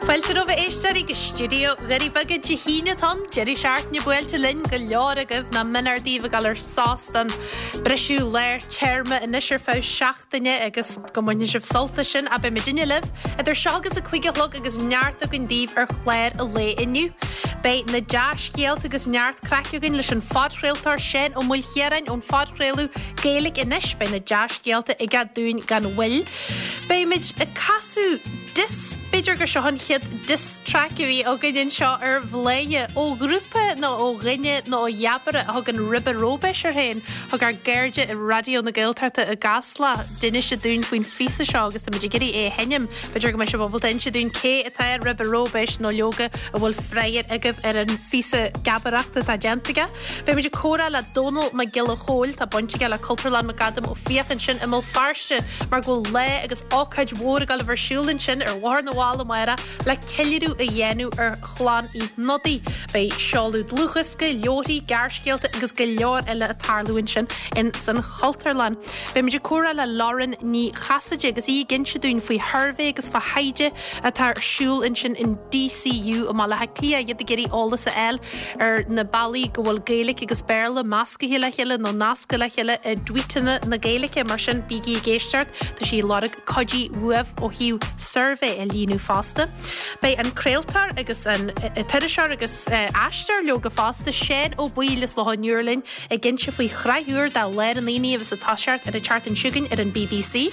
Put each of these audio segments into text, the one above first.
Fáilte romhaibh a éisteoirí go stiúideo Dhoirí Beaga Dé hAoine atá ann, deireadh seachtaine buailte linn, go leor agaibh nó mionúr daoibh ag dul ar sos don briseadh lár téarma anois ar feadh seachtaine agus go mbainfidh sibh sult as sin ach beidh muidinne libh idir seo agus a 5 a chlog agus neart againn daoibh ar chlár an lae inniu. Beidh na dea-scéalta agus neart craic againn leis an phodchraoltóir Seán Ó Maoilchiaráin ón phodchraoladh Gaeilge Anois. Beidh na dea-scéalta aige dúinn gan mhoill. Beimid ag casadh diss, b'fhéidir gur seo an chéad diss track a bhí againn anseo ar Bhladhaire, ó ghrúpa nó ó dhuine nó ó gheabaire a thugann Ribe Róibéis air féin. Thug ár gcairde i Raidió na Gaeltachta i gCasla d'inis dúinn faoin phíosa seo agus táimid ag iarraidh é a sheinm. B'fhéidir go mbeidh sibh ábalta inse dúinn cé atá ar Ribe Róibéis nó leoga an bhfuil freagra agaibh ar an phíosa geabaireachta atá déanta aige. Beimid ag comhrá le Dónall Mac Giolla Chóill, tá baint aige le Cultúrlann McAdam Ó Fiaich ansin i mBéal Feirste mar go bhfuil lá agus ócáid mhór ag dul a bheith ar siúl ansin ar Bhóthar na bhFál amárach le ceiliúradh a dhéanamh ar chlann Uí Shnodaigh. Beidh seoladh dlúthdhiosca, leabharthaí, gearrscéalta agus go leor eile ag tarlú ansin in san Chultúrlann. Beimid ag comhrá le Lauren Ní Chasaide agus í ag inse dúinn faoi shuirbhé agus fá thaighde atá ar siúl ansin in DCU i mBaile Átha Cliath, iad ag iarraidh eolas a fháil ar na bealaí go bhfuil Gaeilge agus Béarla meascaithe le chéile nó nasctha le chéile i dtweetanna na Gaeilge. Mar sin, bígí ag éisteacht, tá sí ag lorg cuidiú uaibh ó thaobh suirbhé a líonadh fosta. Beidh an craoltóir agus an t-iriseoir agus aisteoir leoga fosta, Seán Ó Baoill as Loch an Iúir linn ag inse faoi shraith úr de Lár an Aonaigh a bheas ag toiseacht ar an tseachtain seo chugainn ar an bbc.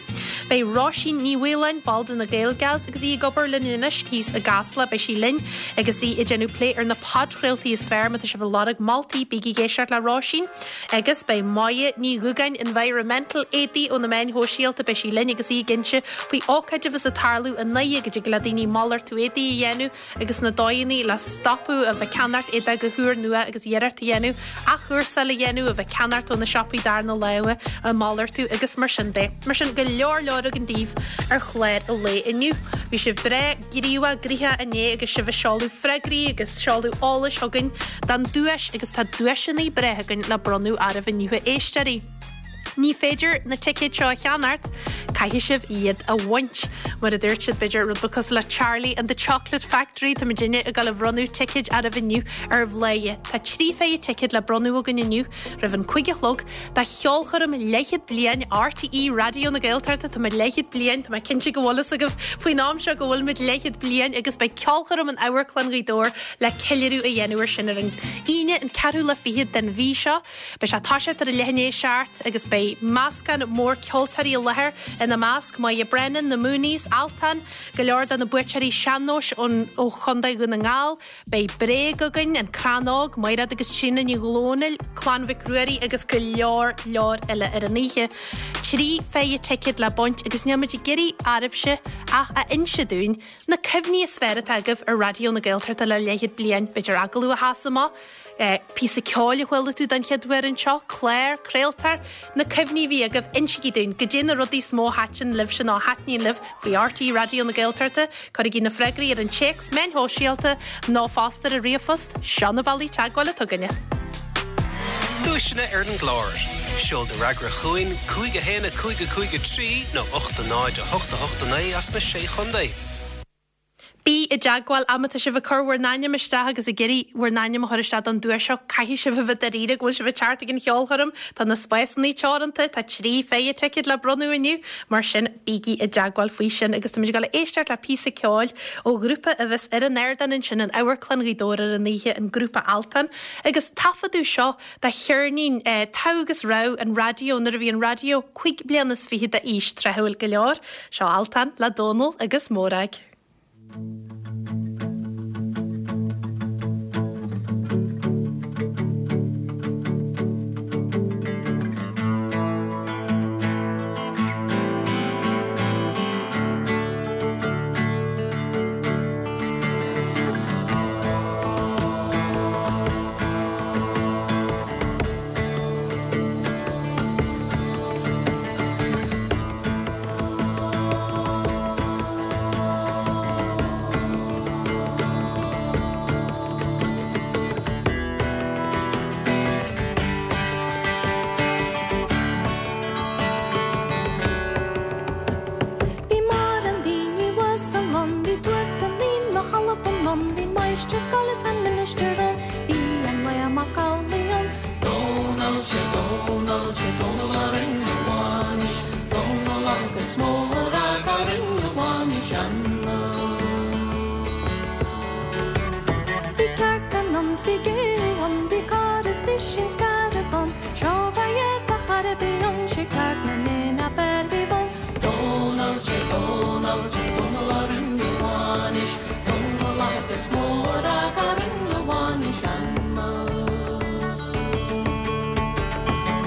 Beidh Róisín Ní Mhaoláin, ball de na Gaelgals agus í ag obair linn anois thíos i gCasla, beidh sí linn agus í ag déanamh plé ar na podchraoltaí is fearr. Má tá sibh ag lorg moltaí, bígí ag éisteacht le Róisín. Agus beidh Moya Ní Dhúgáin, Environmental Éadaí ó na meáin shóisialta, beidh sí linn agus í ag inse faoi ócáid a bheas ag tarlú i nDoire go dtig le daoine malartú éadaí a dhéanamh agus na dóigheanna le stopadh a bheith ag ceannacht éadaí go húrnua agus iarracht a dhéanamh athchúrsáil a dhéanamh, a bheith ag ceannacht ó na siopaí darna láimhe, a malartú agus mar sin de. Mar sin, go leor leor againn daoibh ar chlár an lae inniu. Bhí sibh breá gníomhach gnoitheach inné agus sibh ag seoladh freagraí agus seoladh eolais chugainn don duais agus tá duaiseanna breá againn le bronnadh oraibh inniu a éisteoirí. Ní féidir na ticéid seo a cheannacht, caithfidh sibh iad a bhaint. Mar a dúirt siad, b'fhéidir, rud beag cosúil le Charlie and the Chocolate Factory, tá muidinne ag dul a bhronnadh ticéid oraibh inniu ar Bhladhaire. Tá 3 phéire ticéad le bronnadh againn inniu roimh an 5 a chlog do cheolchoirm leathchéad bliain RTÉ Raidió na Gaeltachta. Tá muid leathchéad bliain, tá mé cinnte go bhfuil fhios agaibh faoin am seo go bhfuil muid leathchéad bliain agus beidh ceolchoirm in Amharclann Ghaoth Dobhair le ceiliúradh a dhéanamh ar sin ar an Aoine an 24ú den mhí seo. Beidh sé ag toiseacht ar a leath i ndiaidh a 7 agus beidh meascán mór ceoltóirí i láthair, ina measc, Moya Brennan, Na Mooneys, Altan, go leor de na buaiteoirí sean-nóis ón ó Chontae Dhún na nGall, beidh Bréag againn, An Crann Óg, Maighread agus Tríona Ní Dhomhnaill, Clann Mhic Ruairí agus go leor leor eile ar an oíche. 3 phéire ticéad le baint agus níl muid ag iarraidh oraibhse ach a inse dúinn na cuimhní is fearr atá agaibh ar Raidió na Gaeltachta le leathchéad bliain, b'fhéidir agallamh a sheas amach, Píosa ceoil a chuala tú don chéad uair anseo, clár, craoltóir, na cuimhní a bhí agaibh, insígí dúinn, goidé na rudaí is mó a thaitin libhse nó a thaitníonn libh faoi RTÉ Raidió na Gaeltachta, cuirigí na freagraí ar an téacs, meáin shóisialta nó fosta ar an ríomhphost, seo na bealaí teagmháil atá againne. Duaiseanna ar an gclár. Seol do fhreagra chugainn, 5 1 5 5 3 nó 8 0 8 8 9 as na Sé Chontae. Bí i dteagmháil ach má tá sibh ag cur bhur n-ainm isteach agus ag iarraidh bhur n-ainm a chur isteach don duais seo, caithfidh sibh a bheith dáiríre go bhfuil sibh ag teacht ag an cheolchoirm. Tá na spásanna teoranta, tá 3 phéire ticéad le bronnadh inniu, mar sin bígí i dteagmháil faoi sin agus táimid ag dul a éisteacht le píosa ceoil ó ghrúpa a bheas ar an ardán ansin in Amharclann Ghaoth Dobhair ar an oíche, an grúpa Altan, agus taifeadadh seo de cheirnín Togha agus Rogha an Raidió nuair a bhí an raidió 25 bliana d'aois tráthúil go leor. Seo Altan le Dónal agus Mórag. máistir scoile 's an ministir ann, bhí an Laoi Mac Amhlaigh ann. Dónall, sé Dónall, sé Dónall a rinne a bhainis, Dónall agus Mórag a rinne a bhainis ann. Bhí cearca ann 's bhí gé ann, bhí carr is duisín scairbh ann, Seo bheidh ag char a bith ann, sé ceart na n-éan ab fhearr bhí bun. Dónall, sé Dónall, sé Dónall a rinne a bhainis, Dónall agus Mórag a rinne a bhainis ann.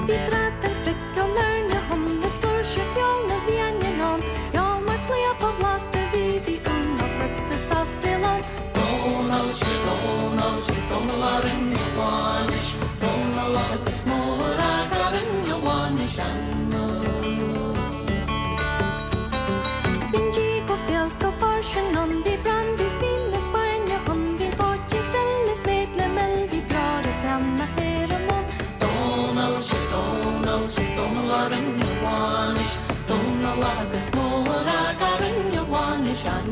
Bhí bradán 's priocán airne ann, is flúirse feoil na bhfiáine ann, Feoil mairt sliabh ba bhlasta bhí, bhí úna friota sa saol ann. Dónall, sé Dónall, sé Dónall a rinne a bhainis, Dónall agus Mórag a rinne a bhainis ann. Bhí an dí go fial 's go fairsing ann, bhí brandaí 's fíon na Spáinne ann, bhí an poitín stil is méid le mil, bhí beoir is leann na hÉireann ann. Dónall, sé Dónall, sé Dónall a rinne a bhainis, Dónall agus Mórag a rinne a bhainis ann.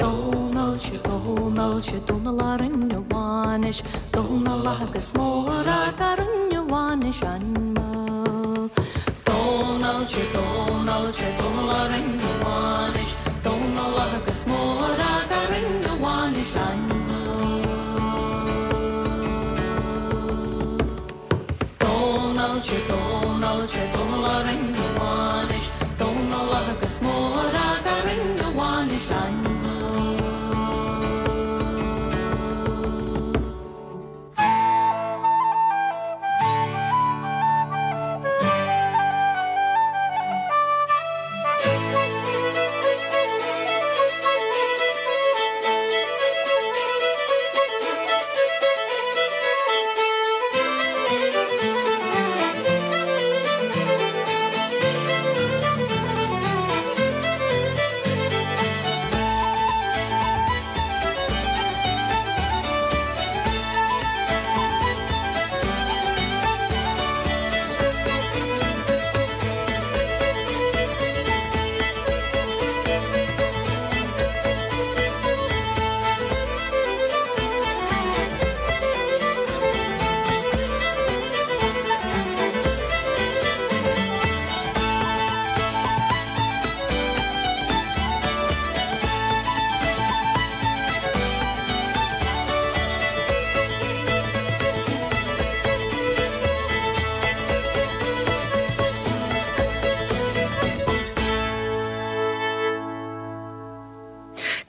Dónall, sé Dónall, sé Dónall a rinne a bhainis, Dónall agus Mórag a rinne a bhainis ann. Dónall, sé Dónall, sé Dónall a rinne a bhainis, Dónall agus Mórag a rinne a bhainis ann. Dónall, sé Dónall, sé Dónall a rinne a bhainis, Dónall agus Mórag a rinne a bhainis ann.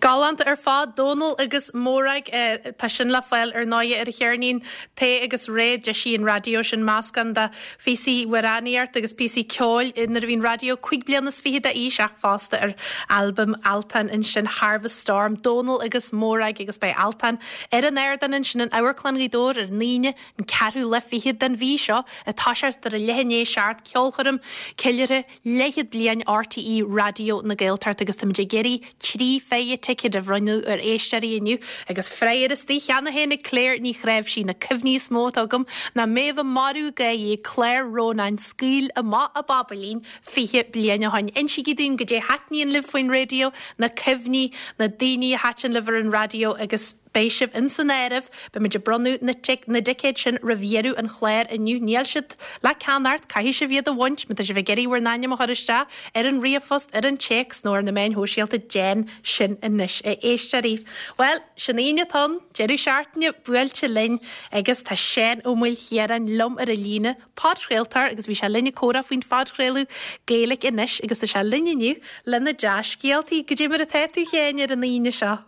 Galánta ar fad, Dónal agus Mórag. Tá sin le fáil ar ndóighe ar an cheirnín Tae agus Réidh. D'eisigh an raidió sin meascán de phíosaí amhránaíocht agus píosaí ceoil nuair a bhí an raidió 25 bliana d'aois ach fosta ar albam Altan ansin Harvest Storm, Dónal agus Mórag agus beidh Altan ar an ardán ansin in Amharclann Ghaoth Dobhair ar an Aoine an ceathrú lá fichead den mhí seo ag toiseacht ar a leath i ndiaidh a seacht ceolchoirm ceiliúrtha leathchéad bliain RTÉ Raidió na Gaeltachta agus táimid ag iarraidh 3 phéire ticéad a bhronnadh ar éisteoirí inniu agus freagra istigh cheana féin ag Claire Ní Chnáimhsí, Na cuimhní is mó atá agam ná Méabh Marbh gáirí ag clár Rónáin Scaoil Amach a Bhabailín 20 bliain ó shoin. Insígí dúinn goidé thaitníonn libh faoin raidió, na cuimhní, na daoine a thaitin libh ar an raidió agus. Beidh sibh ins an áireamh. Beimid ag bronnadh na na dticéad sin roimh dheireadh an chláir inniu. Níl siad le ceannacht, caithfidh sibh iad a bhaint. Má tá sibh ag iarraidh bhur n-ainm a chur isteach ar an ríomhphost, ar an téacs nó ar na meáin shóisialta, déan sin anois, a éisteoirí. Bhuel, sin Aoine atá ann, deireadh seachtaine buailte linn agus tá Seán Ó Maoilchiaráin liom ar an líne, podchraoltóir agus bhí sé linn ag comhrá faoin phodchraoladh Gaeilge Anois agus tá sé linn inniu le na dea-scéaltaí. Goidé mar atá tú, a Sheáin, ar an Aoine seo?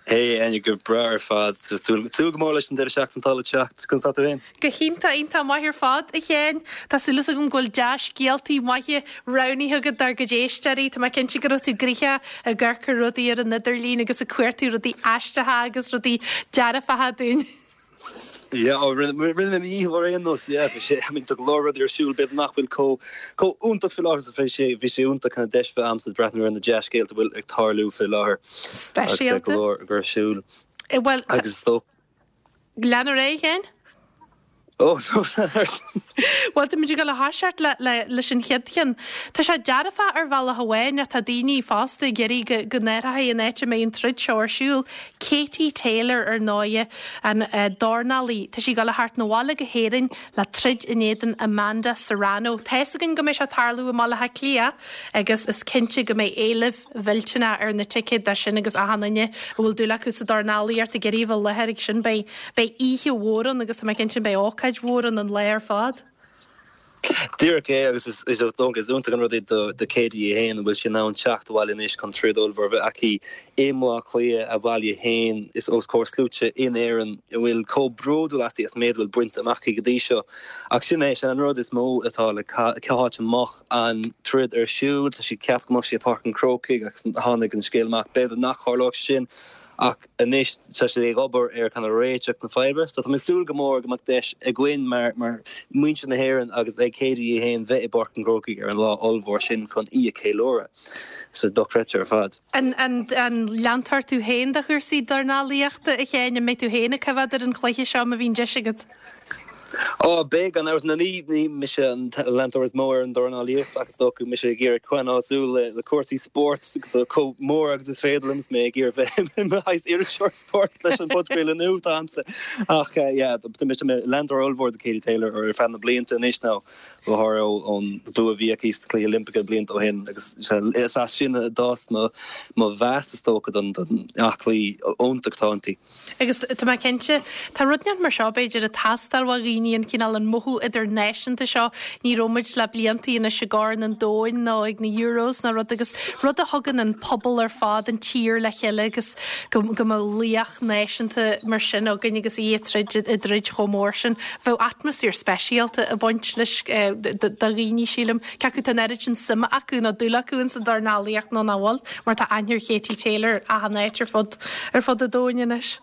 Hey Áine, go breá ar fad. Súil go mór leis an deireadh seachtaine atá le teacht. Conas tá tú féin? Go hiontach, iontach maith ar fad, a Sheáin. Tá súil agam go bhfuil dea-scéaltaí maithe roghnaithe agat dár gcuid éisteoirí. Tá mé cinnte go raibh tú gnoitheach ag amharc ar rudaí ar an idirlíon agus ag cuartú rudaí aisteacha agus rudaí dearfacha dúinn. Yeah, oh, rinne mé mo dhícheall ar aon nós, yeah, bhí sé, I mean, tá go leor rudaí ar siúl, b'fhéidir nach bhfuil chomh, chomh iontach faoi láthair, so bhí sé, bhí sé iontach kind of deis bheith a'msa breathnú ar na dea-scéalta a bhfuil ag tarlú faoi láthair. Speisialta. Agus go leor ag ar siúl. Eh, bhuel, Agus is dócha. Lean ar aghaidh, a Sheáin? Oh, no, Bhuel, tá muid ag dul a thoiseacht le, le, leis an chéad cheann. Tá sé dearfach ar bhealach amháin ach tá daoine fosta ag iarraidh go, go n-athrófaí an áit a mbeidh an troid seo ar siúl. Katie Taylor, ar ndóighe, an dornálaí, tá sí ag dul a theacht 'na bhaile go hÉirinn le troid in éadan Amanda Serrano. Tá fhios againn go mbeidh sé ag tarlú i mBaile Átha Cliath agus is cinnte go mbeidh éileamh mhillteanach ar na ticéid dó sin agus achan duine a bhfuil dúil acu sa dornálaíocht ag iarraidh a bheith i láthair ag sin. Beidh, beidh oíche mhór ann agus tá mé cinnte beidh ócáid mhór ann an lá ar fad. Díreach é, agus is dócha is iontach an rud é do Katie í féin, an bhfuil sí in ann teacht abhaile anois chun troid ollmhór a bheith aici i mBaile Átha Cliath, a baile féin, is os comhair sluaite in Éirinn a bhfuil chomh bródúil aisti as an méid a bhfuil bainte amach aici go dtí seo. Ach sin é, sin an rud is mó atá le cá háit a mbeadh an troid ar siúl. Tá siad ceaptha go mbeadh sí i Páirc an Chrócaigh agus tháinig an scéal amach b'fhéidir nach tharlódh sin Ach anois tá siad ag obair ar kind of réiteach na faidhbe. So tá mé ag súil go mór go mbeadh deis againn mar mar muintir na hÉireann agus ag Katie í féin bheith i bPáirc an Chrócaigh ar an lá ollmhór sin chun í a cheiliúradh. So dochreidte ar fad. An an an leantóir tú féin de chúrsaí dornálaíochta, a Sheáin? An mbeidh tú féin ag coimhéad ar an chluiche seo má bhíonn deis agat? Ó, beidh, gan amhras. Ní, ní mise an leantóir is mó ar an dornálaíocht ach is dócha mise ag iarraidh coinneáil súil le cúrsaí spóirt chomh mór agus is féidir liom is mé ag iarraidh bheith i mo shaghas iriseoir spóirt leis an bpodchraoladh nua atá a'msa. Ach yeah, tá mise i mo leantóir ollmhór de Katie Taylor ar feadh na blianta anois nó go háirithe ón bua a bhí aici sna Cluichí Oilimpeacha blianta ó shin agus is as sin a d'fhás mo mheas is dócha don aclaí iontach atá inti. Agus tá mé cinnte, tá rud inteacht mar seo, b'fhéidir, ag teastáil ó dhaoine, an cineál, an mothú idirnáisiúnta seo. Ní raibh muid le bliantaí anois i gCorn an Domhain nó ag na Euros ná rud agus rud a thugann an pobal ar fad, an tír le chéile agus go, go mbeadh laoch náisiúnta mar sin againn agus í ag troid, i dtroid chomh mór sin. Bheadh atmaisféar speisialta ag baint leis do dhaoine, sílim. Cé acu tá an oiread sin suime acu nó dúil acu ins an dornálaíocht nó nach bhfuil, mar tá aithne ar Katie Taylor achan áit ar fud ar fud an domhain anois.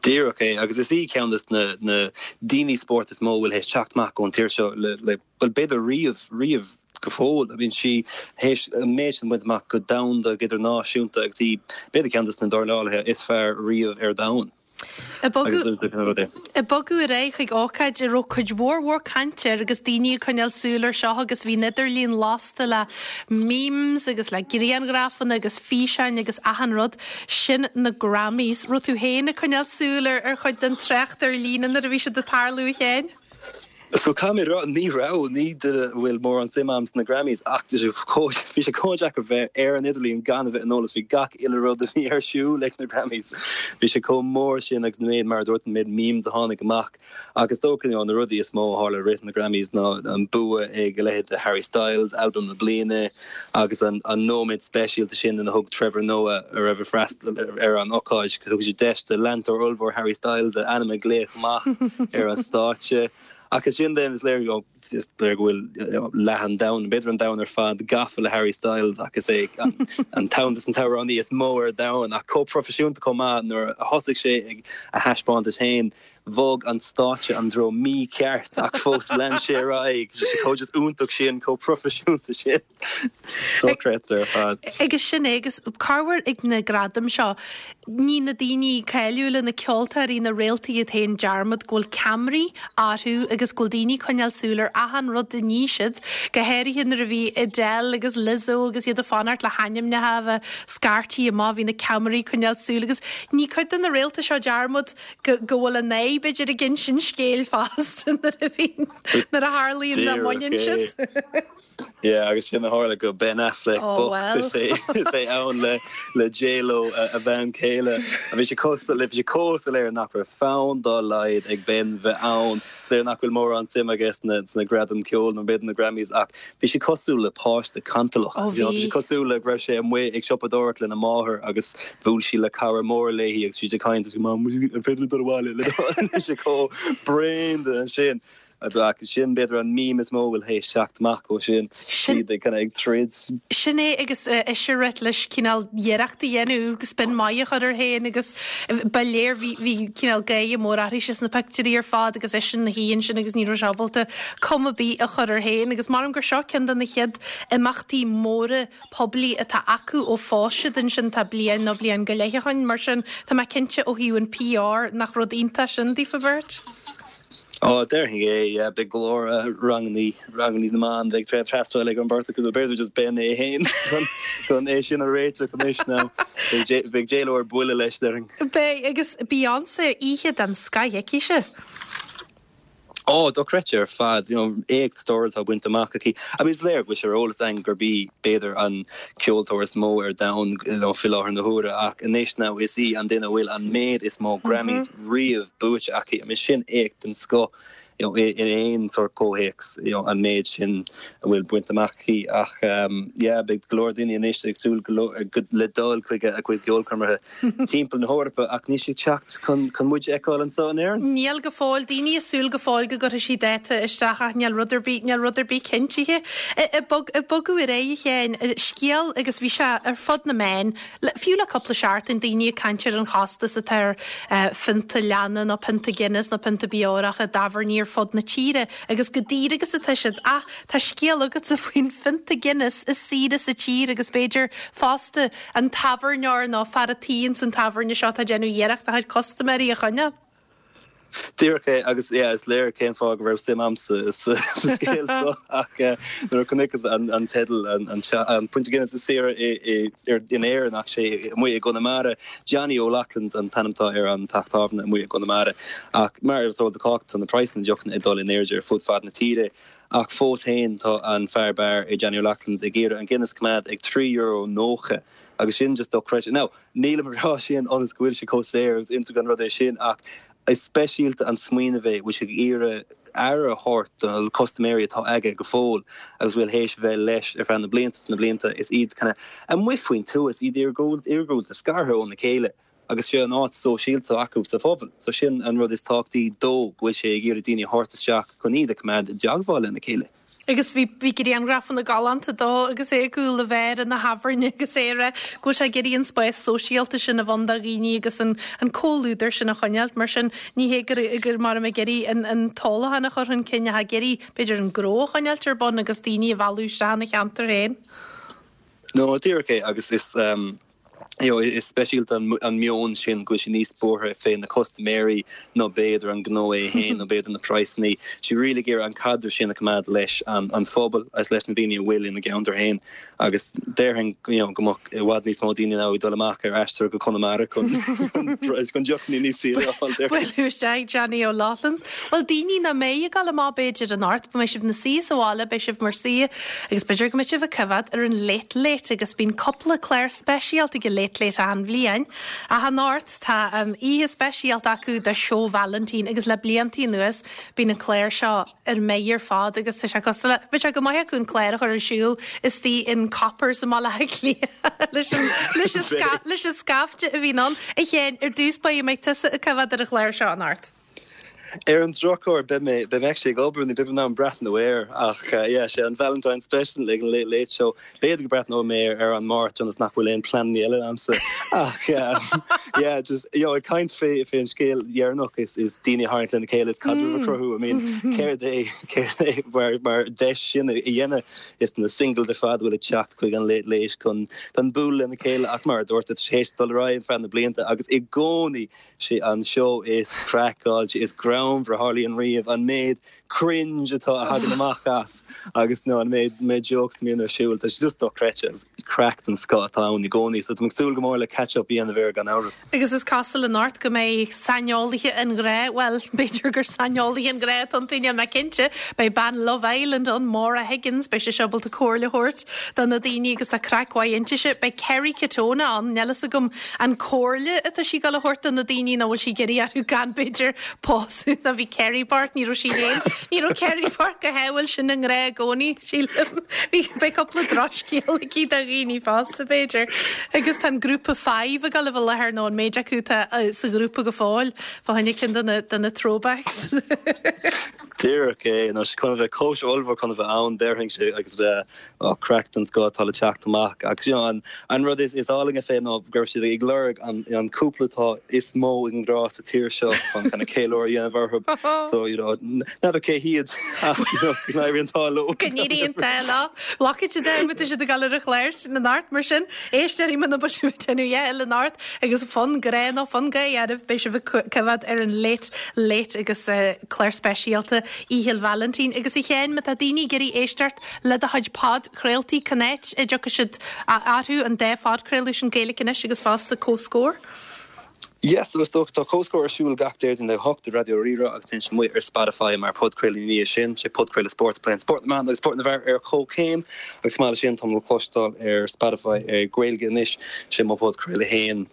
Díreach é, agus is í ceann de na na daoine spóirt is mó a bhfuil théis teacht amach ón tír seo le le bhuel b'fhéidir riamh, riamh go fóill. I mean sí théis an méid sin a bhaint amach go domhanda, go idirnáisiúnta agus í b'fhéidir ceann de na dornálaithe is fearr riamh ar domhan. Ag bogadh ar aghaidh chuig ócáid a raibh cuid mhór mhór cainte air agus daoine ag coinneáil súil air seo agus bhí an idirlíon lasta le memes agus le grianghrafanna agus físeáin agus achan rud, sin na Grammys. Raibh tú féin ag coinneáil súil ar chuid den trácht ar líne nuair a bhí siad ag tarlú, a Sheáin? So caithfidh mé a rá, ní raibh, ní duine a bhfuil mórán suim a'm sna Grammys ach bhí sé chomh deacair bheith ar an idirlíon gan a bheith ar an eolas faoi gach uile rud a bhí ar siúl ag na Grammys. Bhí sé chomh mór sin agus na méid, mar a dúirt, an méid memes a tháinig amach. Ach is dócha, you know, na rudaí is mó a tharla i rith na Grammys ná an bua ag a leithéid de Harry Styles, albam na bliana, agus an nóiméad speisialta sin ina thug Trevor Noah, a raibh ag freastal ar an ócáid, thug sé deis do leantóir ollmhór Harry Styles a ainm a ghlaoch amach ar an stáitse. Ach ansin then is léir go is léir go bhfuil leath an domhain, b'fhéidir an domhan ar fad, gafa le Harry Styles ach is é an ceann des an t-amhránaí is mó ar domhan ach chomh proifisiúnta chomh maith nuair a thosaigh sé ag a thaispeántas féin bhog an stáitse an treo mícheart ach fós lean sé ar aghaidh. Bhí sé chomh just iontach sin, chomh proifisiúnta sin. Dochreidte ar fad. Agus sin é, agus corruair ag na gradaim seo, ní na daoine cáiliúla, na ceoltóirí, na réaltaí iad féin dearmad go bhfuil ceamaraí orthu agus go bhfuil daoine ag coinneáil súil ar achan rud a ní siad, go háirithe nuair a bhí Adele agus Lizzo agus iad ag fanacht le hainmneacha a bheith scairtí amach, bhí na ceamaraí ag coinneáil súil agus ní cuid de na réalta seo dearmad go go bhfuil a n-aghaidh. aghaidh b'fhéidir ag insint scéil fosta nuair a bhíonn, nuair a tharlaíonn nach mbaineann siad. Yeah, agus sin a tharla go Ben Affleck Oh, bocht is well. é is é ann le le J-Lo a bhean chéile. Bhí sé chomh bhí sé chomh soiléir nach raibh fonn dá laghad ag Ben bheith ann. Is léir nach bhfuil mórán suim aige sna sna gradaim ceoil nó b'fhéidir na Grammys ach bhí sé cosúil le páiste cantalach. Ó You know, bhí sé bhí. cosúil le go raibh sé amuigh ag siopadóireacht lena máthair agus bhuail sí le cara mór léi agus bhí siad ag caint agus Mam, an féidir liom dul abhaile le Bhí sé chomh bréan de ansin. Ach sin b'fhéidir an meme is mó a bhfuil théis teacht amach ó sin, Sin. iad ag kind of ag troid. Sin é agus ise ag rith leis cineál iarracht a dhéanamh agus spin maith a chur air féin agus ba léir bhí bhí cineál gáire mór uirthise sna pictiúirí ar fad agus eisean ina shuí ansin agus ní raibh sé ábalta cuma ar bith a chur air féin agus maram gur seo ceann de na chéad imeachtaí móra poiblí atá acu ó phós siad ansin tá bliain nó bliain go leith ó shin mar sin tá mé cinnte ó thaobh an PR nach rud iontach sin daofa beirt. Ó, déarfainn é, yeah, beidh go leor rangannaí, rangannaí na mban, beidh tréan freastal ag an bheirt acu, nó b'fhéidir just Ben é féin chun, chun é sin a réiteach anois now. Beidh J, beidh J-Lo ar buile leis, déarfainn. Beidh, agus Beyonce, oíche den scoth aici-se. Ó, dochreidte ar fad, you know, éacht stairiúil atá bainte amach aici. I mean, is léir go bhfuil sé ar eolas againn gurb í, b'fhéidir, an ceoltóir is mó ar domhan, you know, faoi láthair na huaire, ach anois now is í an duine a bhfuil an méid is mó Grammys riamh buaite aici. I mean, sin éacht den scoth you know, in aon sórt comhthéacs, you know, an méid sin a bhfuil bainte amach aici. Ach yeah, beidh go leor daoine anois ag súil go le dul chuig a cuid ceolchoirmeacha timpeall na hEorpa ach níl sí ag teacht chun chun muid a fheiceáil anseo in Éirinn. Níl go fóill. Daoine ag súil go fóill go gcuirfidh sí dáta isteach ach níl rud ar bith, níl rud ar bith cinntithe. Ag bogadh ar aghaidh a Sheáin, scéal agus bhí sé ar fud na meán, Fiú le cúpla seachtain, daoine ag caint ar an chostas atá ar phionta leanna nó pionta Guinness nó pionta beorach i dtábhairní ar fud na tíre agus chomh daor agus atá siad. Ach tá scéal agatsa faoin phionta Guinness is saoire sa tír agus b'fhéidir fosta an tábhairneoir nó fear a' tí ins an tábhairne seo atá ag déanamh iarracht a chuid custaiméirí a choinneáil. Díreach é, agus yeah, is léir cén fáth go raibh suim a'msa sa scéal seo ach nuair a chonaiceas an teideal, an Pionta Guinness is saoire in Éirinn ach sé amuigh i gConamara, Johnny O'Loughlin's an t-ainm atá ar an teach tábhairne amuigh i gConamara. Ach mar is eol do chách tá na praghsanna deochanna ag dul in airde ar fud fad na tíre ach fós féin tá an fear beáir i Johnny O'Loughlin's ag iarraidh an Guinness a choimeád ag €3.90 agus sin just dochreidte. Now, Nílim ag rá sin ionas go bhfuil sé chomh saor agus iontach an rud é sin ach is speisialta an smaoineamh é bhfuil sé ag iarraidh aire a thabhairt do na custaiméirí atá aige go fóill agus bhfuil théis bheith leis ar feadh na blianta is na blianta is iad kind of amuigh faoin tuath is iad iargúlta scartha óna chéile agus sé an áit sóisialta acu sa phobal so sin an rud is tábhachtaí dó go bhfuil sé ag iarraidh daoine a thabhairt isteach chun iad a choimeád i dteagmháil lena chéile. Agus bhí, bhí grianghrafanna galánta dó agus é ag cúl an bheáir ina thábhairne agus é ag rá go bhfuil sé ag iarraidh an spás sóisialta sin a bheith ann do dhaoine agus an, an comhluadar sin a choinneáilt. Mar sin, ní hé gur, gur mar ag iarraidh an, an t-ólachán a chur chun cinn ach ag iarraidh, b'fhéidir, an gnó a choinneáilt ar bun agus daoine a mhealladh isteach ina cheantar féin. No, díreach é agus is, you know, is speisialta an meon sin go bhfuil sé níos buartha fé na custaiméirí ná b'fhéidir an gnó é féin nó b'fhéidir na praghsanna. Tá sé really ag iarraidh an caidreamh sin a choimeád leis an an phobal agus leis na daoine a bhfuil ina gceantar féin agus déarfainn you know, go mbeadh i bhfad níos mó daoine now ag dul amach ar aistear go Conamara chun chun deochanna níos saoire a fháil déarfainn. Bualadh isteach Johnny O'Loughlin's. Bhuel daoine nach mbeidh ag dul amach b'fhéidir anocht, beidh sibh ina suí sa bhaile, beidh sibh mar suí Agus b'fhéidir go mbeidh sibh ag coimhéad ar an Late Late agus bíonn cúpla clár speisialta ag an Late Late achan bhliain. Ach anocht tá an oíche speisialta acu do Seó Vailintín agus le blianta anuas bíonn an clár seo ar mire ar fad agus tá sé cosúil le, bheadh sé go maith acu an clár a chur ar siúl istigh in Coppers i mBaile Átha Cliath leis an, leis an, leis an scaifte a bhíonn ann. A Sheáin, ar dtús báire an mbeidh tusa ag coimhéad ar an chlár seo anocht. Ar an drochuair, beidh mé, beidh mé actually ag obair, ní beidh mé in ann breathnú air, ach yeah, sé an Valentine Special ag an Late Late Show. B'fhéidir go breathnóidh mé air ar an Máirt ionas nach bhfuil aon pleananna eile agamsa. Ach yeah, just, you know, ag caint fé, fé an scéal dheireanach is, is daoine a tharraingt lena chéile is caidreamh a chruthú, I mean, céard é, céard é mar, mar deis sin a dhéanamh is na singles ar fad a bhfuil ag teacht chuig an Late Late chun, chun bualadh lena chéile ach mar a dúirt, tá sé théis dul ar aghaidh ar feadh na blianta agus i gcónaí, Sé an seó is craiceáilte, is greannmhar a tharlaíonn riamh, an méid cringe atá a thagann amach as agus you know an méid méid jokes a mbíonn ar siúl tá sé just dochreidte agus craic den scoth atá ann i gcónaí so tá mé ag súil go mór le catch up a dhéanamh air gan amhras. Agus is cosúil anocht go mbeidh saineolaithe an ghrá, bhuel, b'fhéidir gur saineolaithe an ghrá atá iontu, níl mé cinnte, beidh bean Love Island ann, Maura Higgins, beidh sise ábalta comhairle a thabhairt do na daoine agus tá craic mhaith inti. Beidh Kerry Katona ann, níl fhios agam an comhairle atá sí ag dul a thabhairt do na daoine nó bhfuil sí ag iarraidh orthu gan b'fhéidir pósadh nó bhí Kerry bocht, ní raibh sí féin, ní raibh Kerry bocht go hádhúil sin i ngrá i gcónaí, sílim. Bhí, beidh cúpla drochscéal aici do dhaoine fosta b'fhéidir. Agus tá an grúpa Five ag dul a bheith i láthair nó an méid acu atá sa ghrúpa go fóill, fá choinne ceann de na, de na throwbacks. Díreach é, nó sé chun a bheith cóisir ollmhór chun a bheith ann, déarfainnse, agus bheith Ó, craic den scoth atá le teacht amach agus you know an an rud is is álainne fé ná go raibh siad ag lorg an an cúpla atá is mó i ngrá sa tír seo chun kind of ceiliúradh a dhéanamh orthu so you know n'fheadar cé hiad ach you know go n-éirí an t-ádh leo. Go n-éirí an t-ádh leo. Glacfaidh siad é má tá siad ag dul ar an chlár sin anocht mar sin éisteoirí muna bhfuil sibh ag déanamh a dhath eile anocht agus fonn grá nó fonn gáire oraibh beidh sibh ag coimhéad ar an Late Late agus clár speisialta Oíche Vailintín agus a Sheáin má tá daoine ag iarraidh éisteacht Le do chuid podchraoltaí, cén áit a dtiocfaidh siad orthu, an dá phodchraoladh sin, Gaeilge Anois agus fosta Comhscór? Yes, so is dócha, tá Comhscór ar siúl gach Déardaoin ag a hocht ar Raidió Rí-Rá agus téann sé amuigh ar Spotify mar podchraoladh ina dhiaidh sin. Sé podchraoladh spóirt a pléann spórt na mban agus spórt na bhfear ar comhchéim agus chomh maith leis sin tá mé le cloisteáil ar Spotify ar Gaeilge Anois, sé mo phodchraoladh féin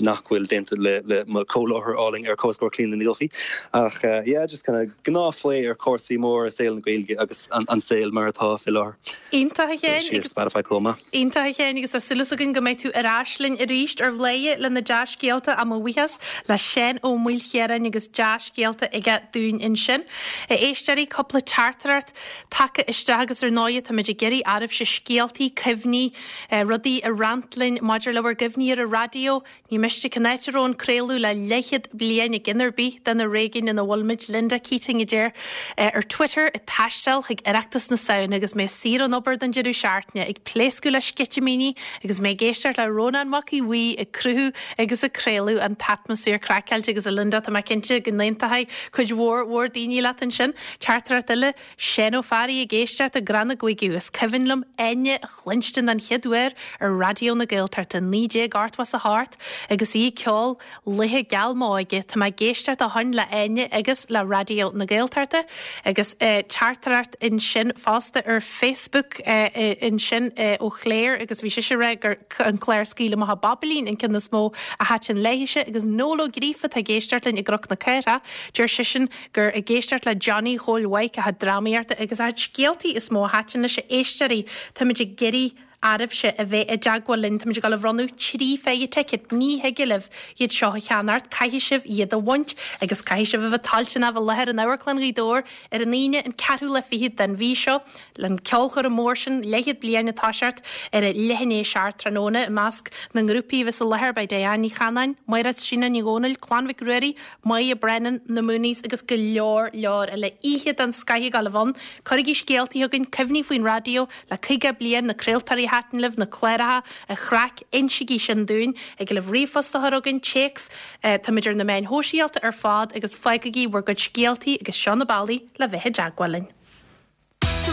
nach bhfuil déanta le le mo chomhláithreoir álainn ar Comhscór Clíona Ní Dhufaigh ach yeah just kind of gnáthphlé ar chúrsaí móra i saol na Gaeilge agus an saol mar atá fé láthair. Iontach a Sheáin agus. Spotify chomh maith. Iontach a Sheáin agus tá súil againn go mbeidh tú ar ais linn arís ar Bhladhaire le na dea-scéalta ach mo bhuíochas le Seán Ó Maoilchiaráin agus dea-scéalta aige dúinn ansin. A éisteoirí, cúpla teachtaireacht tagtha isteach agus ar ndóighe táimid ag iarraidh oraibhse scéaltaí, cuimhní, rudaí a roinnt linn maidir le bhur gcuimhní ar an raidió, Ní miste cén áit a raibh an craoladh le leathchéad bliain i gceann ar bith de na réigiúin ina bhfuilimid, Linda Keating a deir ar Twitter, ag taisteal chuig Oireachtas na Samhna agus mé saor ón obair don deireadh seachtaine, ag pléascadh le sceitimíní agus mé ag éisteacht le Rónán Mac Aodha Bhuí ag cruthú agus ag craoladh an t-atmaisféar craiceáilte agus a Linda tá mé cinnte go n-aontóidh cuid mhór mhór daoine leat ansin. Teachtaireacht eile. Seán Ó Fearraigh ag éisteacht i gCrann na gCuigiú. Is cuimhin liom Áine a chluinstin den chéad uair ar Raidió na Gaeltachta 1988 agus í ag ceol Laetha Geal M'Óige. Tá mé ag éisteacht ó shoin le Áine agus le Raidió na Gaeltachta agus teachtaireacht ansin fosta ar Facebook ansin ó Chléir agus bhí sise ag rá gur an clár Scaoil Amach an Bobailín an ceann is mó a thaitin léithise agus Noel Ó Gríofa atá ag éisteacht linn i gCnoc na Cathrach. Deir seisean gur ag éisteacht le Johnny Chóil Mhaidhc a chuid drámaíochta agus a chuid scéaltaí is mó a thaitin leis a éisteoirí. Táimid ag iarraidh oraibhse a bheith i dteagmháil linn. Táimid ag dul a bhronnadh 3 phéire ticéad. Ní thig libh iad seo a cheannacht, caithfidh sibh iad a bhaint agus caithfidh sibh a bheith toilteanach bheith i láthair in Amharclann Ghaoth Dobhair ar an Aoine an ceathrú lá fichead den mhí seo len ceolchoirm mór sin, leathchéad bliain ag toiseacht ar a leath i ndiaidh a seacht tráthnóna. I measc na ngrúpaí a bheas i láthair beidh Diane Ní Chanáin, Máire Tríona Ní Dhomhnaill, Clann Mhic Ruairí, Moya Brennan, Na Mooneys agus go leor leor eile. Oíche den scoith ag dul a bheith ann. Cuirigí scéaltaí chugainn, cuimhní faoin raidió le 50 bliain, na craoltóirí a thaitin libh, na cláracha, an chraic, insigí sin dúinn. Thig libh ríomhphost a chur chugainn, téacs, táimid ar na meáin shóisialta ar fad agus fágaigí bhur gcuid scéaltaí agus seo na bealaí le bheith i dteagmháil linn.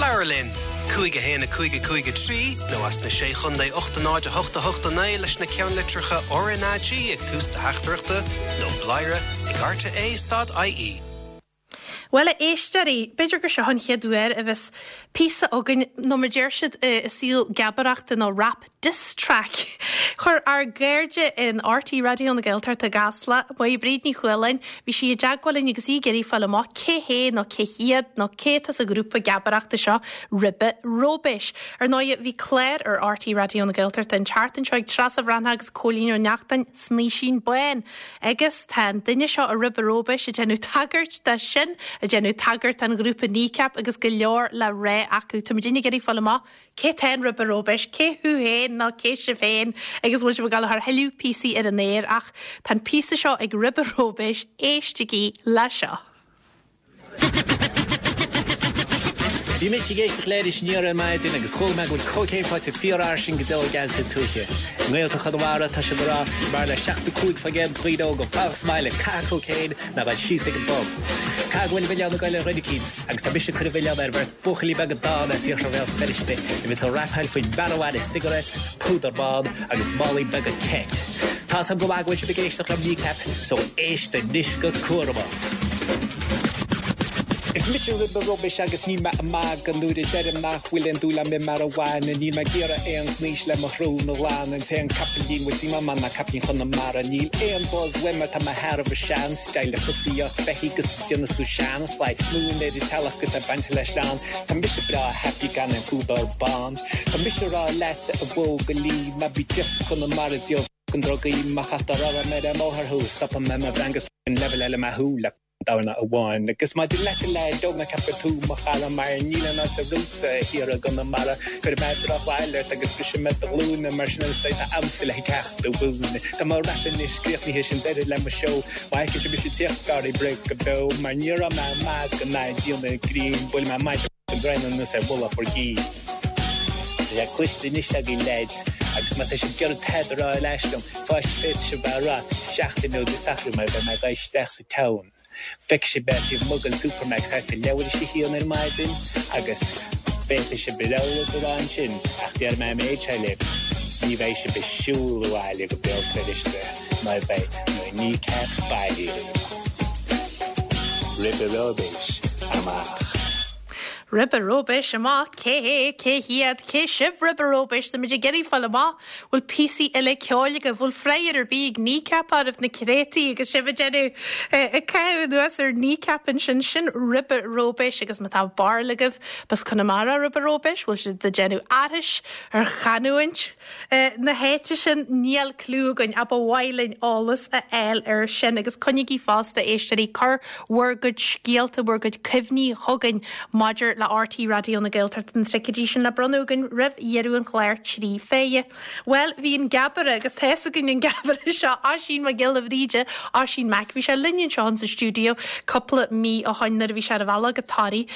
Labhair linn! 5 1 5 5 3 nó as na Sé Chondae 8 0 8 8 9 leis na ceannlitreacha RnaG ag tús do theachtaireachta nó bladhaire ag rte stad ie. Bhuel, a éisteoirí, b'fhéidir gur seo an chéad uair a bheas píosa againn, nó mar deir siad i saol geabaireachta nó rap, diss track. Chuir ár gcairde in RTÉ Raidió na Gaeltachta i gCasla, Máire Bríd Ní Chualáin, bhí sí i dteagmháil linn agus í ag iarraidh fáil amach cé hé nó cé hiad nó cé atá sa ghrúpa geabaireachta seo Ribe Róibéis. Ar ndóigh, bhí clár ar RTÉ Raidió na Gaeltachta an tseachtain seo ag Treasa Bhreathnach agus Cóilín Ó Neachtain, Snaoisín Bán. Agus tá an duine seo i Ribe Róibéis ag déanamh tagairt dó sin, ag déanamh tagairt don ghrúpa Kneecap agus go leor le rá acu. Táimid ag iarraidh fáil amach Cé tá in Ribe Róibéis? Cé thú féin nó cé sibh féin agus bhfuil sibh ag dul a chur thuilleadh píosaí ar an aer ach tá an píosa seo ag Ribe Róibéis, éistigí le seo. Bhí mise ag éisteacht le Iris Aniar ar maidin agus chuala mé go bhfuil cócaon faighte fíorfhairsing go deo i gceantar tuaithe. I nGaeltacht Chonamara tá siad ag rá go mb'fhearr le 75% de dhaoine óga fanacht sa mbaile ag caitheamh cócaoin ná dul síos ag an bpub. Caithfidh go bhfuil an milleán ag goil ar dhuine eicínt agus tá mise ag cur an mhilleáin ar bheirt buachaillí beaga dána as iarthar Bhéal Feirste a bhíonns ag rapáil faoin marijuana cigarettes, púdar bán agus málaí beaga ket. Tá's agam go maith go bhfuil sibh ag éisteacht le Kneecap so éist anois go cúramach. Is mise Ribe Rubbish agus níl mé ag magadh nuair a deirim nach bhfuil aon dúil a'm i marijuana. Níl mé ag iarraidh aon snaois le mo shrón a ghlanadh. An t-aon capaillín bhfuil suim a'm ann ná capaillín Chonamara. Níl aon buzz uaim mar tá mé thar mo shean style ag tosaíocht beithígh 'gus ag déanamh sú seanphlay. Múin ar an teallach 'gus é bainte le sleán. Tá mise breá happy gan aon phúdar bán. Tá mise a rá leatsa a bhuachaillí ná bí ag tíocht go Conamara ag díol fucking drugaí. Má chastar orm ar an mbóthar thú stopfaidh mé mo bhreang 'gus leibhéal eile mé thú le dorna amháin. Agus maidir leat a leaid óg ná ceap gur tú mo chara mar níl aon áit romhatsa thiar i gConamara. Cuirfidh mé drochbhail ort agus brisfidh mé do ghlúine mar sin is beidh a'msa le ceacht a mhúineadh. Tá mo rap anois críochnaithe sin deireadh le mo seó. Má fheiceann sibh mise ag tíocht gáirí bruith go beo mar ní raibh mé ag magadh ná ag déanamh grinn buailfidh mé maide an draein anuas ar mhullach bhur gcinn. Tá sé cloiste anois agaibh leaids agus má tá sibh ag iarraidh tada a rá ar ais liom, féadfaidh sibh é a rá seachtain ó Dé Sathairn mar beidh mé ag dul isteach sa town. Feicfidh sibh mé taobh amuigh den Supermacs thart ar leathuair théis a haon ar maidin agus féadfaidh sibh bhur rogha rud a rá ansin ach déarfaidh mé an méid seo libh, ní bheidh sibh ag siúl abhaile go Béal Feirste mar beidh na Kneecaps bailí daoibh. Ribe Róibis amach. Ribe Róibis amach, cé hé, cé hiad, cé sibh Ribe Róibis, táimid ag iarraidh fáil amach. Bhfuil píosaí eile ceoil agaibh? Bhfuil fragher ar bith ag Kneecap oraibh na créataí agus sibh ag déanamh ag caitheamh anuas ar Kneecap ansin? Sin Ribe Róibis agus má tá barúil agaibh b'as Conamara Ribe Róibis, bhfuil siad ag déanamh aithris ar chanúint na háite sin? Níl cliú againn ach ba mhaith linn eolas a fháil air sin agus coinnígí fosta, éisteoirí, cuir bhur gcuid scéalta, bhur gcuid cuimhní chugainn maidir le RTÉ Raidió na Gaeltachta, na ticéidí sin le bronnadh againn roimh dheireadh an chláir 3 fé dheich. Bhuel, bhí an Geabaire, agus tá fhios againn an Geabaire seo, Oisín Mac Giolla Bhríde, Oisín Mac, bhí sé linn anseo insa stiúideo cúpla mí ó shoin nuair a bhí sé ar a bhealach go Toraigh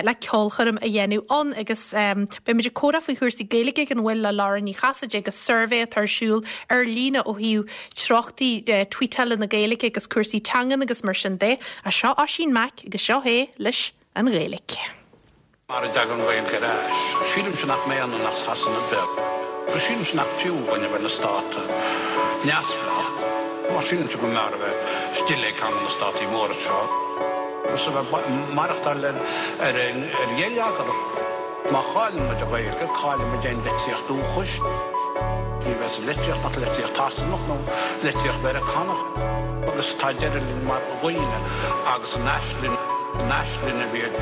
le ceolchoirm a dhéanamh ann agus beidh muid ag comhrá faoi chúrsaí Gaeilge gan mhoill le Laura Ní Chasaide agus suirbhé atá ar siúl ar líne ó thaobh treochtaí tweetála na Gaeilge agus cúrsaí teangan agus mar sin de. Ach seo Oisín Mac agus seo é leis an Ghaeilge. Mar a dtagann an Ghaeilge ar ais, sílimse nach mbeidh ionainn ach Sasana beag. Agus sílimse nach fiú dhúinn a bheith ina stát neamhspleách. Mar sílimse go mb'fhearr a bheith istigh le ceann de na státaí móra seo agus a bheith ag maireachtáil ar gheilleagar. Má chailleann muid an Ghaeilge, cailleann muid aon litríocht dúchais. Ní bheidh sa litríocht ach litríocht Shasanach nó litríocht Mheiriceánach. Agus tá deireadh linn mar dhaoine agus an aisling, an aisling a bhí ag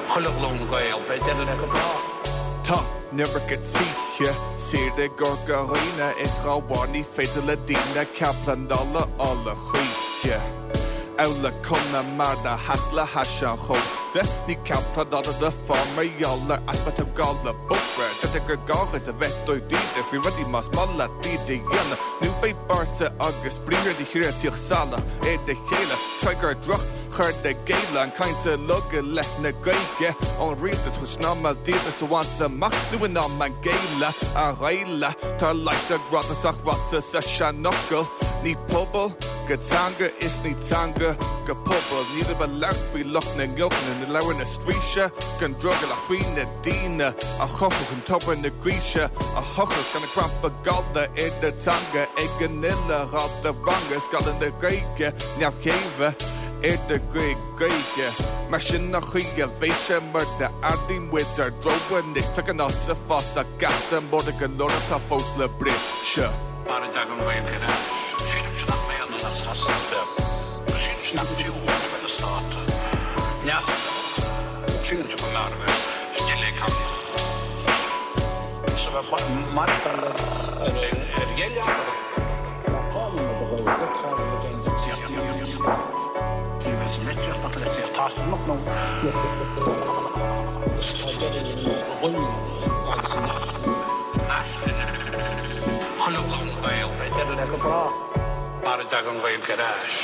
chuile ghlúin Gael, beidh deireadh léi go bráth. Tá an iomarca tithe saor i gCorca Dhuibhne is dá bharr ní féidir le daoine cead pleanála a fháil a choíche. Amhail Conamara theas le hais an chósta, Ní cead pleanála le fáil mar gheall ar easpa tógála bóithre. Deirtear gur gá duit a bheith dáiríre faoi rudaí más maith leat iad a dhéanamh, nó beidh bearta agus briathra do thíre ag tíocht salach ar a chéile. Is cosúil gur droch chur i gcéill an caint uilig i leith na Gaeilge ón rialtas, bhfuil sé in am an díoltas a bhaint amach nó in am an géilleadh a ghéilleadh? Tá leigheas ar ráiteas ach ráite sa seanfhocal, ní pobal go teanga is ní teanga go pobal. Nílim ag labhairt faoi lucht na ngiolcanna, na leabhar na straoise, gan drogall ach faoi na daoine a chothaigh an tobar na gaoise a thochailt gan an cnaipe gallda ar do teanga ag an uile dhalta ranga is galla na Gaeilge neamhchéimhe ar do gcuid Gaeilge. Mar sin an chaoi a bheidh sé mura athraíonn muid ár dtreo anois tagann as sa fásach geasa móra go leor atá fós le briseadh. Mar a dtagann an Ghaeilge ar ais, sílimse nach mbeidh ionainn ach Sasana beag. Agus sílimse nach fiú dhúinn a bheith ina stát neamhspleách. Sílimse go mb'fhearr a bheith istigh le ceann is a bheith ag maireachtáil ar gheilleagar. Má chailleann muid an Ghaeilge, cailleann muid aon litríocht dúchais. Ní bheidh sa litríocht ach litríocht Shasanach nó Agus tá deireadh linn mar dhaoine agus an aisling. Chuile ghlúin Gael, beidh deireadh le go bráth. Mar a dtagann an Ghaeilge ar ais.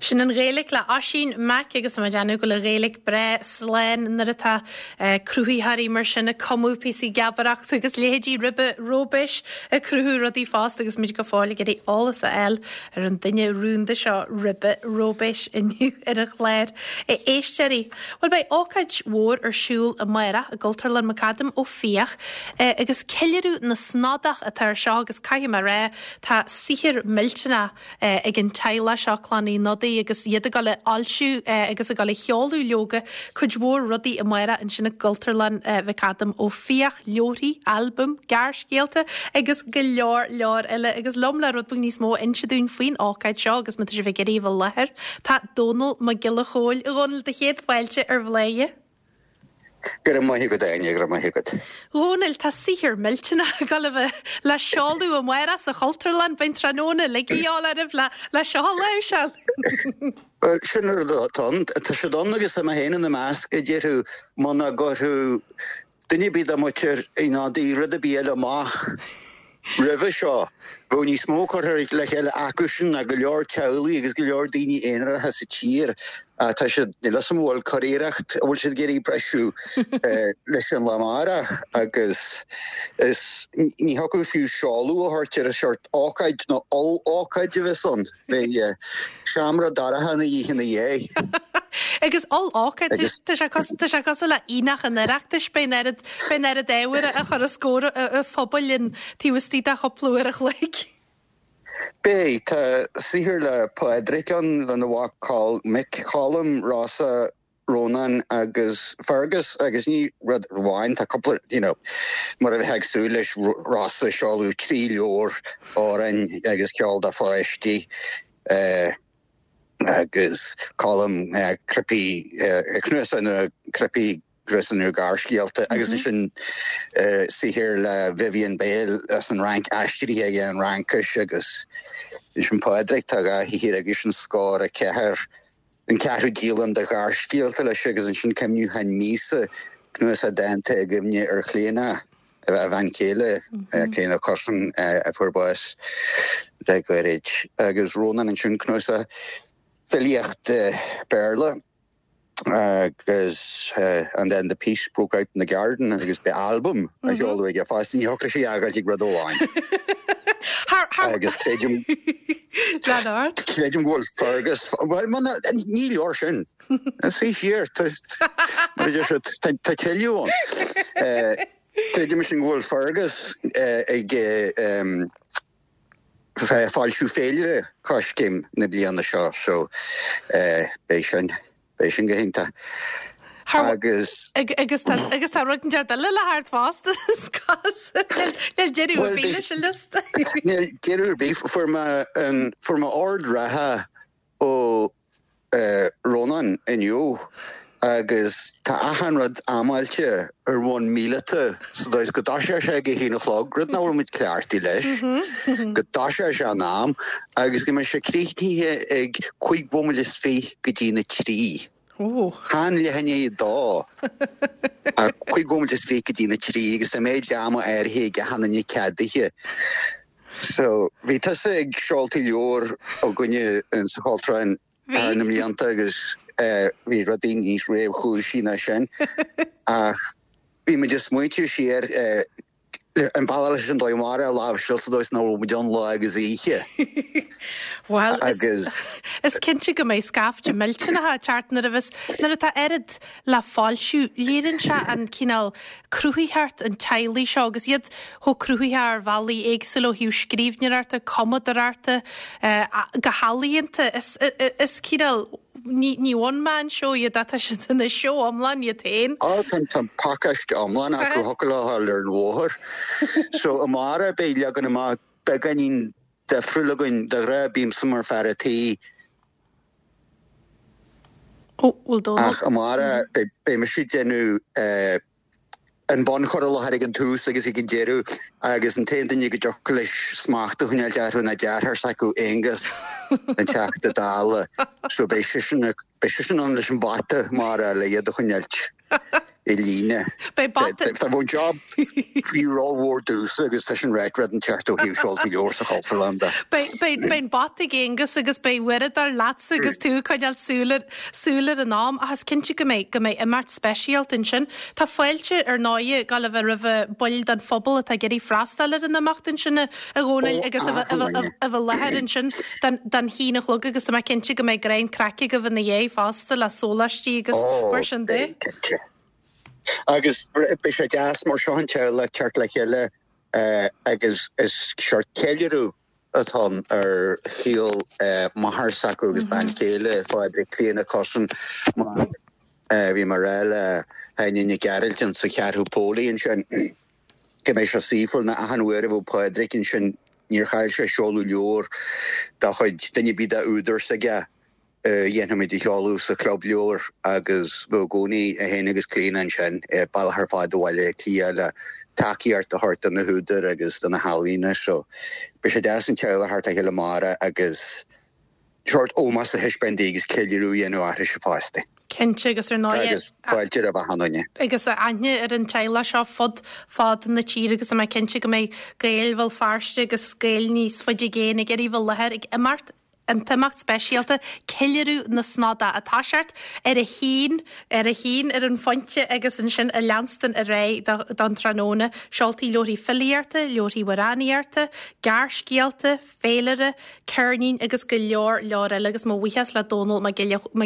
Sin an Ghaeilge le Oisín Mac agus tá mé ag déanamh go bhfuil an Ghaeilge breá slán nuair atá cruthaitheoirí mar sin ag cumadh píosaí geabaireachta agus leithéidí Ribe Róibéis ag cruthú rudaí fosta agus muid go fóill ag iarraidh eolas a fháil ar an duine rúnda seo Ribe Róibéis inniu ar an chlár. A éisteoirí, bhuel beidh ócáid mhór ar siúl amárach i gCultúrlann McAdam Ó Fiaich agus ceiliúradh na Snodach atá ar seo agus caithfidh mé a rá tá saothar millteanach ag an teaghlach seo, Clann Uí Shnodaigh, agus iad ag dul a fhoilsiú agus ag dul a sheoladh leoga cuid mhór rudaí amárach ansin i gCultúrlann McAdam Ó Fiaich, leabharthaí, albaim, gearrscéalta agus go leor leor eile. Agus liom le rud beag níos mó a inse dúinn faoin ócáid seo agus má tá sibh ag iarraidh a bheith i láthair, tá Dónall Mac Giolla Chóill. A Dhónaill, do chéad fáilte ar Bhladhaire. Go raibh maith agat, Áine, go raibh maith agat. Dhónaill, tá saothar millteanach ag dul a bheith le seoladh amárach sa Chultúrlann. Beidh an tráthnóna uilig a dhíobháil oraibh le le seo a láimhseáil. Bhuel, sin an rud atá ann. Tá siad ann agus tá mé féin ina measc, a déarfadh, muna gcuirfeadh duine ar bith dá muintir Uí Shnodaigh rud ar bith eile amach Roimhe seo, bheadh níos mó curtha le chéile acusan ná go leor teaghlaigh agus go leor daoine aonaracha sa tír. Tá siad, níl a fhios agam an bhfuil curiarracht, an bhfuil siad ag iarraidh briseadh leis an lá amárach agus is, ní thiocfadh fiú seoladh a thabhairt ar an seort ócáid nó oll-ócáid a bheas ann. Beidh seomra dorcha ina dhiaidh ina dhiaidh. Agus oll-ócáid, tá sé tá sé cosúil le Aonach an Oireachtais, beidh an oiread, beidh an oiread ábhair a chur os comhair an phobail in taobh istigh de chúpla uair a chloig. Beidh, tá saothar le Pádraic ann, lena mhac Col, mic Colm, Rossa, Rónán agus Fergus agus ní rud amháin, tá cúpla, you know, mar a bheifeá ag súil leis, Rossa ag seoladh 3 leabhar amhráin agus ceol do pháistí agus Colm cnaipí, cnuasach nua cnaipí, cnuasach nua gearrscéalta agus ansin saothar le Vivian Bale as an Fhrainc, aistrithe aige ón Fhraincis agus ansin Pádraic, tá 2 shaothar aigesean, Scór 4. an ceathrú díolaim de ghearrscéalta leis agus ansin Cuimhniúchán Míosa, cnuasach dánta i gcuimhne ar Chlíona, a bhean chéile, Clíona Cussen, a fuair bás le gairid, agus Rónán ansin, cnuasach filíochta Béarla agus And then the peace broke out in the garden agus beidh albam á sheoladh aige fosta, ní thiocfadh leis é a fhágáilt ag rud amháin. Agus creidim Lean ort. Creidim go bhfuil Fergus, bhuel, muna, ní leor sin. Suigh siar, tá, mar a deir siad, tá, tá tuilleadh ann. Creidim sin go bhfuil Fergus ag foilsiú féilire Coiscéim na bliana seo, so beidh sin. Beidh sin go hiontach. Agus. Agus tá agus tá rud inteacht eile le theacht fosta is cosúil. Níl deireadh ar bith leis an liosta. Níl deireadh ar bith. Fuair mé an fuair mé ord reatha ó Rónán inniu agus tá achan rud amáilte ar bhonn míleata sa dóigh is go dtoiseoidh sé ag a haon a chlog, rud nach bhfuil muid cleachtaithe leis, go dtoiseoidh sé in am agus go mbeidh sé críochnaithe ag cúig bhomaite is fiche go dtí na trí. Chan leath i ndiaidh a dó, ach cúig bhomaite is fiche go dtí na trí agus tá méid ama áirithe ag achan duine ceadaithe. So, bhí tusa ag seoltaí leabhar againne sa Chultúrlann thar na mblianta agus bhí rudaí níos réchúisí ná sin ach bhí muid ag smaointiú siar an bealach leis an dóigh amárach a láimhseáil sa dóigh is nach bhfuil muid ann lá agus oíche. Bhuel, agus is cinnte go mbeidh scaifte millteanach ag teacht nuair a bheas, nuair atá oiread le foilsiú, léiríonn sé an cineál cruthaitheacht an teaghlaigh seo agus iad chomh cruthaitheach ar bhealaí éagsúla ó thaobh scríbhneoireachta, cumadóireachta, go healaíonta. Is, is cineál Ní, ní one man show iad ach tá siad ina seó iomlán iad féin. Á, tá, tá an pacáiste iomlán acu, thiocfadh leo a ghabháil ar an bhóthar. So, amárach beidh leagan amach beagáinín difriúil againn. De ghnáth bímse mar fear a' tí. Ó, bhfuil Dónal? Ach amárach beidh, beidh mise ag déanamh eh, an bunchur i láthair ag an tús agus ag an deireadh agus an t-aon duine go dtiocfadh leis smacht a choinneáilt orthu ná deartháir s'acu, Aonghus, an Teachta Dála. So beidh seisean, beidh seisean ann leis an bata amárach le iad a choinneáilt, i líne. Beidh bata. Tá an job faoi rómhór domhsa agus tá sin ráite rud inteacht ó thaobh seoltaí leabhar sa Chultúrlann de. Beidh an bata ag Aonghus agus beidh uaireadóir leatsa agus tú ag coinneáil súil ar súil ar an am ach is cinnte go mbeidh go mbeidh imeacht speisialta ansin. Tá fáilte ar ndóighe ag gabháil a bheith roimh baill den phobal atá ag iarraidh freastal ar an imeacht ansin a Dhónaill agus a bheith i láthair ansin don haon a chlog agus tá mé cinnte go mbeidh greim craic agaibh ina dhiaidh fosta le sóláistí agus mar sin de. Beidh, cinnte. Agus beidh sé deas mar seo an teaghlach teacht le chéile agus is seort ceiliúradh atá ann ar shaol máthar s'acu agus bean chéile Phádraig, Clíona Cussen, mar bhí mé a rá le hÁine Nic Gearailt sa Cheathrú Póilí ansin. go mbeidh sé saoithiúil nó achan uair a bheadh Pádraig ansin níor chaill sé seoladh leabhar dá chuid duine ar bith dá údar s'aige a dhéanfaimid a sheoladh sa chlub leabhar agus bheadh i gcónaí é féin agus Clíona ansin bealach ar fad ó Bhaile Átha Cliath le tacaíocht a thabhairt do na húdair agus do na healaíona so beidh sé deas an teaghlach a theacht le chéile amárach agus Seort ómós a thaispeáint di agus ceiliúradh a dhéanamh uirthise fosta. Cinnte, agus ar ndóigh. Agus fáilte roimh achan duine. Agus aithne ar an teaghlach seo fud fad na tíre agus tá mé cinnte go mbeidh Gaeil Bhéal Feirste agus Gaeil níos faide i gcéin ag iarraidh bheith i láthair ag imeacht an t-imeacht speisialta, Ceiliúradh na Snodach, ag toiseacht ar a haon, ar a haon ar an phointe agus ansin ag leanstan ar aghaidh don tráthnóna. Seoltaí leabharthaí filíochta, leabharthaí amhránaíochta, gearrscéalta, féilire, ceirnín agus go leor leor eile agus mo bhuíochas le Dónall Mac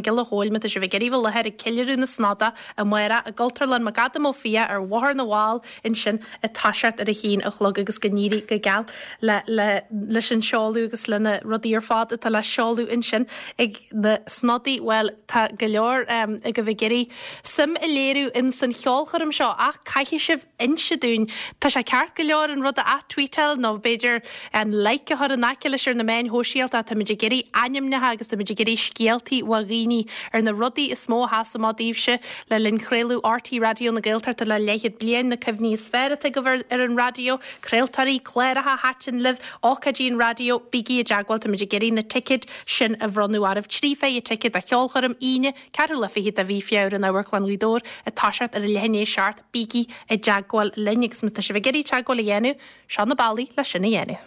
Giolla Chóill má tá sibh ag iarraidh bheith i láthair ag ceiliúradh na Snodach amárach i gCultúrlann McAdam Ó Fiaich ar Bhóthar na bhFál ansin ag toiseacht ar a haon a chlog agus go n-éirí go geal le le leis an seoladh agus le na rudaí ar fad atá le seoladh ansin ag na Snodaigh. Bhuel tá go leor agaibh ag iarraidh suim a léiriú ins an cheolchoirm seo ach caithfidh sibh inse dúinn. Tá sé ceart go leor an rud a ath-tweetáil nó b'fhéidir an like a chur in aice leis ar na meáin shóisialta. Táimid ag iarraidh ainmneacha agus táimid ag iarraidh scéaltaí ó dhaoine ar na rudaí is mó a sheas amach daoibhse le linn chraoladh RTÉ Raidió na Gaeltachta le leathchéad bliain, na cuimhní is fearr atá agaibh ar an raidió, craoltóirí, cláracha a thaitin libh, ócáidí an raidió, bígí i dteagmháil, táimid ag iarraidh na ticéid sin a bhronnadh oraibh. 30 ticéad do cheolchoirm Aoine, ceathrú lá fichead de mhí Feabhra in Amharclann Ghaoth Dobhair ag toiseacht ar a leath i ndiaidh a 7. Bígí i dteagmháil linn agus má tá sibh ag iarraidh teagmháil a dhéanamh, seo na bealaí le sin a dhéanamh.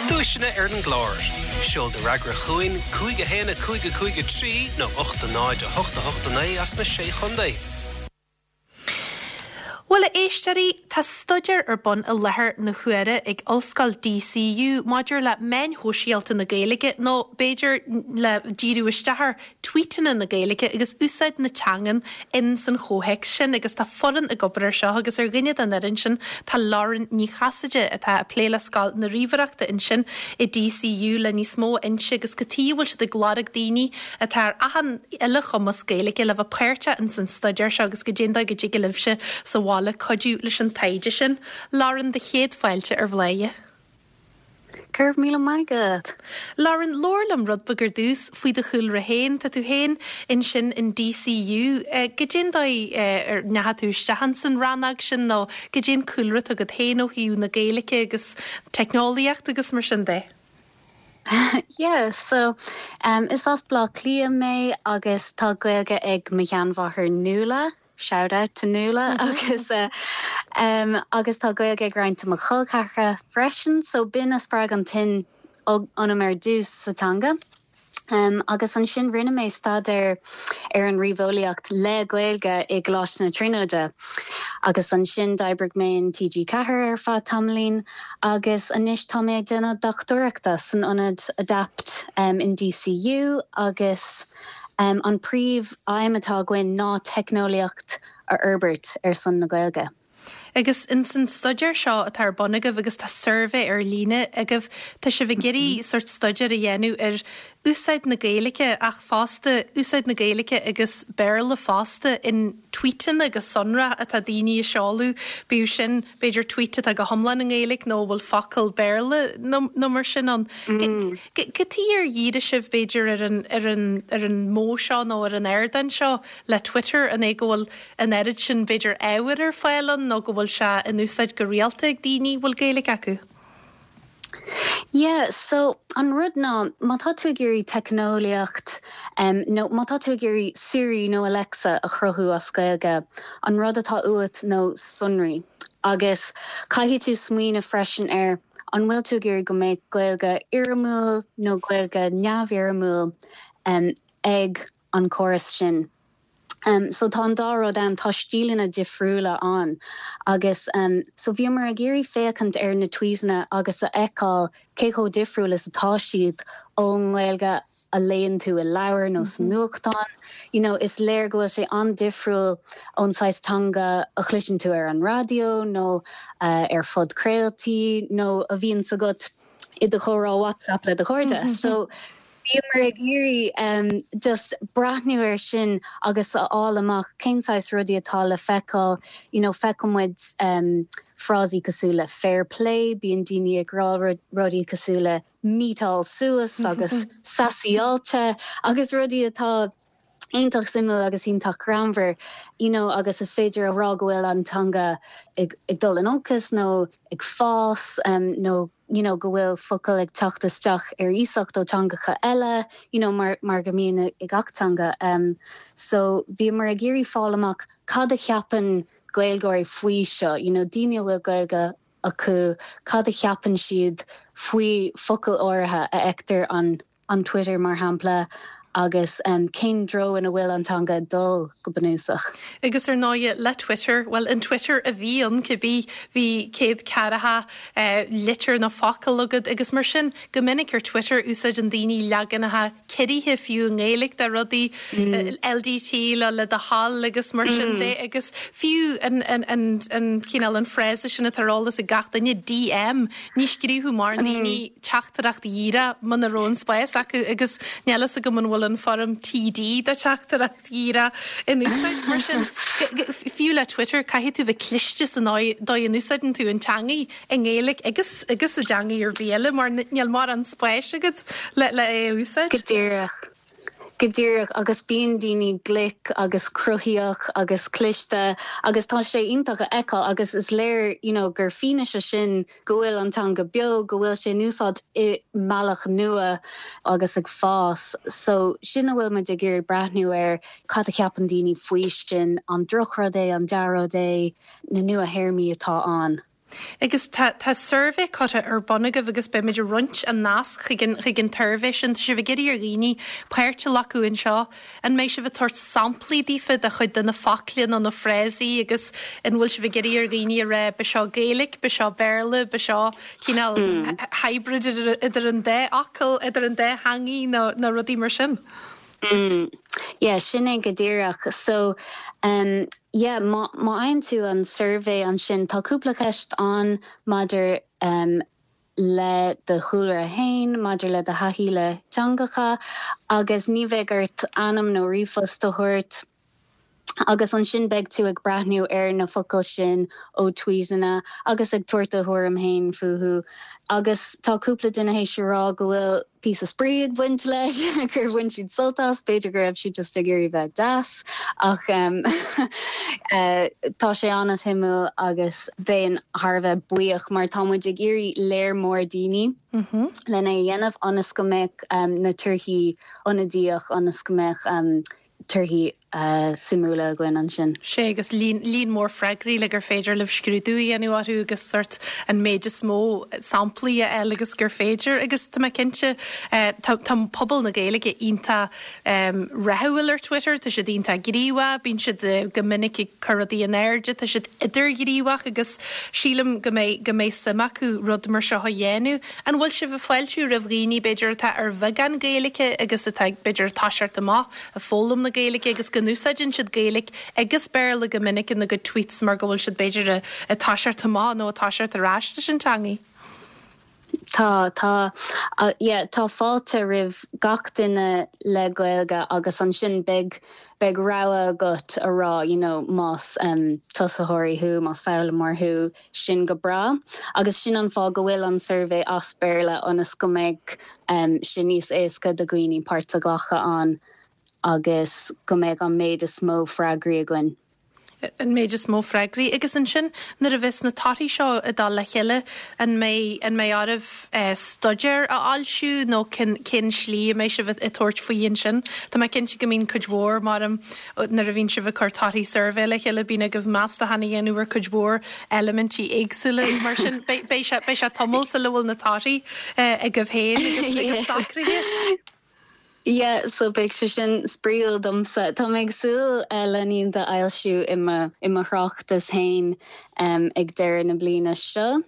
Duaiseanna ar an gclár. Seol do fhreagra chugainn, 5 1 5 5 3 nó 8 0 8 8 9 as na Sé Chontae. Bhuel, a éisteoirí, tá staidéar ar bun i láthair na huaire ag Ollscoil DCU maidir le meáin shóisialta na Gaeilge, nó b'fhéidir le díriú isteach ar tweetanna na Gaeilge agus úsáid na teangan in san chomhthéacs sin agus tá foireann ag obair ar seo agus ar dhuine den fhoireann sin tá Lauren Ní Chasaide atá ag plé le Scoil na Ríomhaireachta ansin i DCU le níos mó a inse agus cad tuige a bhfuil siad ag lorg daoine atá ar achan uile chumas Gaeilge le bheith páirteach in san staidéar seo agus goidé an dóigh go dtig libhse sa bhaile cuidiú leis an taighde sin. Lauren, do chéad fáilte ar Bhladhaire. Go raibh míle maith agat. Lauren, labhair liom rud beag ar dtús faoi do chúlra féin. Tá tú féin ansin in DCU. Goidé an dóigh ar ndeachaigh tú isteach ins an rannóg sin nó goidé an cúlra atá agat féin ó thaobh na Gaeilge agus teicneolaíocht agus mar sin de? Yeah, so um, is as Baile Átha Cliath mé agus tá Gaeilge ag mo sheanmháthair Nuala. Shout out to Nuala agus agus tá Gaeilge ag roinnt de mo chol ceathracha freisin so b'in a spreag an tsuim ionam ar dtús sa teanga. Agus ansin rinne mé staidéar ar an ríomheolaíocht le Gaeilge i gColáiste na Tríonóide agus ansin d'oibrigh mé in TG4 ar feadh tamaillín agus anois tá mé ag déanamh dochtúireachta san ionad ADAPT in DCU agus An príomh aidhm atá againn ná teicneolaíocht a fhorbairt ar son na Gaeilge. Agus ins an staidéar seo atá ar bun agaibh, agus tá suirbhé ar líne agaibh, tá sibh ag iarraidh sórt staidéar a dhéanamh ar úsáid na Gaeilge ach fosta úsáid na Gaeilge agus Béarla fosta in tweetanna go sonrach atá daoine ag seoladh, bíodh sin b'fhéidir tweet atá go hiomlán i nGaeilge nó a bhfuil focal Béarla nó mar sin ann. Cad tuige ar dhírigh sibh, b'fhéidir, ar an, ar an, ar an modh seo nó ar an ardán seo le Twitter? An é go bhfuil an oiread sin, b'fhéidir, ábhair ar fáil ann nó go bhfuil sé in úsáid go rialta ag daoine a bhfuil Gaeilge acu? Yeah, so an rud ná, má tá tú ag iarraidh teicneolaíocht nó má tá tú ag iarraidh Siri nó Alexa a chruthú as Gaeilge, an rud atá uait ná sonraí. Agus caithfidh tú smaoineamh freisin ar an bhfuil tú ag iarraidh go mbeadh Gaeilge fhoirmiúil nó Gaeilge neamhfhoirmiúil ag an córas sin. So tá an dá rud ann, tá stíleanna difriúla ann agus so bhíomar ag iarraidh féachaint ar na tweetanna agus a fheiceáil cé chomh difriúil is atá siad ón nGaeilge a léann tú i leabhar nó sa nuachtán. You know, is léir go bhfuil sé an-difriúil ón saghas teanga a chloiseann tú ar an raidió nó ar phodchraoltaí nó a bhíonns agat i do chomhrá WhatsApp le do chairde. So Bhíomar ag iarraidh just breathnú air sin agus a fháil amach cén saghas rudaí atá le feiceáil, you know feiceann muid frásaí cosúil le fair play, bíonn daoine ag rá rudaí cosúil le meetáil suas agus sassy-áilte agus rudaí atá iontach suimiúil agus iontach greannmhar, you know agus is féidir a rá go bhfuil an teanga ag dul in olcas nó ag fás nó you know go bhfuil focail ag teacht isteach ar iasacht ó teangacha eile, you know mar mar go mbíonn i gach teanga. So bhíomar ag iarraidh fáil amach cad a cheapann Gaeilgeoirí faoi seo, you know daoine a bhfuil Gaeilge acu, cad a cheapann siad faoi focail áirithe a fheictear an an Twitter, mar shampla, agus cén treo ina bhfuil an teanga ag dul, go bunúsach. Agus ar ndóighe, le Twitter, bhuel, an Twitter a bhí ann cibé, bhí 140 litir nó focal agat agus mar sin, go minic ar Twitter, úsáideann daoine leaganacha ciorraithe fiú i nGaeilge de rudaí, LDT le le do thoil agus mar sin de agus fiú an, an, an, an cineál, an frása sin atá ar eolas ag gach duine, DM, ní scríobhadh mórán daoine teachtaireacht dhíreach muna raibh an spás acu agus níl fhios agam an bhfuil an foirm TD do teachtaireacht dhíreach in úsáid. Mar sin, fiú le Twitter, caithfidh tú bheith cliste san dóigh a n-úsáideann tú an teangaidh i nGaeilge agus agus i dteangaidh ar bith eile mar níl mórán spáis agat le le é a úsáid. Go díreach. Go díreach, agus bíonn daoine glic agus cruthaíoch agus cliste agus tá sé iontach a fheiceáil agus is léir you know gur fianaise sin go bhfuil an teanga beo, go bhfuil sé in úsáid i mbealach nua agus ag fás. So sin a bhfuil muid ag iarraidh breathnú air, cad a cheapann daoine faoi sin, an drochrud é, an dea-rud é, na nua-théarmaí atá ann. Agus tá, tá suirbhé curtha ar bun agaibh agus beidh muid ag roinnt an nasc chuig an, chuig an tsuirbhé sin. Tá sibh ag iarraidh ar dhaoine páirt a ghlacadh anseo. An mbeidh sibh ag tabhairt samplaí daofa de chuid de na focla nó na frásaí agus an bhfuil sibh ag iarraidh ar dhaoine a rá b'seo Gaeilge, b'seo Béarla, b'seo cineál hybrid idir an dá fhocal, idir an dá theangaidh nó, nó rudaí mar sin? Yeah, sin é go díreach. So, yeah, má, má fhaigheann tú an suirbhé ansin, tá cúpla ceist ann maidir le do chúlra fhéin, maidir le do thaithí le teangacha, agus ní bheidh ort ainm nó ríomhphost a thabhairt. Agus ansin beidh tú ag breathnú ar na focail sin ó tweetanna agus ag tabhairt do thuairim fhéin fúthu. Agus tá cúpla duine théis a rá go bhfuil píosa spraoi ag baint leis, gur bhain siad sult as, b'fhéidir go raibh siad just ag iarraidh bheith deas, ach tá sé an-suimiúil agus bheinn thar a bheith buíoch mar tá muid ag iarraidh léar mór daoine lena a dhéanamh ionas go mbeadh na torthaí ionadaíoch, ionas go mbeadh torthaí suimiúla againn ansin. Sea, agus líon, líon mór freagraí le gur féidir libh scrúdú a dhéanamh orthu agus sórt an méid is mó samplaí a fháil agus gur féidir. Agus tá mé cinnte, tá, tá pobal na Gaeilge iontach rathúil ar Twitter, tá siad iontach gníomhach, bíonn siad go minic ag cur rudaí in airde, tá siad idirghníomhach agus sílim go mbeidh, go mbeidh suim acu rud mar seo a dhéanamh. An bhfuil sibh ag fáiltiú roimh dhaoine, b'fhéidir, atá ar bheagán Gaeilge agus atá, b'fhéidir, ag toiseacht amach ag foghlaim na Gaeilge agus go n-úsáideann siad Gaeilge agus Béarla go minic ina gcuid tweets mar go bhfuil siad, b'fhéidir, ag toiseacht amach nó ag toiseacht ar ais leis an teangaidh? Tá, tá. Yeah, tá fáilte roimh gach duine le Gaeilge agus ansin beidh, beidh rogha agat a rá, you know, más tosaitheoirí thú, más foghlaimeoir thú, sin go breá. Agus sin an fáth go bhfuil an suirbhé as Béarla, ionas go mbeidh sé níos éasca do dhaoine páirt a ghlacadh ann agus go mbeidh an méid is mó freagraí againn. An méid is mó freagraí. Agus ansin nuair a bheas na torthaí seo ag dul le chéile, an mbeidh, an mbeidh oraibh staidéar a fhoilsiú nó cén, cén slí a mbeidh sibh ag tabhairt faoi ansin? Tá mé cinnte go mbíonn cuid mhór, mar nuair a bhíonn sibh ag cur torthaí suirbhé le chéile, bíonn agaibh meastachán a dhéanamh ar cuid mhór eilimintí éagsúla. Mar sin, beidh, beidh sé, beidh sé tamall sula bhfuil na torthaí agaibh féin agus, agus socraithe. Yeah, so beidh sé sin spraíúil domsa. Tá mé ag súil le iad a fhoilsiú i mo, i mo thráchtas féin ag deireadh na bliana seo.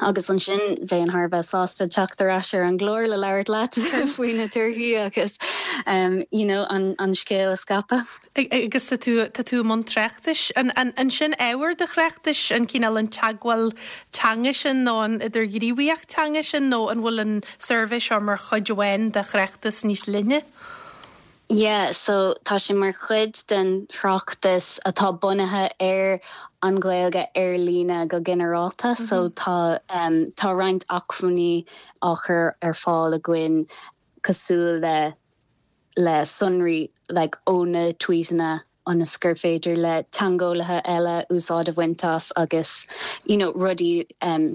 Agus ansin bheinn thar a bheith sásta teacht ar ais ar an gclár le labhairt leat faoi na torthaí agus you know an an scéal a scaipeadh. Agus tá tú, tá tú i mbun tráchtais. An, an, an sin ábhar do thráchtais, an cineál an teagmháil teanga sin nó an idirghníomhaíocht teanga sin nó an bhfuil an suirbhé seo mar chuid amháin de thráchtas níos leithne? Yeah, so tá sé mar chuid den tráchtas atá bunaithe ar an Ghaeilge ar líne go ginearálta. So tá tá roinnt acmhainní á chur ar fáil againn cosúil le le sonraí like ó na tweetanna ionas gur féidir le teangeolaithe eile úsáid a bhaint as agus you know rudaí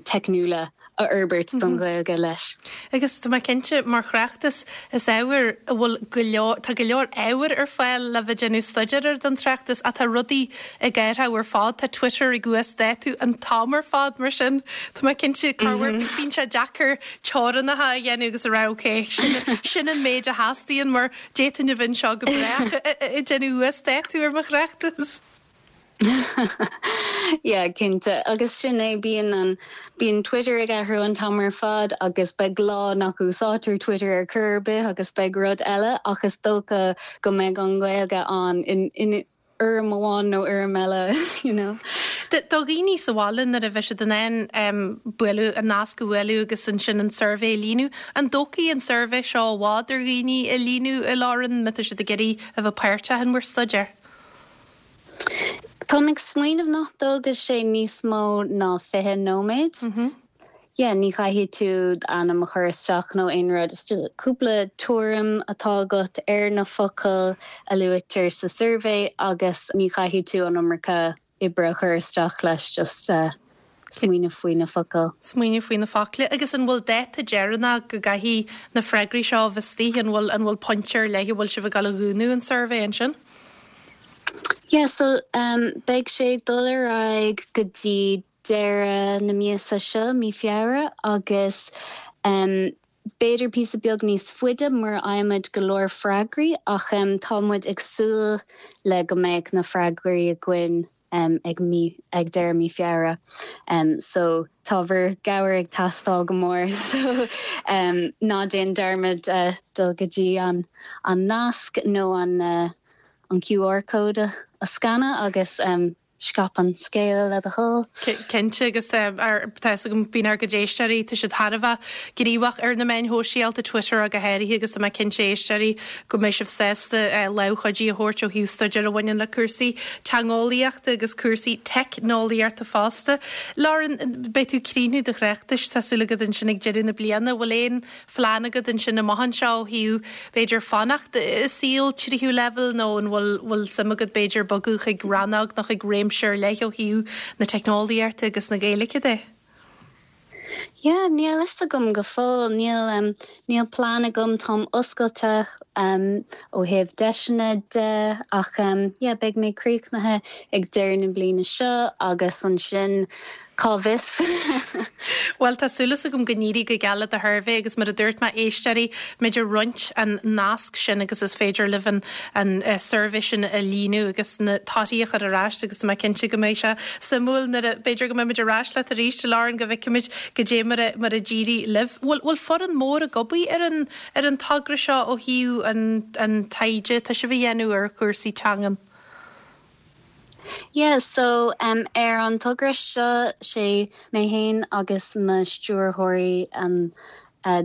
teicniúla a fhorbairt don Ghaeilge leis. Agus tá mé cinnte, mar thráchtas, is ábhar a bhfuil go leor, tá go leor ábhair ar fáil le bheith ag déanamh staidéir air don tráchtas ach tá rudaí ag athrú ar fad, tá Twitter ag uasdátú an t-am ar fad mar sin tá mé cinnte corruair bíonn sé deacair teorainneacha a dhéanamh agus a rá ok, sin, sin an méid a theastaíonn mar D'fhéadfainn a bheith anseo go brách ag déanamh uasdátú ar mo thráchtas. Yeah, cinnte. Agus sin é, bíonn an, bíonn Twitter ag athrú an t-am ar fad agus beidh lá nach úsáidtear Twitter ar chor ar bith agus beidh rud eile ach is dócha go mbeidh an Ghaeilge ann in, in, fhoirm amháin nó fhoirm eile, you know. Do dhaoine sa bhaile nuair a bheidh siad in ann bualadh, an nasc a bhualadh agus ansin an suirbhé a líonadh, an dtógfaidh an suirbhé seo i bhfad ar dhaoine a líonadh a Lauren, má tá siad ag iarraidh a bheith páirteach in bhur staidéar? Táim ag smaoineamh nach dtógfaidh sé níos mó ná 20 nóiméad. Yeah, ní chaithfidh tú d'ainm a chur isteach nó aon rud, it's just cúpla tuairim atá agat ar na focail a luaitear sa suirbhé agus ní chaithfidh tú an iomarca oibre a chur isteach leis, just smaoineamh faoi na focail. Smaoineamh faoi na focail. Agus an bhfuil dáta deireanach go gcaithfidh na freagraí seo a bheith istigh, an bhfuil, an bhfuil pointe ar leith a bhfuil sibh ag dul a dhúnadh an suirbhé ansin? Yeah, so beidh sé ag dul ar aghaidh go dtí deireadh na míosa seo, mí Feabhra, agus b'fhéidir píosa beag níos faide mura bhfaighimid go leor freagraí ach tá muid ag súil le go mbeidh na freagraí againn ag mí, ag deireadh mí Feabhra. So tá bhur gcabhair ag teastáil go mór so ná déan dearmad dul go dtí an an nasc nó an an QR code a scanadh agus Scaip an scéal le do thoil. Cinnte, agus tá fhios agam, bíonn ár gcuid éisteoirí, tá siad thar a bheith gníomhach ar na meáin shóisialta, Twitter go háirithe, agus tá mé cinnte, a éisteoirí, go mbeidh sibh sásta lámh chuidí a thabhairt ó thaobh staidéar a bhaineann le cúrsaí teangeolaíochta agus cúrsaí teicneolaíochta fosta. Lauren, beidh tú ag críochnú do thráchtais, tá súil agat ansin ag deireadh na bliana. Bhfuil aon phlean agat ansin amach anseo ó thaobh, b'fhéidir, fanacht i saol tríú leibhéal nó an bhfuil, bhfuil suim agat, b'fhéidir, bogadh chuig rannóg nó chuig réimse ar leith ó thaobh na teicneolaíochta agus na Gaeilge de? Yeah, níl fhios agam go fóill. Níl, níl plean agam. Táim oscailte ó thaobh deiseanna de ach yeah, beidh mé críochnaithe ag deireadh na bliana seo agus ansin Cá bhfios? Bhuel, tá súil agam go n-éirí go geal le do shuirbhé agus mar a dúirt mé, éisteoirí, beimid ag roinnt an nasc sin agus is féidir libh an an suirbhé sin a líonadh agus na torthaí a chur ar ais agus tá mé cinnte go mbeidh sé suimiúil nuair a, b'fhéidir go mbeimid ar ais leat arís, Lauren, go bhfeicfimid goidé mar a, mar a d'éirigh libh. Bhfuil, bhfuil foireann mór ag obair ar an, ar an togra seo ó thaobh an, an taighde atá sibh a dhéanamh ar chúrsaí teangan? Yeah, so um ar an togra seo, sé mé fhéin agus mo stiúrthóirí an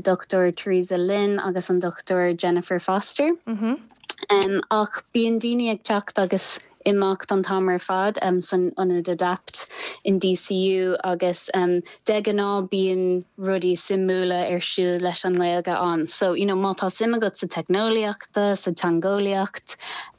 Dr Teresa Lynn agus an Dr Jennifer Foster. Um ach bíonn daoine ag teacht agus imeacht an t-am ar fad um san ionad Adapt in DCU agus um de ghnáth bíonn rudaí suimiúla ar siúl leis an nGaeilge ann. So, you know, má tá suim agat sa teicneolaíocht, sa teangeolaíocht,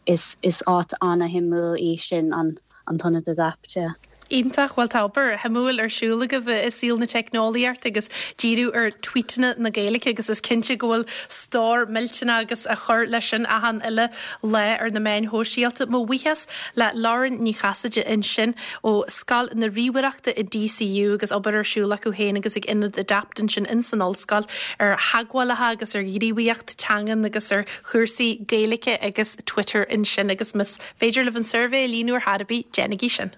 Is is áit ana-shuimiúil í sin an an t-ionad Adapt, yeah. Iontach, bhuel tá obair shuimiúil ar siúl agaibh i saol na teicneolaíochta agus díriú ar tweetanna na Gaeilge agus is cinnte go bhfuil stór millteanach agaibh a chur leis sin achan uile lá ar na meáin shóisialta. Mo bhuíochas le Lauren Ní Chasaide ansin ó Scoil na Ríomhaireachta i DCU agus obair ar siúl acu féin agus ag Ionad Adapt ansin ins an ollscoil ar theagmhálacha agus ar ghníomhaíocht teangan agus ar chúrsaí Gaeilge agus Twitter ansin agus más féidir libh an suirbhé a líonadh ar chor ar bith, déanaigí sin.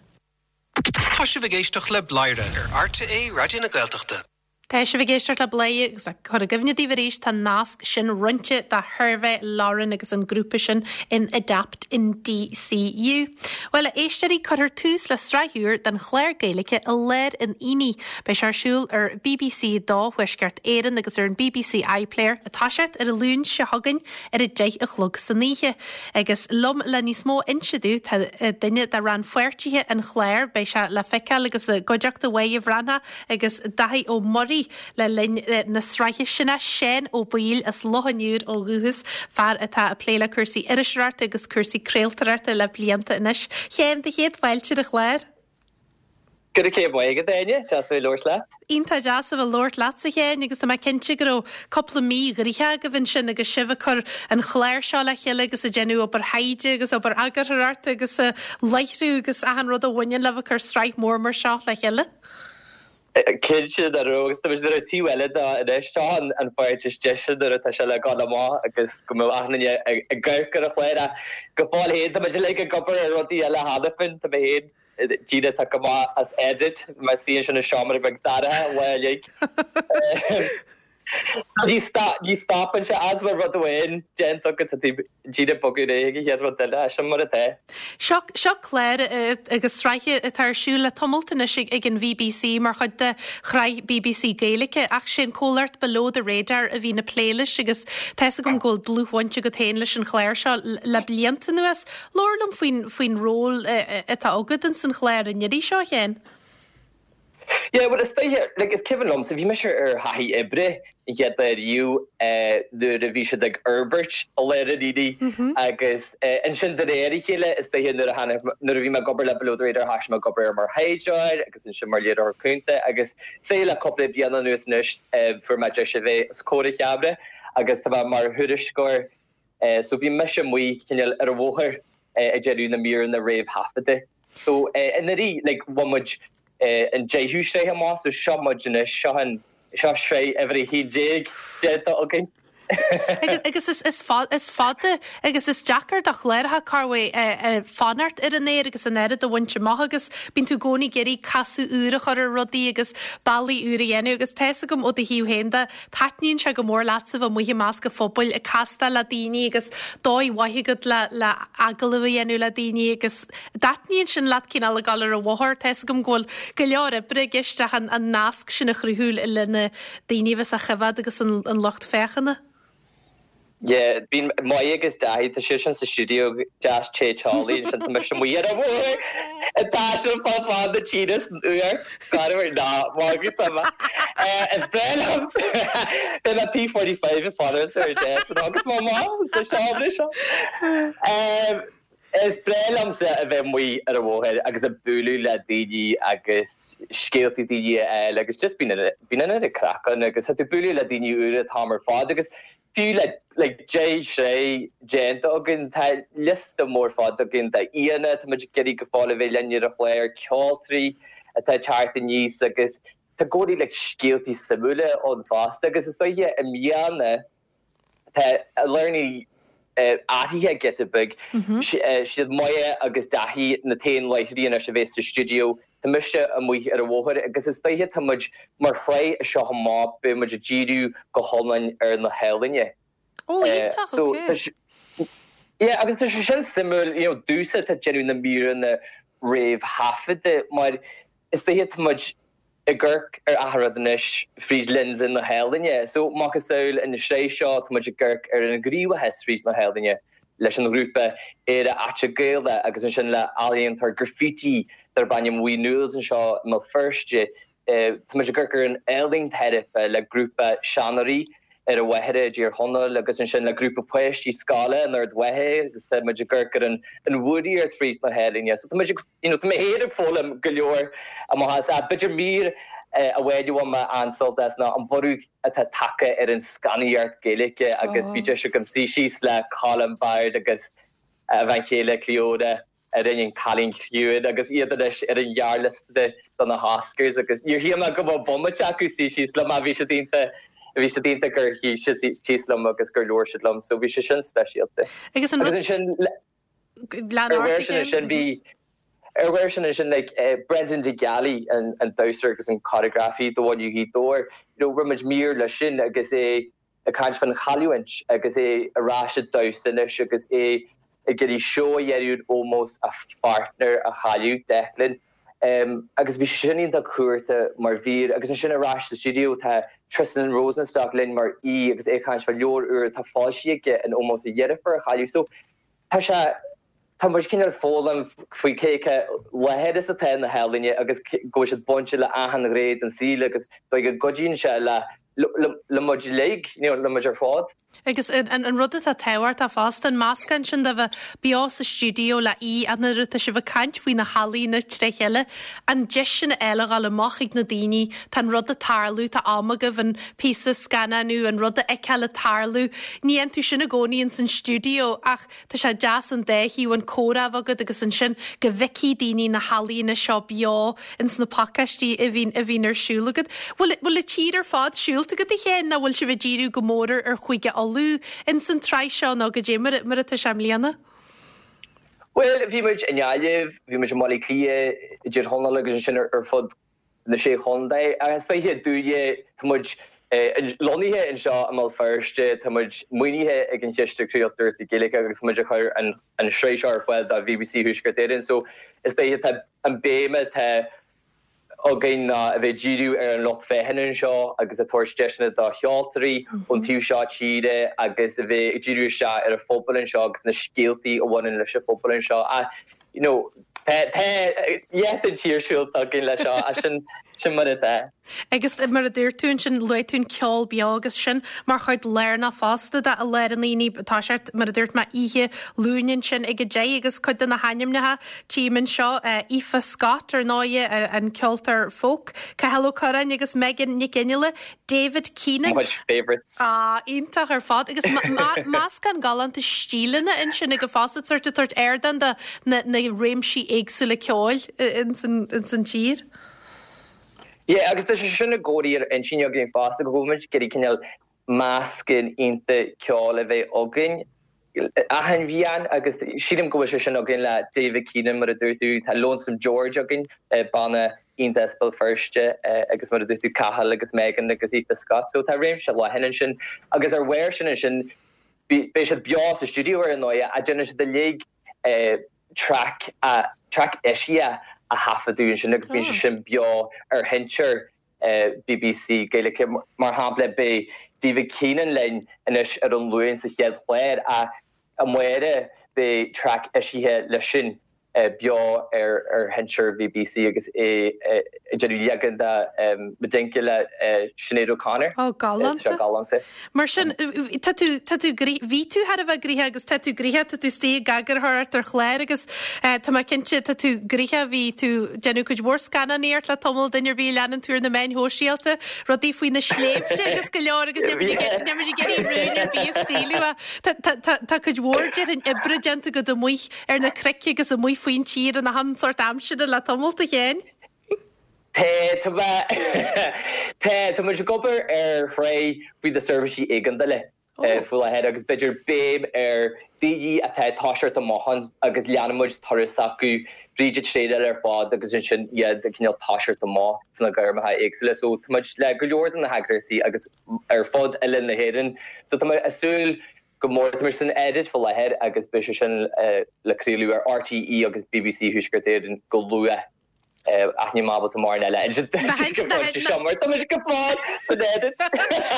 Tá sibh ag éisteacht le Bladhaire ar RTÉ Raidió na Gaeltachta. Tá sibh ag éisteacht le Bladhaire agus le cur i gcuimhne daoibh arís tá an nasc sin roinnte do shuirbhé Lauren agus an grúpa sin in Adapt in DCU. Bhuel, a éisteoirí, cuirfear tús le sraith úr den chlár Gaeilge i lár an aonaigh. Beidh sé ar siúl ar bbc 2 Thuaisceart Éireann agus ar an bbc iPlayer ag toiseacht ar an Luan seo chugainn ar a 10 a chlog san oíche. Agus liom le níos mó a inse domh tá duine de rannpháirtithe an chláir, beidh sé le feiceáil agus i gcuideachta Mháire Bhreathnach agus Daithí Ó Muirí le linn na sraithe sin, Seán Ó Baoill as Loch an Iúir ó dhúchas, fear atá ag plé le cúrsaí iriseoireachta agus cúrsaí craoltóireachta le blianta anois. A Sheáin, do chéad fáilte ar an chlár. Go raibh céad maith agat, Áine. Deas a bheith ag labhairt leat. Iontach deas a bheith ag labhairt leatsa, a Sheáin, agus tá mé cinnte go raibh cúpla mí ghnoitheach agaibh ansin agus sibh ag cur an chláir seo le chéile agus ag déanamh obair thaighde agus obair eagarthóireachta agus láithriú agus achan rud a bhaineann le bheith ag cur sraith mhór mar seo le chéile. Cinnte go raibh agus tá muid ar an taobh eile de anois. Seo an pháirt is deise nuair atá sé le dul amach agus go mbeadh achan duine ag amharc ar an chlár ach go fóill féin tá muid uilig ag obair ar rudaí eile cheana féin. Tá mé féin daoine atá go maith as edit, mar suíonn sin i seomra beag dorcha lá uilig. Ní stopann sé as mar rud amháin déanta agat tá tú díreach ag bogadh ar aghaidh ag an chéad rud eile, sin mar atá. Seo seo clár agus sraith atá ar siúl le tamalt anois ag an bhBC mar chuid de shraith bbc Gaeilge ach sé an comhlacht Below the Radar a bhíonn ag plé leis agus tá fhios agam go bhfuil dlúthbhaint agat féin leis an chlár seo le blianta anuas. Labhair liom faoin, faoin ról atá agat ins an chlár an iarraidh seo, a Sheáin. Yeah, bhuel is dóiche, like is cuimhin liomsa, bhí mise ar thaithí oibre an chéad lá riamh nuair a bhí siad ag fhorbairt i lár an aonaigh agus ansin de réir a chéile is dóiche nuair a tháinig, nuair a bhí mé ag obair le Below the Radar thoisigh mé ag obair mar thaighdeoir agus ansin mar léiritheoir cúnta agus say le cúpla bliain anuas anois fuair mé deis a bheith os comhair an cheamara agus tá mé mar thuairisceoir So bhí mise amuigh cineál ar an bhóthar ag déanamh na míreanna réamhthaifeadta. So anuraidh like bhain muid an deichiú sraith amach so seo muid anois, seo an, seo sraith uimhir a 11 déanta againn. Agus is fada agus is deacair do chláracha corruair fanacht ar an aer agus an oiread a bhaint amach agus bíonn tú i gcónaí ag iarraidh casadh úr a chur ar rudaí agus bealaí úr a dhéanamh agus tá fhios agam ó do thaobh féin de Taitníonn sé go mór leatsa bheith amuigh i measc an phobail, ag castáil le daoine agus dóigh mhaith agat le le agallamh a dhéanamh le daoine agus dtaitníonn sin leat cineál ag dul ar an bhóthar. Tá fhios agam go bhfuil go leor oibre i gceist ach an an nasc sin a chruthú le na daoine a bheas á choimhéad agus an an lucht féachana. Yeah, bíonn Moya agus Daithí, tá siadsan sa stiúideo deas te teolaí ansin tá mise amuigh ar an bhóthar ag taisteal fá fad na tíre san fhuacht garbh ná magadh tá mé. Is breá liom beidh mé P45 ag fanacht ar desk agus má maith sa seomra seo. Is breá liomsa a bheith amuigh ar an bhóthar agus ag bualadh le daoine agus scéaltaí daoine a fháil agus just bíonn bíonn an oiread craic ann agus tá tú ag bualadh le daoine úra an t-am ar fad agus fiú le like 10 sraith déanta againn tá liosta mór fada againn d'aíonna tá muid ag iarraidh go fóill a bheith linn ar an chlár, ceoltóirí atá ag teacht aníos agus tá i gcónaí like scéaltaí suimiúla ann fosta agus is dóiche i mbliana Tá I Lár an Aonaigh athraithe giota beag. Siad Moya agus Daithí na t-aon láithreoirí anois a bheas sa stiúideo. Tá mise amuigh ar an bhóthar agus is dóiche tá muid mar shraith as seo amach beidh muid ag díriú go hiomlán ar na healaíona. Ó, iontach, ok. Yeah, agus tá sé sin suimiúil, you know, domhsa atá ag déanamh na míreanna réamhthaifeadta mar is dóiche tá muid ag amharc ar achan rud anois fríd lionsa na healaíne. So, macasamhail an sraith seo, tá muid ag amharc ar an ghníomhachas fríd na healaíne leis an ghrúpa Éire Aite Gaelach agus ansin le ealaíontóir graffiti darb ainm Wee Noodles anseo i mBéal Feirste. Tá muid ag amharc ar an ealaín teiripe le grúpa seanóirí. ar an Mhachaire i dTír Chonaill agus ansin le grúpa páistí scoile in Ard Mhacha agus tá muid ag amharc ar an an bhfuaraíocht fríd na healaíne. So tá muid ag, you know, tá mé féin ag foghlaim go leor amach as. Ach b'fhéidir mír amháin a bhain mé an-sult as ná an borradh atá tagtha ar an scannánaíocht Gaeilge agus bhí deis agam suí síos le Colm Baird agus a bhean chéile Clíodhna a rinne An Cailín Ciúin agus iad anois ar an ghearrliosta do na hOscars agus níor shíl mé go mbeadh bomaite acu suí síos liom ach bhí siad iontach, bhí siad iontach gur shuigh siad síos liom agus gur labhair siad liom so bhí sé sin speisialta. Agus an rud. Agus ansin ar bharr sin ansin bhí ar bharr sin ansin like Brendan de Gealaigh an an damhsóir agus an coreografaí do Bhaile Ghaoth Dobhair, you know rinne muid mír leis sin agus é ag caint fán chailliúint agus é ar ais ag damhsa anois agus é ag iarraidh seó a dhéanamh in ómós a pháirtneir a chailleadh, Declan. Agus bhí sé sin iontach cumhachtach mar mhír. Agus ansin ar ais sa stiúideo tá Tristan Rosenstock linn mar aoi agus é ag caint fá leabhar úr atá foilsithe aige in ómós a dheirfiúr a chailleadh. So tá sé, tá muid cineál ag foghlaim faoi cé chomh láidir is atá na healaíona agus go bhfuil siad bainte le achan ghné den saol agus dóigh go gcuidíonn sé le le muid uilig, you know, le muid ar fad. Agus an rud atá tábhachtach fosta, an meascán sin de bheith beo sa stiúideo le aoi ach nuair atá sibh ag caint faoi na healaíona tré chéile, an deis sin a fháil a dhul amach chuig na daoine, tá an rud ag tarlú, tá am agaibh an píosa a scannánú, an rud a fheiceáil ag tarlú. Ní dhéanann tú sin i gcónaí ins an stiúideo ach Tá sé deas an dá thaobh, an comhrá a bheith agat agus ansin go bhfeicfidh daoine na healaíona seo beo ins na pacáistí a bhíonn, a bhíonn ar siúl agat. Bhfuil, bhfuil an tír ar fad siúlta agat a Sheáin nó bhfuil sibh ag díriú go mór ar, ar Chúige Uladh ins an tsraith seo nó goidé mar, mar atá sé i mbliana? Bhuel, bhí muid i nGaillimh, bhí muid i mBaile Átha Cliath, i dTír Chonaill agus ansin ar, ar fud na Sé Chontae. Is dóiche dúinne, tá muid lonnaithe anseo i mBéal Feirste, tá muid maoinithe ag an Chiste Craoltóireachta Gaeilge agus tá muid ag cur an tsraith seo ar fáil do BBC Thuaisceart Éireann. So is dóiche tá an béim atá againn ná a bheith ag díriú ar an lucht féachana anseo agus ag tabhairt deiseanna do cheoltóirí ón taobh seo tíre agus a bheith ag díriú isteach ar an phobal anseo agus na scéaltaí a bhaineann leis an phobal anseo. You know, tá leath den tír siúlta againn leis seo, ach sin, sin mar atá. Agus mar a dúirt tú ansin, luaigh tú an ceol beo agus sin mar chuid lárnach fosta de I Lár an Aonaigh. Tá sé, mar a dúirt mé, oíche Luain ansin ag a deich agus cuid de na hainmneacha tchím anseo, Aoife Scott ar ndóighe, an ceoltóir folk, Cathal Ó Curráin agus Megan Nic Fhionnghaile, David Keenan. Mo chuid favourites. Ah, iontach ar fad. Agus meascán galánta stíleanna ansin agat fosta, sórt ag tabhairt ardán do na réimsí éagsúla ceoil ins an tír. Yeah, agus tá sé sin i gcónaí ar intinn againn fosta, go bhfuil muid ag iarraidh cineál meascán iontach ceoil a bheith againn. achan bhliain agus sílim go bhfuil sé sin againn le David Keenan mar a dúirt tú, tá Lonesome George againn, banna iontach as Béal Feirste agus mar a dúirt tú Cathal agus Megan agus Aoife Scott so tá réimse leathan ansin agus ar bharr sin ansin beidh siad beo sa stiúideo ar ndóigh ach déanann siad uilig traic traic eisithe a thaifeadadh ansin agus bíonn sé sin beo ar sheinnteoir BBC Gaeilge. Mar shampla, beidh David Keenan linn anois ar an Luan sa chéad chlár ach amárach beidh traic eisithe leis sin beo ar sheinnteoir BBC agus é ag déanamh leagan de Medinka le Sinéad O'Connor. Ó, galánta. Galánta. Mar sin, tá tú, tá tú, bhí tú thar a bheith gnoitheach agus tá tú gnoitheach, tá tú istigh ag eagarthóireacht ar chlár agus tá mé cinnte, tá tú gnoitheach, bhí tú ag déanamh cuid mhór scannánaíocht le tamall, duine ar bith a leanann tú ar na meáin shóisialta, rudaí faoi na sléibhte agus go leor agus níl muid ag, níl muid ag iarraidh rún ar bith a scaoileadh ach tá, tá, tá, tá cuid mhór déarfainn oibre déanta agat amuigh ar na cnoic agus amuigh faoin tír in achan sórt aimsire le tamall, a Sheáin. Tá, tá mé, tá, tá muid ag obair ar shraith faoi na seirbhísí éigeandála faoi láthair agus b'fhéidir béim ar daoine atá ag toiseacht amach ann agus leanann muid turas s'acu fríd an traenáil ar fad agus ansin iad ag cineál toiseacht amach sna gairmeacha éagsúla. So tá muid le go leor de na heagraíochtaí agus ar fud oileán na hÉireann. So tá mé ag súil go mór. Tá muid san edit faoi láthair agus beidh sé sin le craoladh ar RTÉ agus BBC Thuaisceart Éireann go luath. Ach níl mé ábalta mórán eile a insint duit go pointe seo mar tá mise go fóill san edit.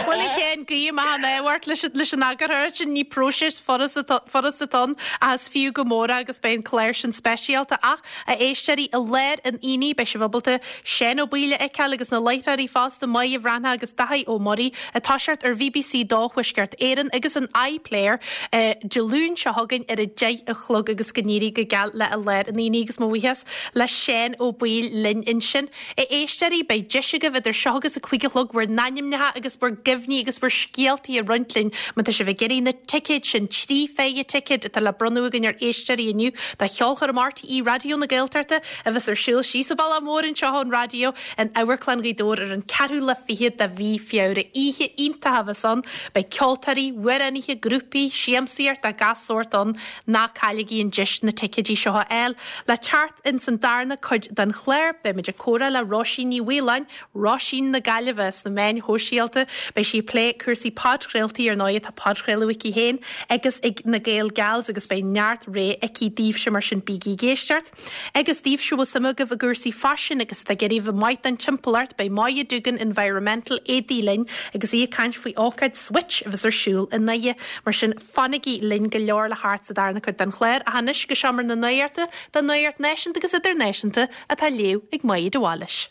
Bhuel a Sheáin, guím an ádh ort leis an eagarthóireacht sin, ní próiseas furasta atá ann ach is fiú go mór é agus beidh an clár sin speisialta. Ach a éisteoirí, i lár an aonaigh beidh sibh ábalta Seán Ó Baoill a fheiceáil agus na láithreoirí fosta, Máire Bhreathnach agus Daithí Ó Muirí, ag toiseacht ar BBC 2 Thuaisceart Éireann agus an iPlayer Dé Luain seo chugainn ar a 10 a chlog agus go n-éirí go geal le I Lár an Aonaigh agus mo bhuíochas le Seán Ó Baoill linn ansin. A éisteoirí, beidh deis agaibh idir seo agus a 5 a chlog bhur n-ainmneacha agus bhur gcuimhní agus bhur scéaltaí a roinnt linn má tá sibh ag iarraidh na ticéid sin, 3 phéire ticéad atá le bronnadh againn ar éisteoirí inniu do cheolchoirm RTÉ Raidió na Gaeltachta a bheas ar siúl síos an bealach mór anseo ón raidió in Amharclann Ghaoth Dobhair ar an ceathrú lá fichead de mhí Feabhra. Oíche iontach a bheas ann. Beidh ceoltóirí, amhránaithe, grúpaí, siamsaíocht de gach sórt ann. Ná cailligí an deis na ticéidí seo a fháil. Le teacht ins an darna cuid den chlár, beimid ag comhrá le Róisín Ní Mhaoláin, Róisín na Gaillimhe, sna meáin shóisialta. Beidh sí ag plé cúrsaí podchraoltaí, ar ndóigh tá podchraoladh aici féin agus ag na Gael Gals agus beidh neart rogha aici daoibhse mar sin bígí ag éisteacht. Agus daoibhse a bhfuil suim agaibh i gcúrsaí faisin agus atá ag iarraidh a bheith maith don timpeallacht, beidh Moya Doogan Environmental Éadaí linn agus í ag caint faoi ócáid Switch a bheas ar siúl i nDoire. Mar sin, fanaigí linn, go leor le theacht sa darna cuid den chlár, ach anois go seomra na nuachta don nuacht náisiúnta agus idirnáisiúnta atá á léamh ag Máire de Bhailís.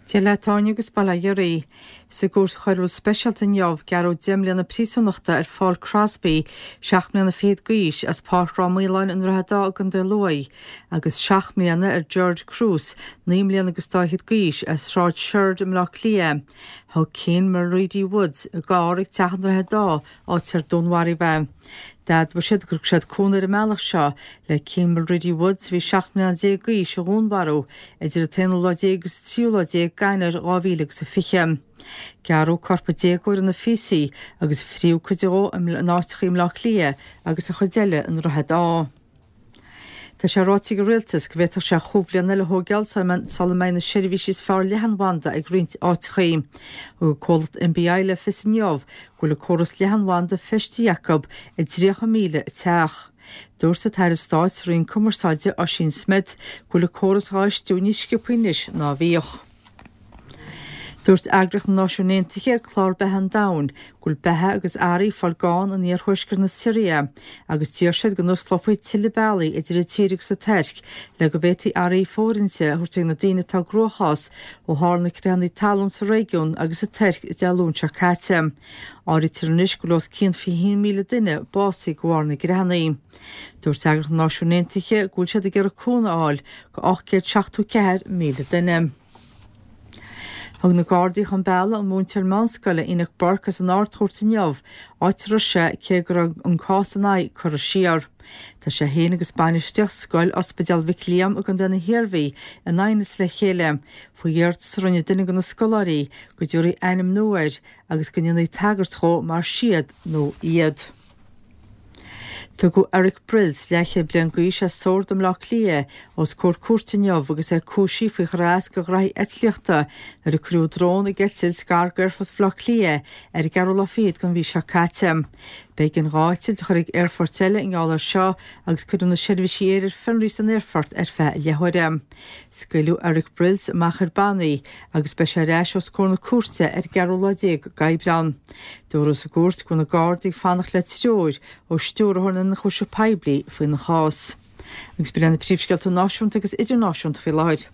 Dia leat a Áine agus bail ó Dhia oraibh. Sa gCúirt Choiriúil Speisialta inniu, gearradh 10 mbliana príosúnachta ar Phaul Crosby, 7 mbliana fichead d'aois, as Páirc Ráth Maoláin i nDroichead Átha i gContae Lú, agus 7 mbliana ar George Cruz, 9 mbliana agus dá fhichead d'aois, as Sráid Shoird i mBleá Cliath. Thug Cian Mulready Woods a gcarr ag teach i nDroichead Átha, áit ar dúnmharaíodh é. D'admhaigh siad gur thug siad cúnamh ar an mbealach seo le Cian Mulready Woods, a bhí 17 mbliana d'aois, a dhúnmharú idir an t-aonú lá déag agus an tríú lá déag d'Eanáir 2020. Gearradh corp an déagóir ina phíosaí agus fríodh cuid dhó in áiteachaí i mBleá Cliath agus an chuid eile i nDroichead Átha. Tá sé ráite ag an Rialtas go bhféadfadh sé chúpla bliain eile a thóigeáil sula mbeidh na seirbhísí is fearr leathanbhanda ag roinnt áiteachaí. Thug an comhlacht NBI le fios inniu go bhfuil a córas leathanbhanda feistithe acu i 30,000 teach. Dúirt an tAire Stáit sa Roinn Cumarsáide, Ossian Smyth, go bhfuil an córas dhá fheistiú níos sciobthaí anois ná a bhíodh. Dúirt Eagraíocht na Náisiún Aontaithe, Clár Beatha an Domhain, go bhfuil beatha agus earraí ag fáil gann in iarthuaisceart na Siria agus d'iarr siad go n-osclófaí tuilleadh bealaí idir an tír agus an Tuirc le go bhféadfaí earraí fóirithinte a thabhairt ag na daoine atá i gcruachás ó tharla na creathanna talún sa réigiún agus sa Tuirc Dé Luain seo caite. Áirítear anois go bhfuil os cionn 21,000 duine básaithe de bharr na gcreathanna. Dúirt Eagraíocht na Náisiún Aontaithe go bhfuil siad ag iarraidh cúnamh a fháil go 874,000 duine. Thug na Gardaí chun bealaigh an múinteoir meánscoile Enoch Burke as an Ard-Chúirt inniu, áit a raibh sé cé go raibh an cás ina aghaidh curtha siar. Tá sé féin agus bainistíocht scoil Ospidéal Mhic Liam i gContae na hIarmhí in aighneas le chéile faoi iarratas a rinne duine de na scoláirí go dtabharfaí ainm nua air agus go ndéanfaí tagairt dhó mar 'siad' nó 'iad'. Tugadh Eric Brilz, leathchéad bliain d'aois as Sord i mBleá Cliath, os comhair cúirte inniu agus é cúisithe faoi chur as do ghraithí eitlíochta nuair a cuireadh drón ag eitilt gar d'aerfort Bhaile Átha Cliath ar an gceathrú lá fichead den mhí seo caite. B'éigean dá eitilt a chur ag aerfoirt eile i ngeall air seo agus cuireadh na seirbhísí aeir ar fionraí san aerfort ar feadh leathuaire. Scaoileadh Eric Brilz amach ar bannaí agus beidh sé ar ais os comhair na cúirte ar an gceathrú lá déag d'Aibreán. Dúradh sa gcúirt go bhfuil na Gardaí ag fanacht le treoir ó Stiúrthóir na nIonchúiseamh Poiblí faoina chás. Agus b'in iad na príomhscéalta náisiúnta agus idirnáisiúnta faoi láthair.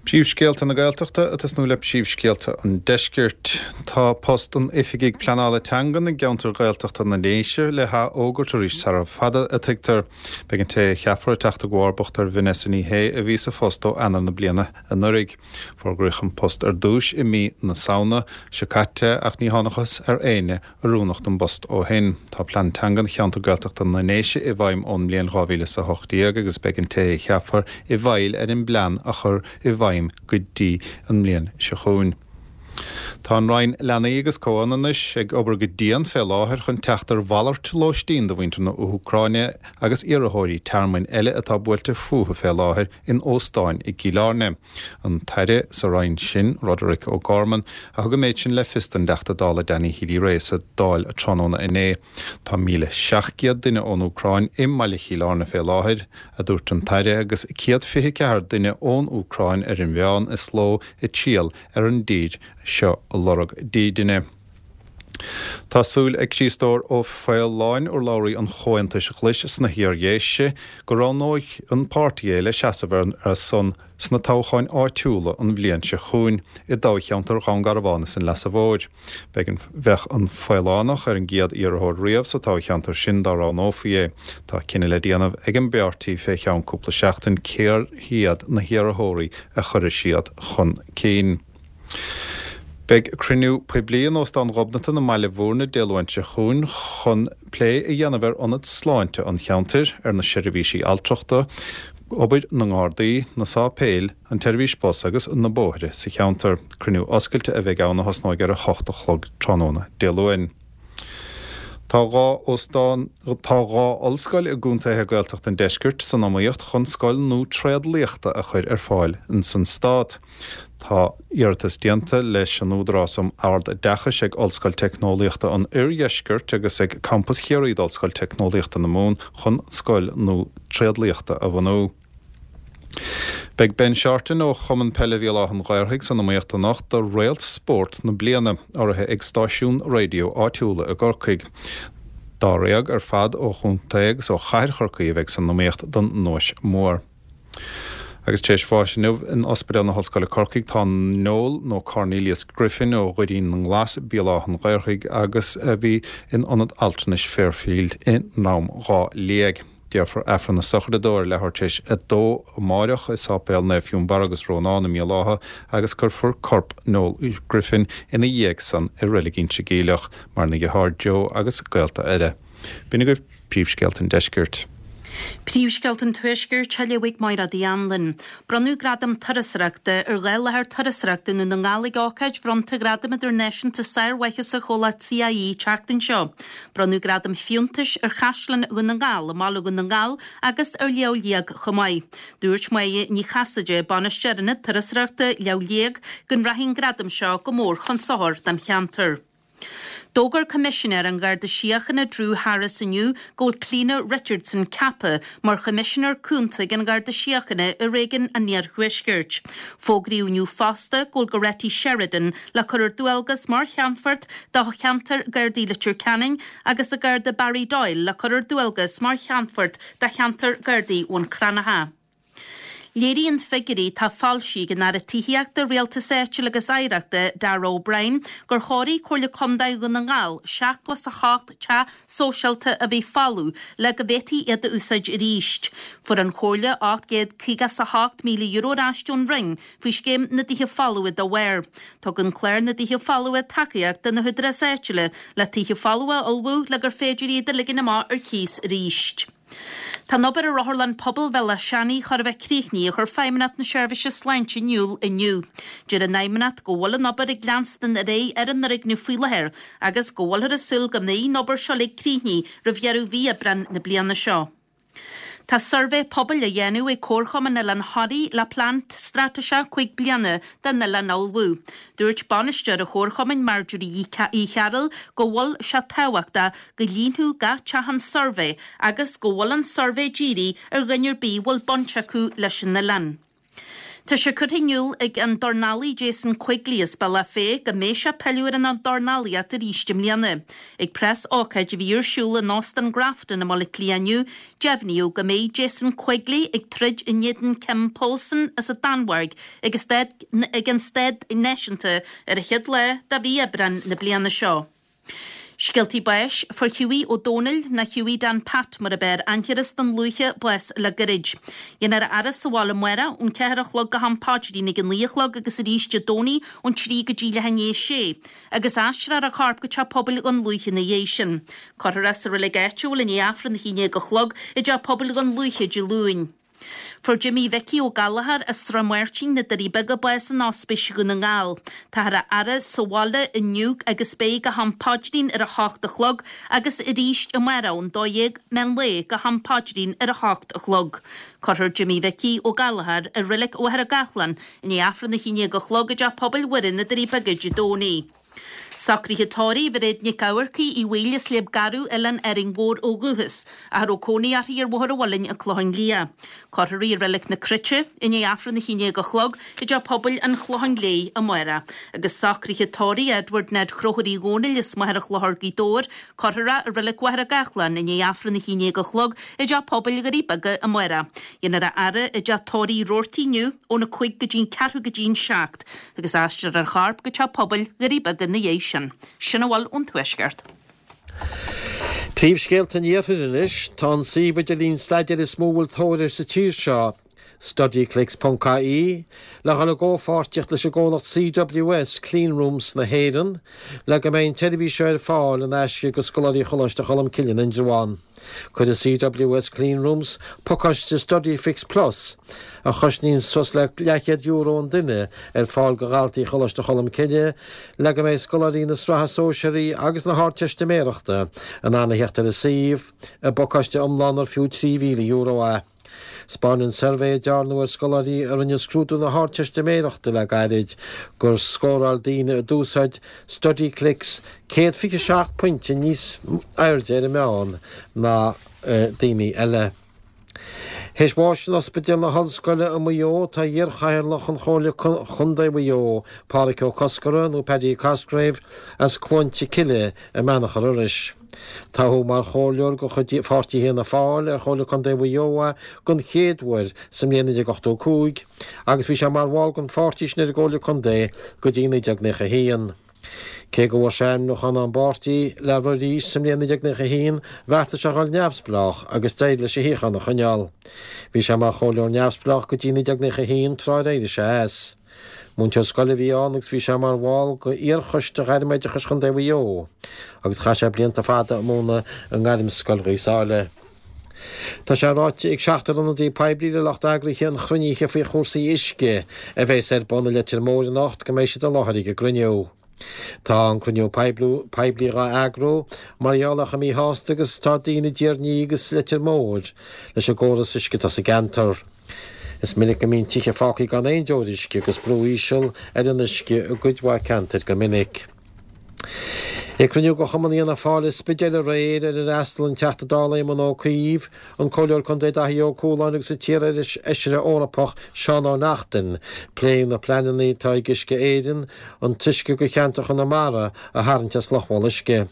Príomhscéalta na Gaeltachta ag tosnú le príomhscéalta an Deiscirt. Tá post an Oifigigh Pleanála Teangan i gceantar Gaeltachta na nDéise le hathfhógairt arís sara fada, a tuigtear. Beidh an té a cheapfar ag teacht i gcomharbacht ar Vanessa Ní Shé a bhí sa phost ó Eanáir na bliana anuraidh. Fógraíodh an post ar dtús i mí na Samhna seo caite ach ní thángthas ar éinne oiriúnach don bpost ó shin. Tá Plean Teangan Cheantar Gaeltachta na nDéise i bhfeidhm ón mbliain 2018 agus beidh an té a cheapfar i bhfeighil ar an bplean a chur i bhfeidhm go dtí an mbliain seo chugainn. Tá an Roinn Leanaí agus Comhionannais ag obair go dian fé láthair chun teacht ar mhalairt lóistín do mhuintir na hÚcráine agus iarrthóirí tearmainn eile atá buailte fúthu fé láthair in óstáin i gCill Airne. An tAire sa Roinn sin, Roderic O'Gorman, a thug an méid sin le fios don dTeachta Dála Danny Healy-Rae sa Dáil tráthnóna inné. Tá 1,700 duine ón Úcráin i mbaile Chill Airne fé láthair, a dúirt an tAire, agus 124 duine ón Úcráin ar an mheán is ló ag triall ar an dtír seo ag lorg dídine. Tá súil ag Críostóir Ó Faoláin, urlabhraí an Chomhaontais Ghlais sna hIar-Dhéise, go roghnóidh an páirtí é le seasamh ar a son sna toghcháin áitiúla an bhliain seo chugainn i dtoghcheantar Dhún Garbhán is an Leasa Mhóir. Beidh an Bheadh an Faolánach ar an gcéad iarrthóir riamh sa toghcheantar sin dá roghnófaí é. Tá cinneadh le déanamh ag an bpáirtí fé cheann cúpla seachtain cér hiad na hiarrthóirí a chuirfidh siad chun cinn. Beidh cruinniú poiblí in Óstán Ghobnatan i mBaile Bhúirne Dé Luain seo chugainn chun plé a dhéanamh ar ionad sláinte an cheantair, ar na seirbhísí altrachta, obair na nGardaí, na sáipéil, an tseirbhís bus agus na bóithre sa cheantar. Cruinniú oscailte a bheidh ann a thosnóidh ar 8 a chlog tráthnóna Dé Luain. Tá 2 óstán, tá 2 ollscoil i gcontaetha Gaeltachta an deiscirt san iomaíocht chun scoil nua tréadliachta a chur ar fáil ins an stát. Tá iarratas déanta leis an Údarás um Ard-Oideachais ag Ollscoil Teicneolaíochta an Oirdheiscirt agus ag Campas Chiarraí d'Ollscoil Teicneolaíochta na Mumhan chun scoil nua tréadliachta a bhunú. Beidh Ben Shorten ó Chumann Peile Bhéal Átha an Ghaorthaidh san iomaíocht anocht do Réalt Spóirt na Bliana, urraithe ag stáisiúin raidió áitiúla i gCorcaigh. Dáréag ar fad ó chontae agus ó chathair Chorcaí a bheidh san iomaíocht don nduais mhór. Agus tar éis bháis inniu in Ospidéal na hOllscoile Corcaigh tá Noel nó Cornelius Griffin ó Dhoirín na nGlas, Béal Átha an Ghaorthaidh agus a bhí in Ionad Altranais Fairfield i nDrom Dhá Liag. Déarfar Aifreann na sochraide dó ar leathuair tar éis a dó amáireach i Sáipéal Naomh Fionnbarra agus Rónán i mBéal Átha agus cuirfear corp Noel Griffin ina dhiaidh san i Reilig Inse Geimhleach, maireann a dheartháir Joe agus gaolta eile. B'in agaibh príomhscéalta an deiscirt. Príomhscéalta an Tuaiscirt á léamh ag Máire Uí Anluain. Bronnadh Gradam Turasóireachta ar 2 láthair turasóireachta i nDún na nGall ag ócáid bhronnta Ghradam Idirnáisiúnta Sármhaitheasa chomhlacht CIÉ an tseachtain seo. Bronnadh Gradam Fiúntais ar Chaisleán Dhún na nGall i mbaile Dhún na nGall agus ar Shliabh Liag chomh maith. Dúirt Máire Ní Chasaide, Bainisteoir Ionad Turasóireachta Shliabh Liag, go rachaidh an gradam seo go mór chun sochair don cheantar. D'fhógair Coimisinéir an Gharda Síochána Drew Harris inniu go bhfuil Clíona Richardson ceaptha mar Choimisinéir Cúnta ag an Gharda Síochána i Réigiún an Iarthuaiscirt. Fógraíodh inniu fosta go bhfuil Goretti Sheridan le cur ar dualgas mar Cheannfort do cheantar Gardaí Leitir Ceanainn agus an Garda Barry Doyle le cur ar dualgas mar Cheannfort do cheantar Gardaí Bhun Cranncha. Léiríonn figiúirí atá foilsithe ag an Aire Tithíochta, Rialtais Áitiúil agus Oidhreachta, Darragh O'Brien, gur chóirigh Comhairle Contae Dhún na nGall 78 teach sóisialta a bhí folamh le go bhféadfaí iad a úsáid arís. Fuair an Chomhairle €858,000 ar ais ón Roinn faoi scéim na dTithe Folmha dá bharr. Tugann clár na dTithe Folmha tacaíocht do na húdaráis áitiúla le tithe folmha a ullmhú le gur féidir iad a ligean amach ar cíos arís. Tá an obair ar Otharlann Pobail Bhéal Átha Seanaidh chóir a bheith críochnaithe, a chuir Feidhmeannacht na Seirbhíse Sláinte in iúl inniu. Deir an Fheidhmeannacht go bhfuil an obair ag leanstan ar aghaidh ar an fhoirgneamh faoi láthair agus go bhfuilthear ag súil go mbeidh an obair seo uilig críochnaithe roimh dheireadh mhí Aibreán na bliana seo. Tá suirbhé pobail á dhéanamh ag Comharchumann Oileán Thoraí le plean straitéiseach 5 bliana don oileán a ullmhú. Dúirt bainisteoir an Chomharchumainn, Marjorie Uí Chearúil, go bhfuil sé tábhachtach go líonfadh gach teach an suirbhé agus go bhfuil an suirbhé dírithe ar dhuine ar bith a bhfuil baint acu leis an oileán. Tá sé curtha in iúl ag an dornálaí Jason Quigley as Bealach Féich go mbeidh sé ag pilleadh ar an dornálaíocht arís i mbliana. Ag preas ócáid a bhí ar siúl in Óstán Grafton i mBaile Átha Cliath inniu, deimhníodh go mbeidh Jason Quigley ag troid in éadan Kim Poulsen as an Danmhairg ag an Staid Náisiúnta ar an chéad lá de mhí Aibreán na bliana seo. Scéaltaí báis, Fuair Hughie Ó Dónaill, nó Hughie Dan Pat mar ab fhearr aithne air as Dún Lúiche, bás le gairid. Dhéanfar a fhaire sa bhaile amárach ón 4 a chlog go ham paidrín ag a 9 a chlog agus arís Dé Domhnaigh ón 3 go dtí leath i ndiaidh a sé, agus aistreofar a chorp go Teach Pobail Dhún Lúiche ina dhiaidh sin. Cuirfear é sa reilig áitiúil i ndiaidh Aifreann a 11 a chlog i dTeach Pobail Dhún Lúiche Dé Luain. Fuair Jimí Mhicí Ó Gallchóir as Srath Máirtín, Na Doirí Beaga bás in Ospís Dhún na nGall. Táthar á fhaire sa bhaile inniu agus beidh go ham paidrín ar a hocht a chlog agus arís amárach ón 12 meán lae go ham paidrín ar a hocht a chlog. Cuirfear Jimí Mhicí Ó Gallchóir i Reilig Mhachaire Gathlán i ndiaidh Aifreann 11 a chlog i dTeach Pobail Mhuire na Doirí Beaga Dé Domhnaigh. Socruithe tórraimh Mhairéad Nic Eamharcaigh Uí Bhaoill as Sliabh Garbh, Oileán Árainn Mhór ó dhúchas, ach a raibh cónaí uirthi ar Bhóthar an Mhuilinn, An Clochán Liath. Cuirfear í i Reilig na Cruite i ndiaidh Aifreann 11 a chlog i dTeach Pobail an Chlocháin Léith amárach. Agus socruithe tórraimh Edward Ned Chrothúir Uí Dhónaill as Machaire Chlochair, Gaoth Dobhair, Cuirfear é i Reilig Mhachaire Gathlán i ndiaidh Aifreann 11 a chlog i dTeach Pobail Dhoirí Beaga amárach. Déanfar a fhaire i dTeach Tórraimh Roarty inniu óna 5 go dtí'n ceathrú go dtí'n 7 agus aistreofar a chorp go Teach Pobail Dhoirí Beaga ina dhiaidh sin. Sin a bhfuil ón Tuaisceart. Príomhscéalta an Iarthair anois. Tá an suíomh idirlín staidéir is mó a bhfuil tóir air sa tír seo, studyclix ponc ie, le dhul i gcomhpháirtíocht leis an gcomhlacht CWS, Cleanrooms na hÉireann, le go mbeidh an tseirbhís seo ar fáil in aisce do scoláirí Choláiste Cholmcille in Indreabhán. Cuirfidh CWS Cleanrooms pacáiste Studyfix Plus, a chosnaíonn suas le leathchéad euro an duine, ar fáil do dhaltaí Choláiste Cholmcille le go mbeidh scoláirí na Sraithe Sóisearaí agus na hArdteistiméireachta in ann a theacht ar an suíomh, i bpacáiste iomlán ar fiú €3,000 é. 'Spáineann suirbhé a dearnadh ar scoláirí a rinne scrúdú na hArdteistiméireachta le gairid gur scóráil daoine a d'úsáid Studyclix 127 pointe níos airde ar an meán ná daoine eile. Théis bháis in Ospidéal na hOllscoile i Maigh Eo tá iar-chathaoirleach an Chomhairle Contae Mhaigh Eo, Pádhraic Ó Cosgordha, nó Paddy Cosgrave, as Cluainte Cille i mBeannachar Iorrais. Toghadh mar chomhairleoir de chuid pháirtí Fhianna Fáil ar Chomhairle Contae Mhaigh Eo é den chéad uair sa mbliain 1985 agus bhí sé mar bhall den pháirtí sin ar an gComhairle Contae go dtí 1991. Cé go bhfuair sé ainmniúchán ón bpáirtí le rith arís sa mbliain 1991, bheartaigh sé a dhul neamhspleách agus d'éirigh leis a shuíochán a choinneáil. Bhí sé mar chomhairleoir neamhspleách go dtí 1991 tráth ar éirigh sé as. Múinteoir scoile a bhí ann agus bhí sé mar bhall de iar-choiste Ghairmoideachais Chontae Mhaigh Eo agus chaith sé blianta fada ag múineadh i nGairmscoil Ghaoth Sáile. Tá sé ráite ag seachtar ionadaí poiblí le lucht eagraithe an chruinnithe faoi chúrsaí uisce a bheas ar bun i Leitir Móir anocht go mbeidh siad i láthair ag an gcruinniú. Tá an cruinniú poiblí dhá eagrú mar gheall ar chomh míshásta agus atá daoine i dTír an Fhia agus Leitir Móir leis an gcóras uisce atá sa gceantar. Is minic go mbíonn tithe fágtha gan aon deoir uisce agus brú íseal ar an uisce i gcuid mhaith ceantair go minic. Ag cruinniú de Chumann Fhianna Fáil i Spidéal aréir ar ar fhreastail an Teachta Dála Éamon Ó Cuív, an Comhairleoir Contae Daithí Ó Cualáin agus an t-iar-fheisire Eorpach Seán Ó Neachtain, pléadh na pleananna atá ag Uisce Éireann an t-uisce do cheantar Chonamara a tharraingt as Loch Bhol Uisce.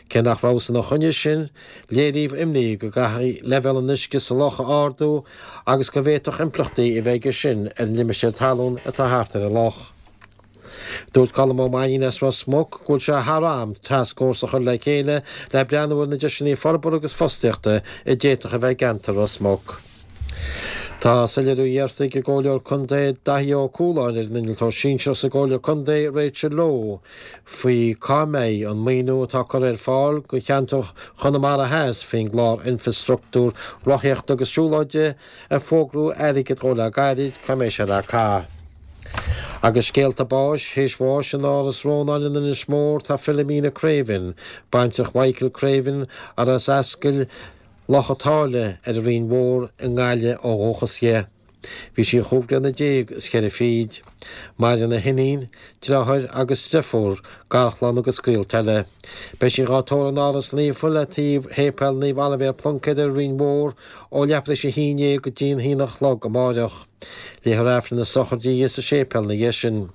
Cé nach rabhthas ina choinne sin, léiríodh imní go gcaithfí leibhéal an uisce sa loch a ardú agus go bhféadfadh impleachtaí a bheith aige sin ar an limistéar talún atá thart ar an loch. Dúirt Colm Ó Mainnín as Ros Muc go bhfuil sé thar am tascfhórsa a chur le chéile le breathnú ar na deiseanna forbartha agus fostaíochta a d'fhéadfadh a bheith i gceantar Ros Muc. Tá soiléiriú iarrta ag an gComhairleoir Contae Daithí Ó Cualáin ar an Innealtóir Sinsearach sa gComhairle Contae Rachel Lowe faoi cá mbeidh an maoiniú atá curtha ar fáil do cheantar Chonamara Theas faoin gclár Infreastruchtúr Rothaíochta agus Siúlóide ar fógraíodh airgead dhó le gairid, cá mbeidh sé le caitheamh. Agus scéalta báis, théis bháis in Áras Rónáin in Inis Mór tá Philomena Craven, baintreach Mhichael Craven, ar as Ascaill Loch a' tSáile ar an Rinn Mhór i nGaillimh ó dhúchas di. Bhí sí chúig bliana déag is cheithre fichid. Maireann a hiníon, deartháir agus deirfiúr, garchlann agus gaolta eile. Beidh sí dhá tórramh in Áras Naofa le taobh Shéipéal Naomh Oilibhéar Pluincéad ar an Rinn Mhór ó leathuair tar éis a haon déag go dtí an haon a chlog amáireach. Léifear Aifreann na sochraide di sa séipéal ina dhiaidh sin.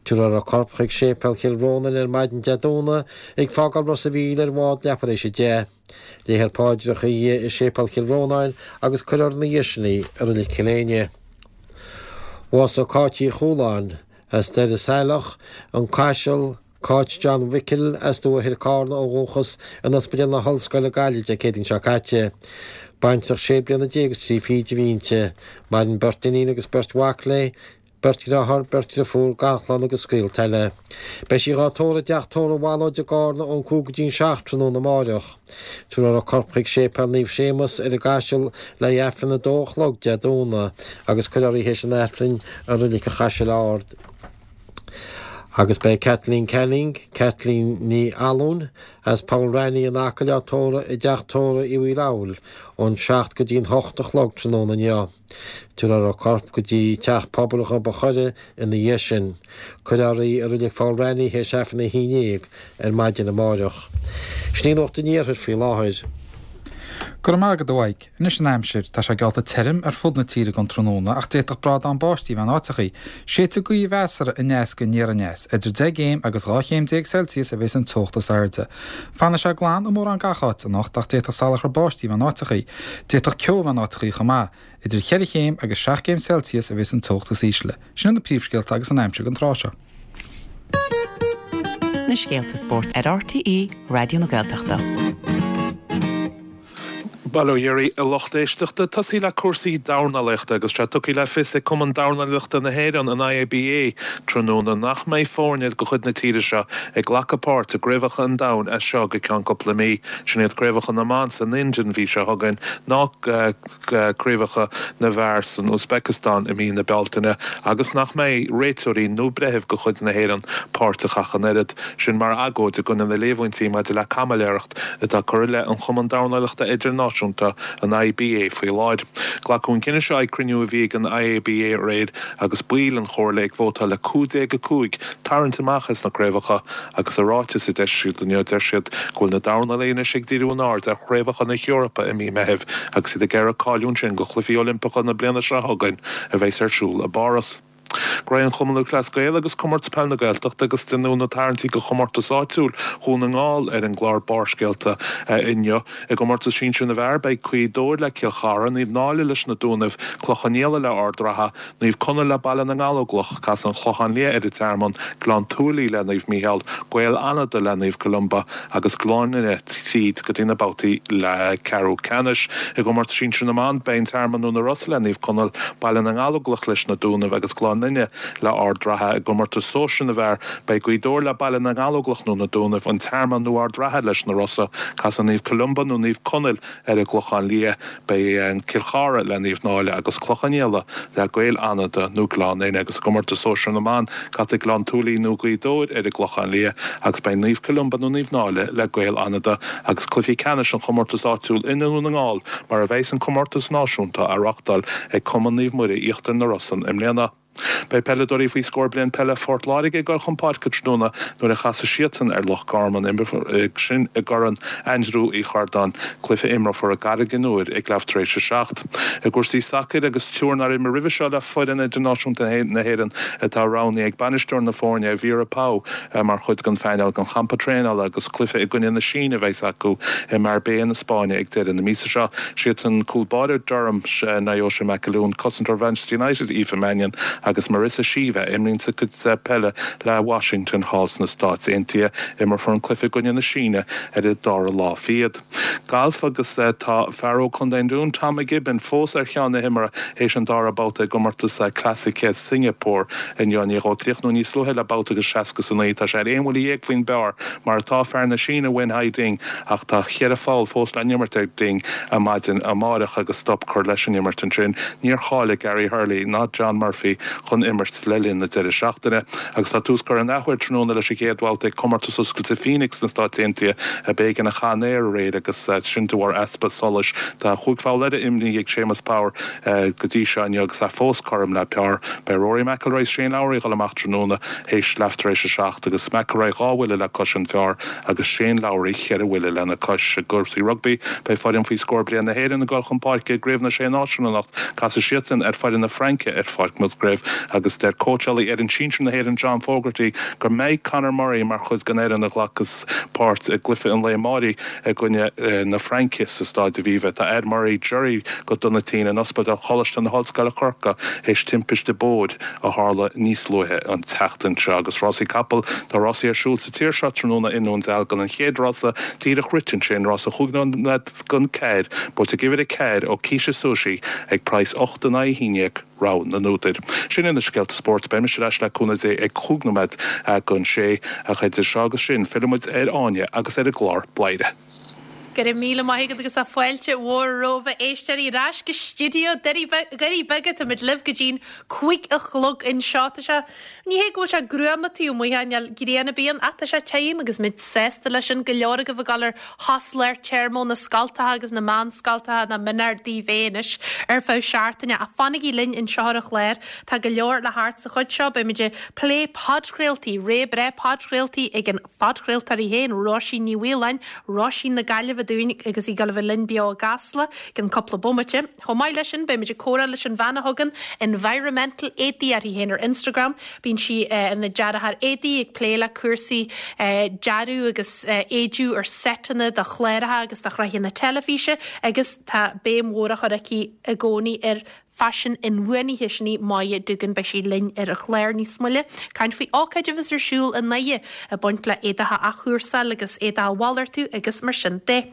Tabharfar a corp chuig Séipéal Chill Rónáin ar maidin Dé Domhnaigh ag fágáil Ros a' Mhíl ar bhád leathuair tar éis a 10. Léifear paidreacha di i Séipéal Chill Rónáin agus cuirfear ina dhiaidh sin í i Reilig Chill Éinne. Bhásaigh Cáit Uí Chualáin as Doire Saileach, An Caiseal, Cáit John Mhicil as Dumha Thoir Cárna ó dhúchas in Ospidéal na hOllscoile Gaillimh Dé Céadaoin seo caite. Baintreach sé bliana déag is trí fichid a bhí inti. Maireann beirt iníon agus beirt mhac léi. Beirt dheartháir, beirt dhriofúr, garchlann agus gaolta eile. Beidh sí dhá tórramh i dteach tórraimh Mhalóid i gCárna ón 5 go dtí'n 7 tráthnóna amáireach. Tabharfar a corp chuig Séipéal Naomh Séamus ar an gCaiseal le haghaidh Aifreann a 2 a chlog Dé Domhnaigh agus cuirfear í théis an Aifrinn i Reilig an Chaisil Ard. Agus beidh Kathleen Canning, Kathleen Ní Fhallúin, as Poll Raithní in Acaill á tórramh i dteach tórraimh Uí Mhaoileabhail ón 7 go dtí'n 8 a chlog tráthnóna inniu. Tabharfar a corp go dtí Teach Pobail Ghob a' Choire ina dhiaidh sin. Cuirfear í i Reilig Pholl Raithní théis Aifreann a 11 ar maidin amáireach. Sin í Nuacht an Iarthair faoi láthair. Go raibh maith agat, a Mhaidhc. Anois an aimsir. Tá sé geallta tirim ar fud na tíre don tráthnóna ach d'fhéadfadh brádán báistí a bheith in áiteachaí. Séidfidh gaoth mheasartha aneas go aniar aneas. Idir 10 gcéim agus 12 chéim Celsius a bheas an teocht is airde. Fanfaidh sé glan i mórán gach áit anocht ach d'fhéadfadh salachar báistí a bheith in áiteachaí. D'fhéadfadh ceo a bheith in áiteachaí chomh maith. Idir cheithre chéim agus 7 gcéim Celsius a bheas an teocht is ísle. Sin iad na príomhscéalta agus an aimsir don tráth seo. Na scéalta spóirt ar RTÉ Raidió na Gaeltachta. Bail ó Dhia oraibh a lucht éisteachta. Tosaí le cúrsaí dornálaíochta agus tá sé tugtha le fios ag Cumann Dornálaíochta na hÉireann, an IABA, tráthnóna nach mbeidh foirne de chuid na tíre seo ag glacadh páirt i gCraobhacha an Domhain as seo go ceann cúpla mí. Sin iad Craobhacha na mBan san Ind an mhí seo chugainn ná Craobhacha na bhFear san Úisbéiceastáin i mí na Bealtaine agus nach mbeidh réiteoirí nó breithimh de chuid na hÉireann páirteach ach an oiread. Sin mar agóid i gcoinne na líomhaintí maidir le caimiléireacht atá curtha i leith an Chumann Dornálaíochta Idirnáisiúnta, an IBA, faoi láthair. Glacadh an cinneadh seo ag cruinniú a bhí ag an IABA aréir agus baill an chomhairle ag vótáil le 15-5 tarraingt amach as na craobhacha agus i ráiteas a d'eisigh siad inniu deir siad go bhfuil na dornálaithe anois ag díriú a n-aird ar chraobhacha na hEorpa i mí Meithimh agus iad ag iarraidh cáiliú ansin do Chluichí Oilimpeacha na bliana seo chugainn a bheas ar siúl i bPáras. Graí an Chumann Lúthchleas Gael agus Comórtas Peile na Gaeltachta agus deineadh na tarraingtí do chomórtas áitiúil Dhún na nGall ar an gclár Barrscéalta inniu. I gcomórtas sinsir na bhfear beidh Gaoth Dobhair le Cill Chartha, Naomh Náille leis na Dúnaibh, Cloich Cheann Fhaola le Ard Ratha, Naomh Conaill le Baile na nGallóglach, Casfaidh an Clochán Liath ar an Tearmann, Gleann tSúilí le Naomh Mícheál, Gaeil Fhánada le Naomh Columba agus Gleann Fhinne tríd go dtí na babhtaí ceathrú ceannais. I gcomórtas sinsir na mban, beidh an Tearmann nó na Rosa le Naomh Conaill, Baile na nGallóglach leis na Dúnaibh agus Gleann Fhinne le Ard Ratha. I gcomórtas sóisir na bhfear, beidh Gaoth Dobhair le Baile na nGallóglach nó na Dúnaibh, an Tearmann nó Ard Ratha leis na Rosa. Casfaidh Naomh Columba nó Naomh Conaill ar an gClochán Liath. Beidh Cill Chartha le Naomh Náille agus Cloich Cheann Fhaola le Gaeil Fhánada nó Gleann Fhinne agus i gcomórtas sóisir na mban, casfaidh Gleann tSúilí nó Gaoth Dobhair ar an gClochán Liath agus beidh Naomh Columba nó Naomh Náille le Gaeil Fhánada agus cluichí ceannais an chomórtais áitiúil i nDún na nGall mar a bheas an comórtas náisiúnta á reáchtáil ag Cumann Naomh Muire Íochtar na Rosann i mbliana. Beidh peileadóirí faoi scór bliain peile Phort Láirge ag dul chun páirce tráthnóna nuair a chasfaidh siadsan ar Loch Garman, sin i gCorn Aindriú Uí Chordáin, cluiche a imreofar i gCarraig an Iúir ag leath tar éis a 7. I gcúrsaí sacair agus triúr nár imir roimhe seo le foireann idirnáisiúnta na hÉireann atá roghnaithe ag bainisteoir na foirne, Vera Pauw, mar chuid den phainéal don champa traenála agus cluiche i gcoinne na Síne a bheas acu i Marbella na Spáinne ag deireadh na míosa seo. Siadsan cúl báire Durham, Naoise McAloon, cosantóir Mhanchester United, Aoife Mannion agus Marissa Sheva a imríonn sa gcuid peile le Washington thall sna Stáit Aontaithe. Imreofar an cluiche i gcoinne na Síne ar an dara lá fichead. Galf agus tá fear ó Chontae an Dúin, Tom McGibbon, fós ar cheann na himeartha théis an dara babhta i gcomórtas Classic Singapore inniu. I ndiaidh dó críochnú níos luaithe le babhta agus 60 is 9, tá sé ar aon bhuille dhéag faoin bpar mar atá fear na Síne Wen Hai Ding ach tá cheithre pholl fós le n-imirt ag Ding ar maidin amáireach agus stop curtha leis an imirt ansin. Níor cháiligh Gary Hurley ná John Murphy chun imirt le linn na deireadh seachtaine. Agus tá tús curtha an athuair tráthnóna leis an gcéad bhabhta ag Comórtas Oscailte Phoenix sna Stáit Aontaithe a b'éigean a chaith an aer aréir agus sin de bharr easpa solais. Tá chúig pholl eile imrithe ag Séamus Power go dtí seo inniu agus é fós cothrom le par. Beidh Rory McIlroy is Shane Lowry ag dul amach tráthnóna théis leath tar éis a 7 agus McIlroy dhá bhuille le cois an phar agus Shane Lowry cheithre bhuille lena cois. I gcúrsaí rugbaí, beidh foireann faoi scór bliain na hÉireann ag dul chun páirce i gCraobh na Sé Náisiún anocht. Casfaidh siadsan ar foireann na Fraince ar Pháirc Musgrave agus deir cóitseálaí fhoireann sinsir na hÉireann John Fogarty go mbeidh Conor Murray mar chuid den fhoireann a ghlacfas páirt i gcluiche an lae amáirigh i gcoinne na Fraince sa Stáid Aviva. Tá Ed Murray Jerry go dona tinn in Ospidéal Choláiste na hOllscoile Corcaigh théis timpiste bóthair a tharla níos luaithe an tseachtain seo. Agus rásaí capall, tá rásaí ar siúl sa tír seo tráthnóna i nDún Dealgan. An chéad rása díreach rite ansin, rása chúig nóiméad don ceathair, buaite ag uimhir 4 Okisha Sushi ag praghas 8 in aghaidh 11. Rogha na n-údar. Sin iad na scéalta spóirt. Beidh mise ar ais le cúnamh Dé ag chúig nóiméad don sé. Ach idir seo agus sin, fillfidh muid ar Áine agus ar an gclár Bladhaire. Go raibh míle maith agat agus tá fáilte mhór romhaibh a éisteoirí ar ais go stiúideo Dhoirí Beaga. Táimid libh go dtí'n 5 a chlog anseo. Tá sé, ní hé go bhfuil sé gruama taobh amuigh, níl grian ar bith ann ach tá sé tirim agus muid sásta leis sin. Go leor agaibh ag dul ar shos lár téarma ó na scoltacha agus na meánscoltacha nach mionfhearr daoibh é anois ar feadh seachtaine. Ach fanaigí linn anseo ar an chlár, tá go leor le theacht sa chuid seo. Beimid ag plé podchraoltaí, ré breá podchraoltaí ag an. phodchraoltóir í féin, Róisín Ní Mhaoláin, Róisín na Gaillimhe dúinn agus í ag dul a bheith linn beo i gCasla i gcionn cúpla bomaite. Chomh maith leis sin, beimid ag comhrá leis an bhean a thugann Environmental Éadaí uirthi féin ar Instagram. Bíonn sí ina dearthóir éadaí, ag plé le cúrsaí dearadh agus éidiú ar seiteanna do chláracha agus do shraitheanna teilifíse agus tá béim mhór á chur aici i gcónaí ar Faisean inbhuanaithe, sin í Moya Doogan. Beidh sí linn ar an chlár níos moille. Caint faoi ócáid a bheas ar siúl i nDoire ag baint le éadach a athchúrsáil agus éadach a mhalartú agus mar sin de.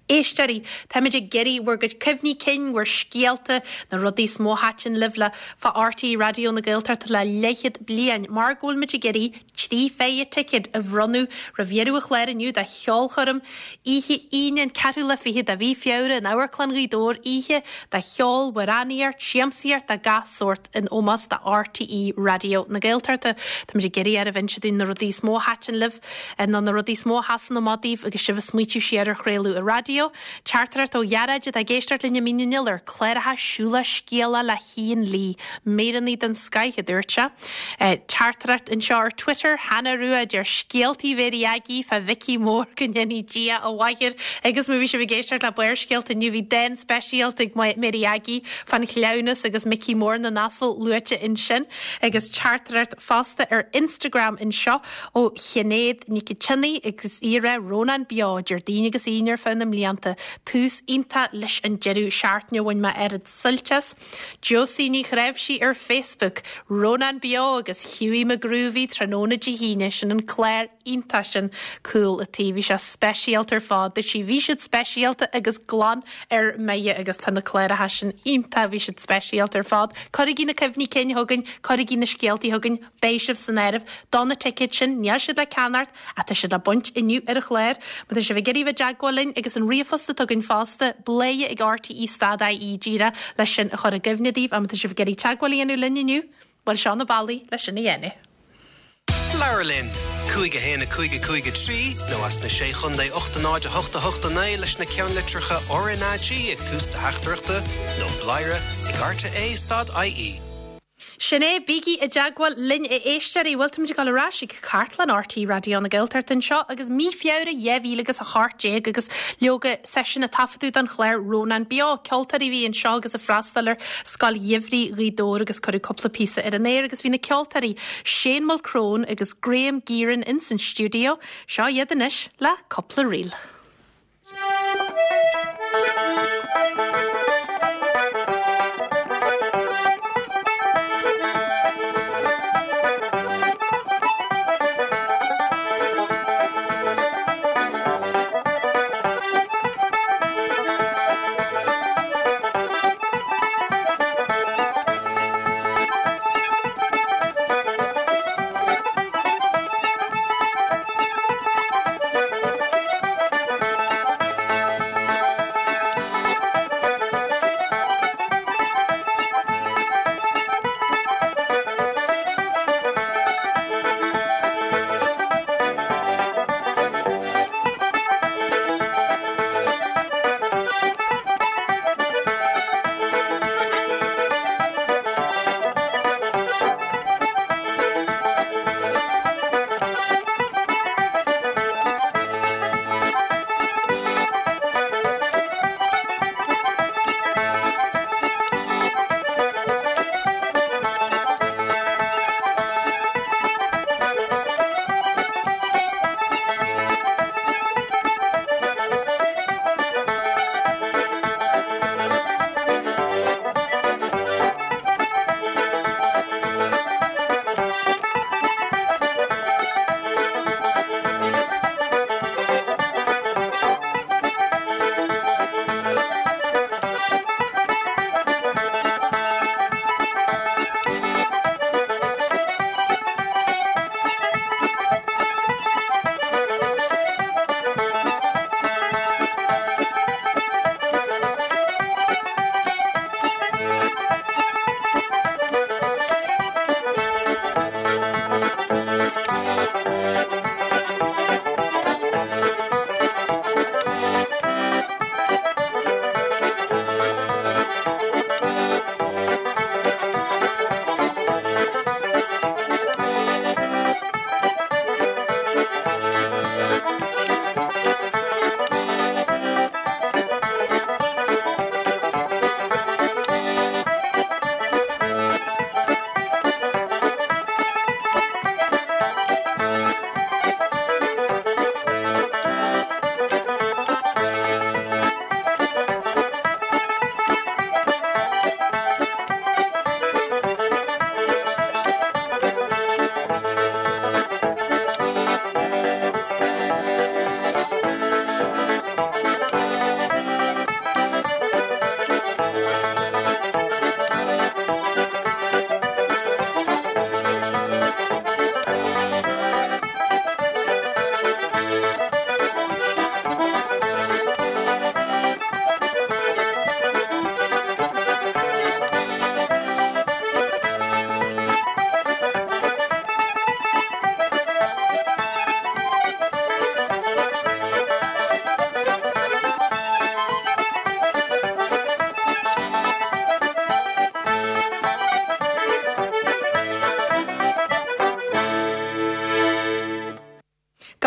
Éisteoirí, táimid ag iarraidh bhur gcuid cuimhní cinn, bhur scéalta, na rudaí is mó a thaitin libh le fá RTÉ Raidió na Gaeltachta le leathchéad bliain mar go bhfuil muid ag iarraidh 3 phéire ticéad a bhronnadh roimh dheireadh an chláir inniu do cheolchoirm oíche Aoine an ceathrú lá fichead de mhí Feabhra in Amharclann Ghaoth Dobhair, oíche de cheol, amhránaíocht, siamsaíocht de gach sórt in ómós do RTÉ Raidió na Gaeltachta. Táimid ag iarraidh oraibh inse dúinn na rudaí is mó a thaitin libh nó na rudaí is mó a sheasann amach daoibh agus sibh ag smaoitiú siar ar chraoladh ar raidió. Teachtaireacht ó Ghearóid atá ag éisteacht linn i Mín an Iolair, cláracha Siúlach Scéalach le hIan Lee, míreanna den scoith, a dúirt sé. Teachtaireacht anseo ar Twitter, Hannah Rua a deir scéaltaí Mhéirí Aggie fá Mhicí Mór go ndéanaí Dia a mhaith air agus má bhí sibh ag éisteacht le Barrscéalta inniu bhí dán speisialta ag Mary Aggie fán chleamhnas agus Micí Mór na nAsal luaite ansin agus teachtaireacht fosta ar Instagram anseo ó Shinéad Nic an tSionnaigh agus í ag rá Rónán Beo Déardaoin agus Aoine ar feadh na mblianta. Tús iontach leis an deireadh seachtaine bhain mé oiread suilt as. Josie Ní Chnáimhsí ar Facebook, Rónán Beo agus Hughie McGroovy tráthnóna Dé hAoine, sin an clár iontach sin Cúl a' Tí, bhí sé speisialta ar fad, dúirt sí, bhí siad speisialta agus glan ar mire agus tá na cláracha sin iontach, bhí siad speisialta ar fad. Cuirigí na cuimhní cinn chugainn, cuirigí na scéaltaí chugainn, Beidh sibh san áireamh do na ticéid sin, níl siad le ceannacht ach tá siad le baint inniu ar an chlár. Má tá sibh ag iarraidh bheith i dteagmháil linn agus an ríomhphost atá againn fosta, bladhaire ag rte stad ie díreach leis sin a chur i gcuimhne daoibh ach má tá sibh ag iarraidh teagmháil a dhéanamh linn inniu, bhuel seo na bealaí leis sin a dhéanamh. Labhair linn! 5 1 5 5 3 nó as na Sé Chontae 8 0 8 8 9 leis na ceannlitreacha RnaG ag tús do theachtaireachta nó bladhaire ag rte stad ie. Sin é, bígí i dteagmháil linn a éisteoirí. Bhuel, táimid ag dul ar ais ag cartlann RTÉ Raidió na Gaeltachta anseo agus mí Feabhra 2018 agus leoga seisiún a taifeadadh don chlár Rónán Beo. Ceoltóirí a bhí anseo agus ag freastal ar Scoil Gheimhridh Ghaoth Dobhair agus cuireadh cúpla píosa ar an aer agus bhí na ceoltóirí Shane Mulchrone agus Graham Gearon ins an stiúideo. Seo iad anois le cúpla ríl.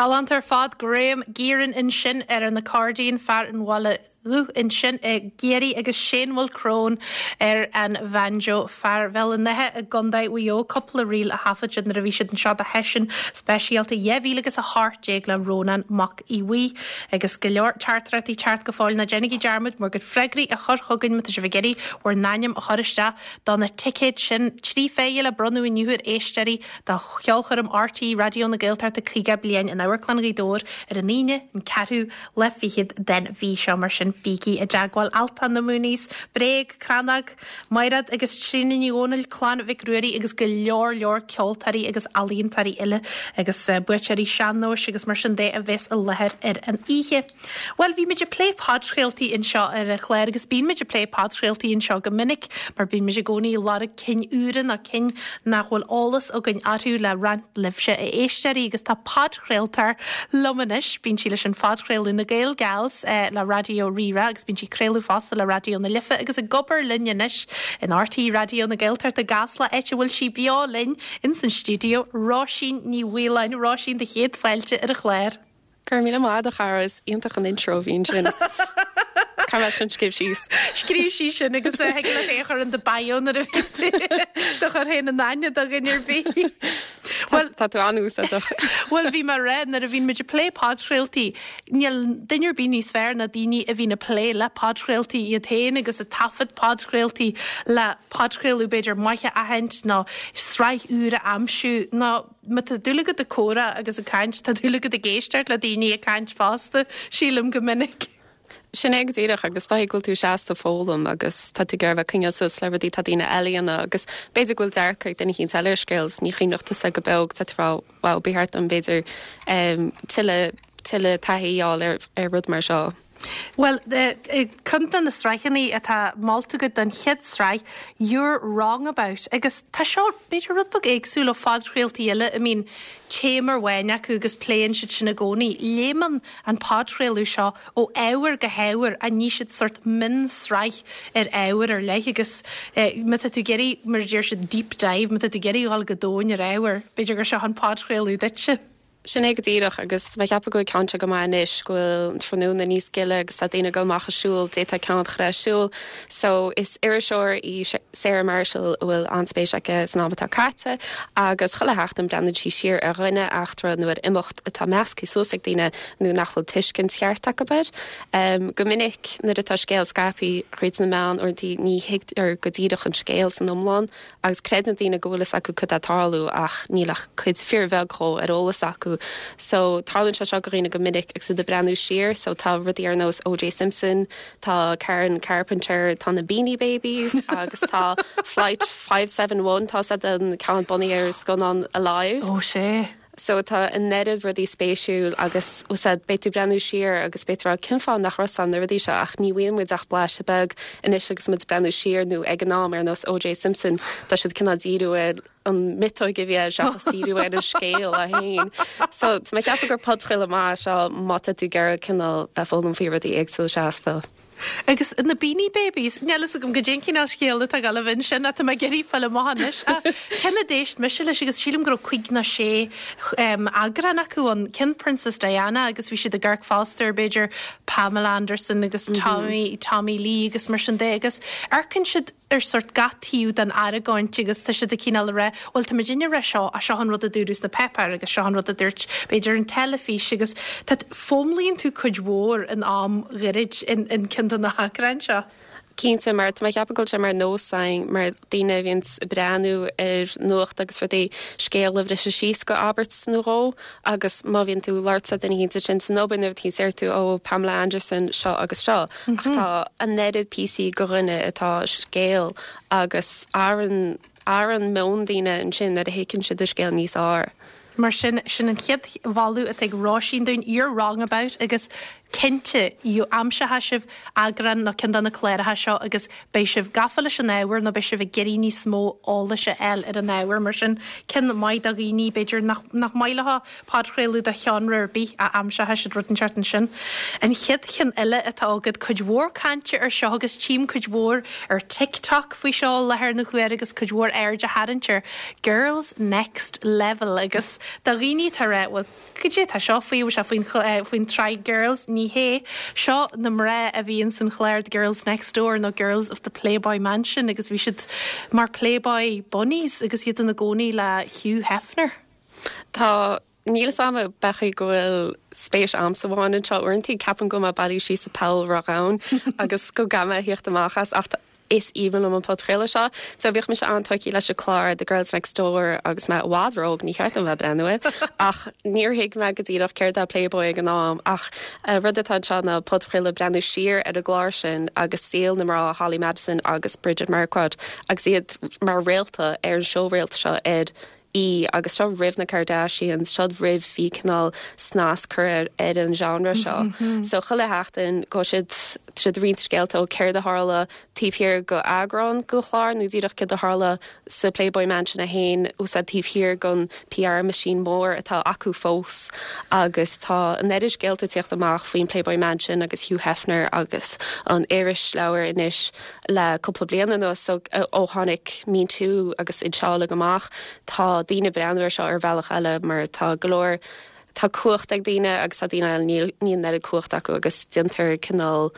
Galánta ar fad, Graham Gearan ansin ar an accordion, fear an Bhaile Dhubh ansin i gCiarraí agus Shane Mulchrone ar an bhanjo, fear Bhéal an Átha i gContae Mhaigh Eo. Cúpla ríl a thaifead siad nuair a bhí siad anseo do sheisiún speisialta 2018 le Rónán Mac Aodha Bhuí. Agus go leor teachtaireachtaí ag teacht go fóill, ná déanaigí dearmad bhur gcuid freagraí a chur chugainn má tá sibh ag iarraidh bhur n-ainm a chur isteach do na ticéid sin, 3 phéire le bronnadh inniu ar éisteoirí do cheolchoirm RTÉ Raidió na Gaeltachta 50 Bliain in Amharclann Ghaoth Dobhair ar an Aoine, an ceathrú lá fichead den mhí seo. Mar sin, bígí i dteagmháil. Altan, na Mooneys, Bréag, Crannóg, Maighread agus Tríona Ní Dhomhnaill, Clann Mhic Ruairí agus go leor leor ceoltóirí agus ealaíontóirí eile agus buaiteoirí sean-nóis agus mar sin de a bheas i láthair ar an oíche. Bhuel, bhí muid ag plé podchraoltaí anseo ar an chlár agus bíonn muid ag plé podchraoltaí anseo go minic mar bíonn muid i gcónaí ag lorg cinn úra nó cinn nach bhfuil eolas againn orthu le roinnt libhse, a éisteoirí, agus tá podchraoltóir liom anois. Bíonn sí leis an phodchraoladh Na Gael Gals le Raidió Rí-Rá agus bíonn sí ag craoladh fosta le Raidió na Life agus ag obair linn anois in RTÉ Raidió na Gaeltachta i gCasla, áit a bhfuil sí beo linn ins an stiúideo, Róisín Ní Mhaoláin. Róisín, do chéad fáilte ar an chlár. Go raibh míle maith agat a chara, is iontach an intro a bhí ansin. Caithfidh mé sin a scríobh síos. Scríobh síos sin agus thig leat é a chur in do bio nuair a bhíonn tú do chur féin in aithne do dhuine ar bith. Bhuel, tá tú an-úsáideach. Bhuel, bhí mé ag rá, nuair a bhíonn muid ag plé podchraoltaí, níl duine ar bith níos fearr ná daoine a bhíonn ag plé le podchraoltaí iad féin agus ag taifead podchraoltaí le podchraoladh b'fhéidir maith a aithint nó sraith úr a aimsiú nó Má tá dúil agat ag comhrá agus ag caint, tá dúil agat ag éisteacht le daoine ag caint fosta, sílim, go minic. Sin é go díreach agus is dóigh go bhfuil tú seasta ag foghlaim agus tá tú ag iarraidh a bheith ag coinneáil suas le rudaí atá daoine eile a dhéanamh agus b'fhéidir go bhfuil dearcadh ag duine eicínt eile ar scéal is ní chuimhneodh tusa go beo agus tá tú ag rá wow ba cheart dom b'fhéidir tuilleadh tuilleadh taithí a fháil ar ar rud mar seo. Bhuel, ceann de na sraitheanna atá molta agat don chéad sraith, You're Wrong About, agus tá seo, b'fhéidir, rud beag éagsúil ó phodchraoltaí eile a mbíonn téama amháin acu agus pléann siad sin i gcónaí. Léimeann an podchraoladh seo ó ábhar go hábhar ach ní siad sórt mionsraith ar ábhar ar leith agus má tá tú ag iarraidh, mar a deir siad, deep dive, má tá tú ag iarraidh dhul go domhain ar ábhar, b'fhéidir gur seo an podchraoladh duitse. Sin é go díreach, agus tá mé ag ceapadh go bhfuil ceann seo go maith anois, go bhfuil an tráthnóna níos gile agus tá daoine ag dul amach ag siúl, d'fhéadfá ceann a chur ar siúl. So, is iriseoir í Sarah Marshall a bhfuil an-spéis aici san am atá caite agus chuile sheachtain breathnaíonn sí siar ar dhuine, eachtra nó ar imeacht atá measctha suas ag daoine nó nach bhfuil tuiscint cheart acu air. Go minic nuair atá scéal scaipthe thríd na meáin uaireanta ní thuigtear go díreach an scéal san iomlán Agus creideann daoine go bhfuil fhios acu cad tá ag tarlú ach níl ach cuid fíorbheag dhó ar eolas acu. So, tarlaíonn sé seo go dhaoine go minic agus iad ag breathnú siar. So, tá rudaí ar nós O.J. Simpson, tá Karen Carpenter, tá na Beanie Babies agus tá Flight 571, tá sé an ceann bunaithe ar scannán Alive. Ó, sea. So tá an oiread rudaí spéisiúil agus úsáid, beidh tú ag breathnú siar agus beidh tú ag rá cén fáth nach raibh fhios agam na rudaí seo ach ní bhfaigheann muid ach blaiseadh beag anois agus muid ag breathnú siar nó ag an am ar nós O.J. Simpson tá siad cineál díriú ar an miotóig a bhí air seachas díriú ar an scéal é féin. So tá mé ag ceapadh gur podchraoladh maith é seo má tá tú ag iarraidh cineál bheith ag foghlaim faoi rudaí éagsúla seasta. Agus na Beanie Babies, níl fhios agam goidé an cineál scéal atá ag dul a bheith ansin ach tá mé ag iarraidh fáil amach anois. Ach ceann a d'éist mise leis agus sílim go raibh cuig nó sé eagrán acu ann, ceann Princess Diana agus bhí siad ag amharc fosta ar b'fhéidir Pamela Anderson agus Tommy, Tommy Lee agus mar sin de agus amharcann siad ar sórt gach taobh den argóint agus tá siad ag cineál a rá, bhuel tá muidinne ag rá seo ach seo an rud a dúradh sna páipéir agus seo an rud a dúirt b'fhéidir an teilifís agus tá, foghlaimíonn tú cuid mhór in am ghairid in in ceann de na heagráin seo. Cinnte, mar tá mé ag ceapadh go bhfuil sé mar nós againn mar daoine a bhíonns ag breathnú ar nuacht agus rudaí, scéal a bhriseadh síos go abairt nó dhó agus má bhíonn tú ag labhairt le duine éicint ansin san obair nó rud éicint deir tú ó Pamela Anderson seo agus seo. Ach tá an oiread píosaí go dhuine atá scéal agus athraíonn athraíonn meon daoine ansin nuair a thuigeann siad an scéal níos fearr. Mar sin, sin an chéad mholadh atá ag Róisín dúinn, You're Wrong About agus. Cinnte, aimseoidh sibh eagrán nó ceann de na cláracha seo agus beidh sibh gafa leis an ábhar nó beidh sibh ag iarraidh níos mó eolais a fháil ar an ábhar. Mar sin, ceann maith do dhaoine, b'fhéidir, nach maith leo podchraoladh de sheánra ar bith ach aimseoidh siad rud inteacht ansin. An chéad cheann eile atá agat, cuid mhór cainte ar seo agus tchím cuid mhór ar TikTok faoi seo i láthair na huaire agus cuid mhór aird á tharraingt ar Girls Next Level agus do dhaoine atá ag rá, bhuel, Cad é atá seo faoi? Bhfuil sé faoin faoin tsraith Girls? Ní hé. Seo na mná a bhí ins an chlár The Girls Next Door nó Girls of the Playboy Mansion agus bhí siad mar Playboy Bunnies agus iad ina gcónaí le Hugh Hefner. Tá. Níl 'fhios a'm an b'é go bhfuil spéis a'msa amháin anseo. Uaireanta ceapaim go bhfuil mé bailithe síos i poll ródhomhain agus go gcaithfidh mé a thíocht amach as ach Is aoibhinn liom an podchraoladh seo. So bhíodh mise an-tógtha leis an clár The Girls Next Door agus mé i bhfad ró-óg, ní cheart dom bheith ag breathnú air, ach níor thuig mé go díreach céard é Playboy ag an am ach rud atá anseo ná podchraoladh breathnú siar ar an gclár sin agus saol na mná Holly Madison agus Bridget Marquardt agus iad mar réalta ar an seó réalta seo ar E! Agus seo roimh na Kardashians, seo roimh bhí cineál snas curtha ar an genre seo. So chuile sheachtain go siad siad roinnt scéalta ó céard a tharla taobh thiar go eagrán go chlár nó díreach céard a tharla sa Playboy Mansion é féin úsáid taobh thiar gon PR machine mór atá acu fós agus tá an oiread scéalta ag tíocht amach faoin Playboy Mansion agus Hugh Hefner agus an irisleabhar anois Le cúpla bliain anuas, ó tháinig Me Too agus iad seo uilig amach, tá daoine ag breathnú ar seo ar bhealach eile mar tá go leor, tá cumhacht ag daoine agus tá daoine eile, níl, níl an oiread cumhacht acu agus déantar cineál,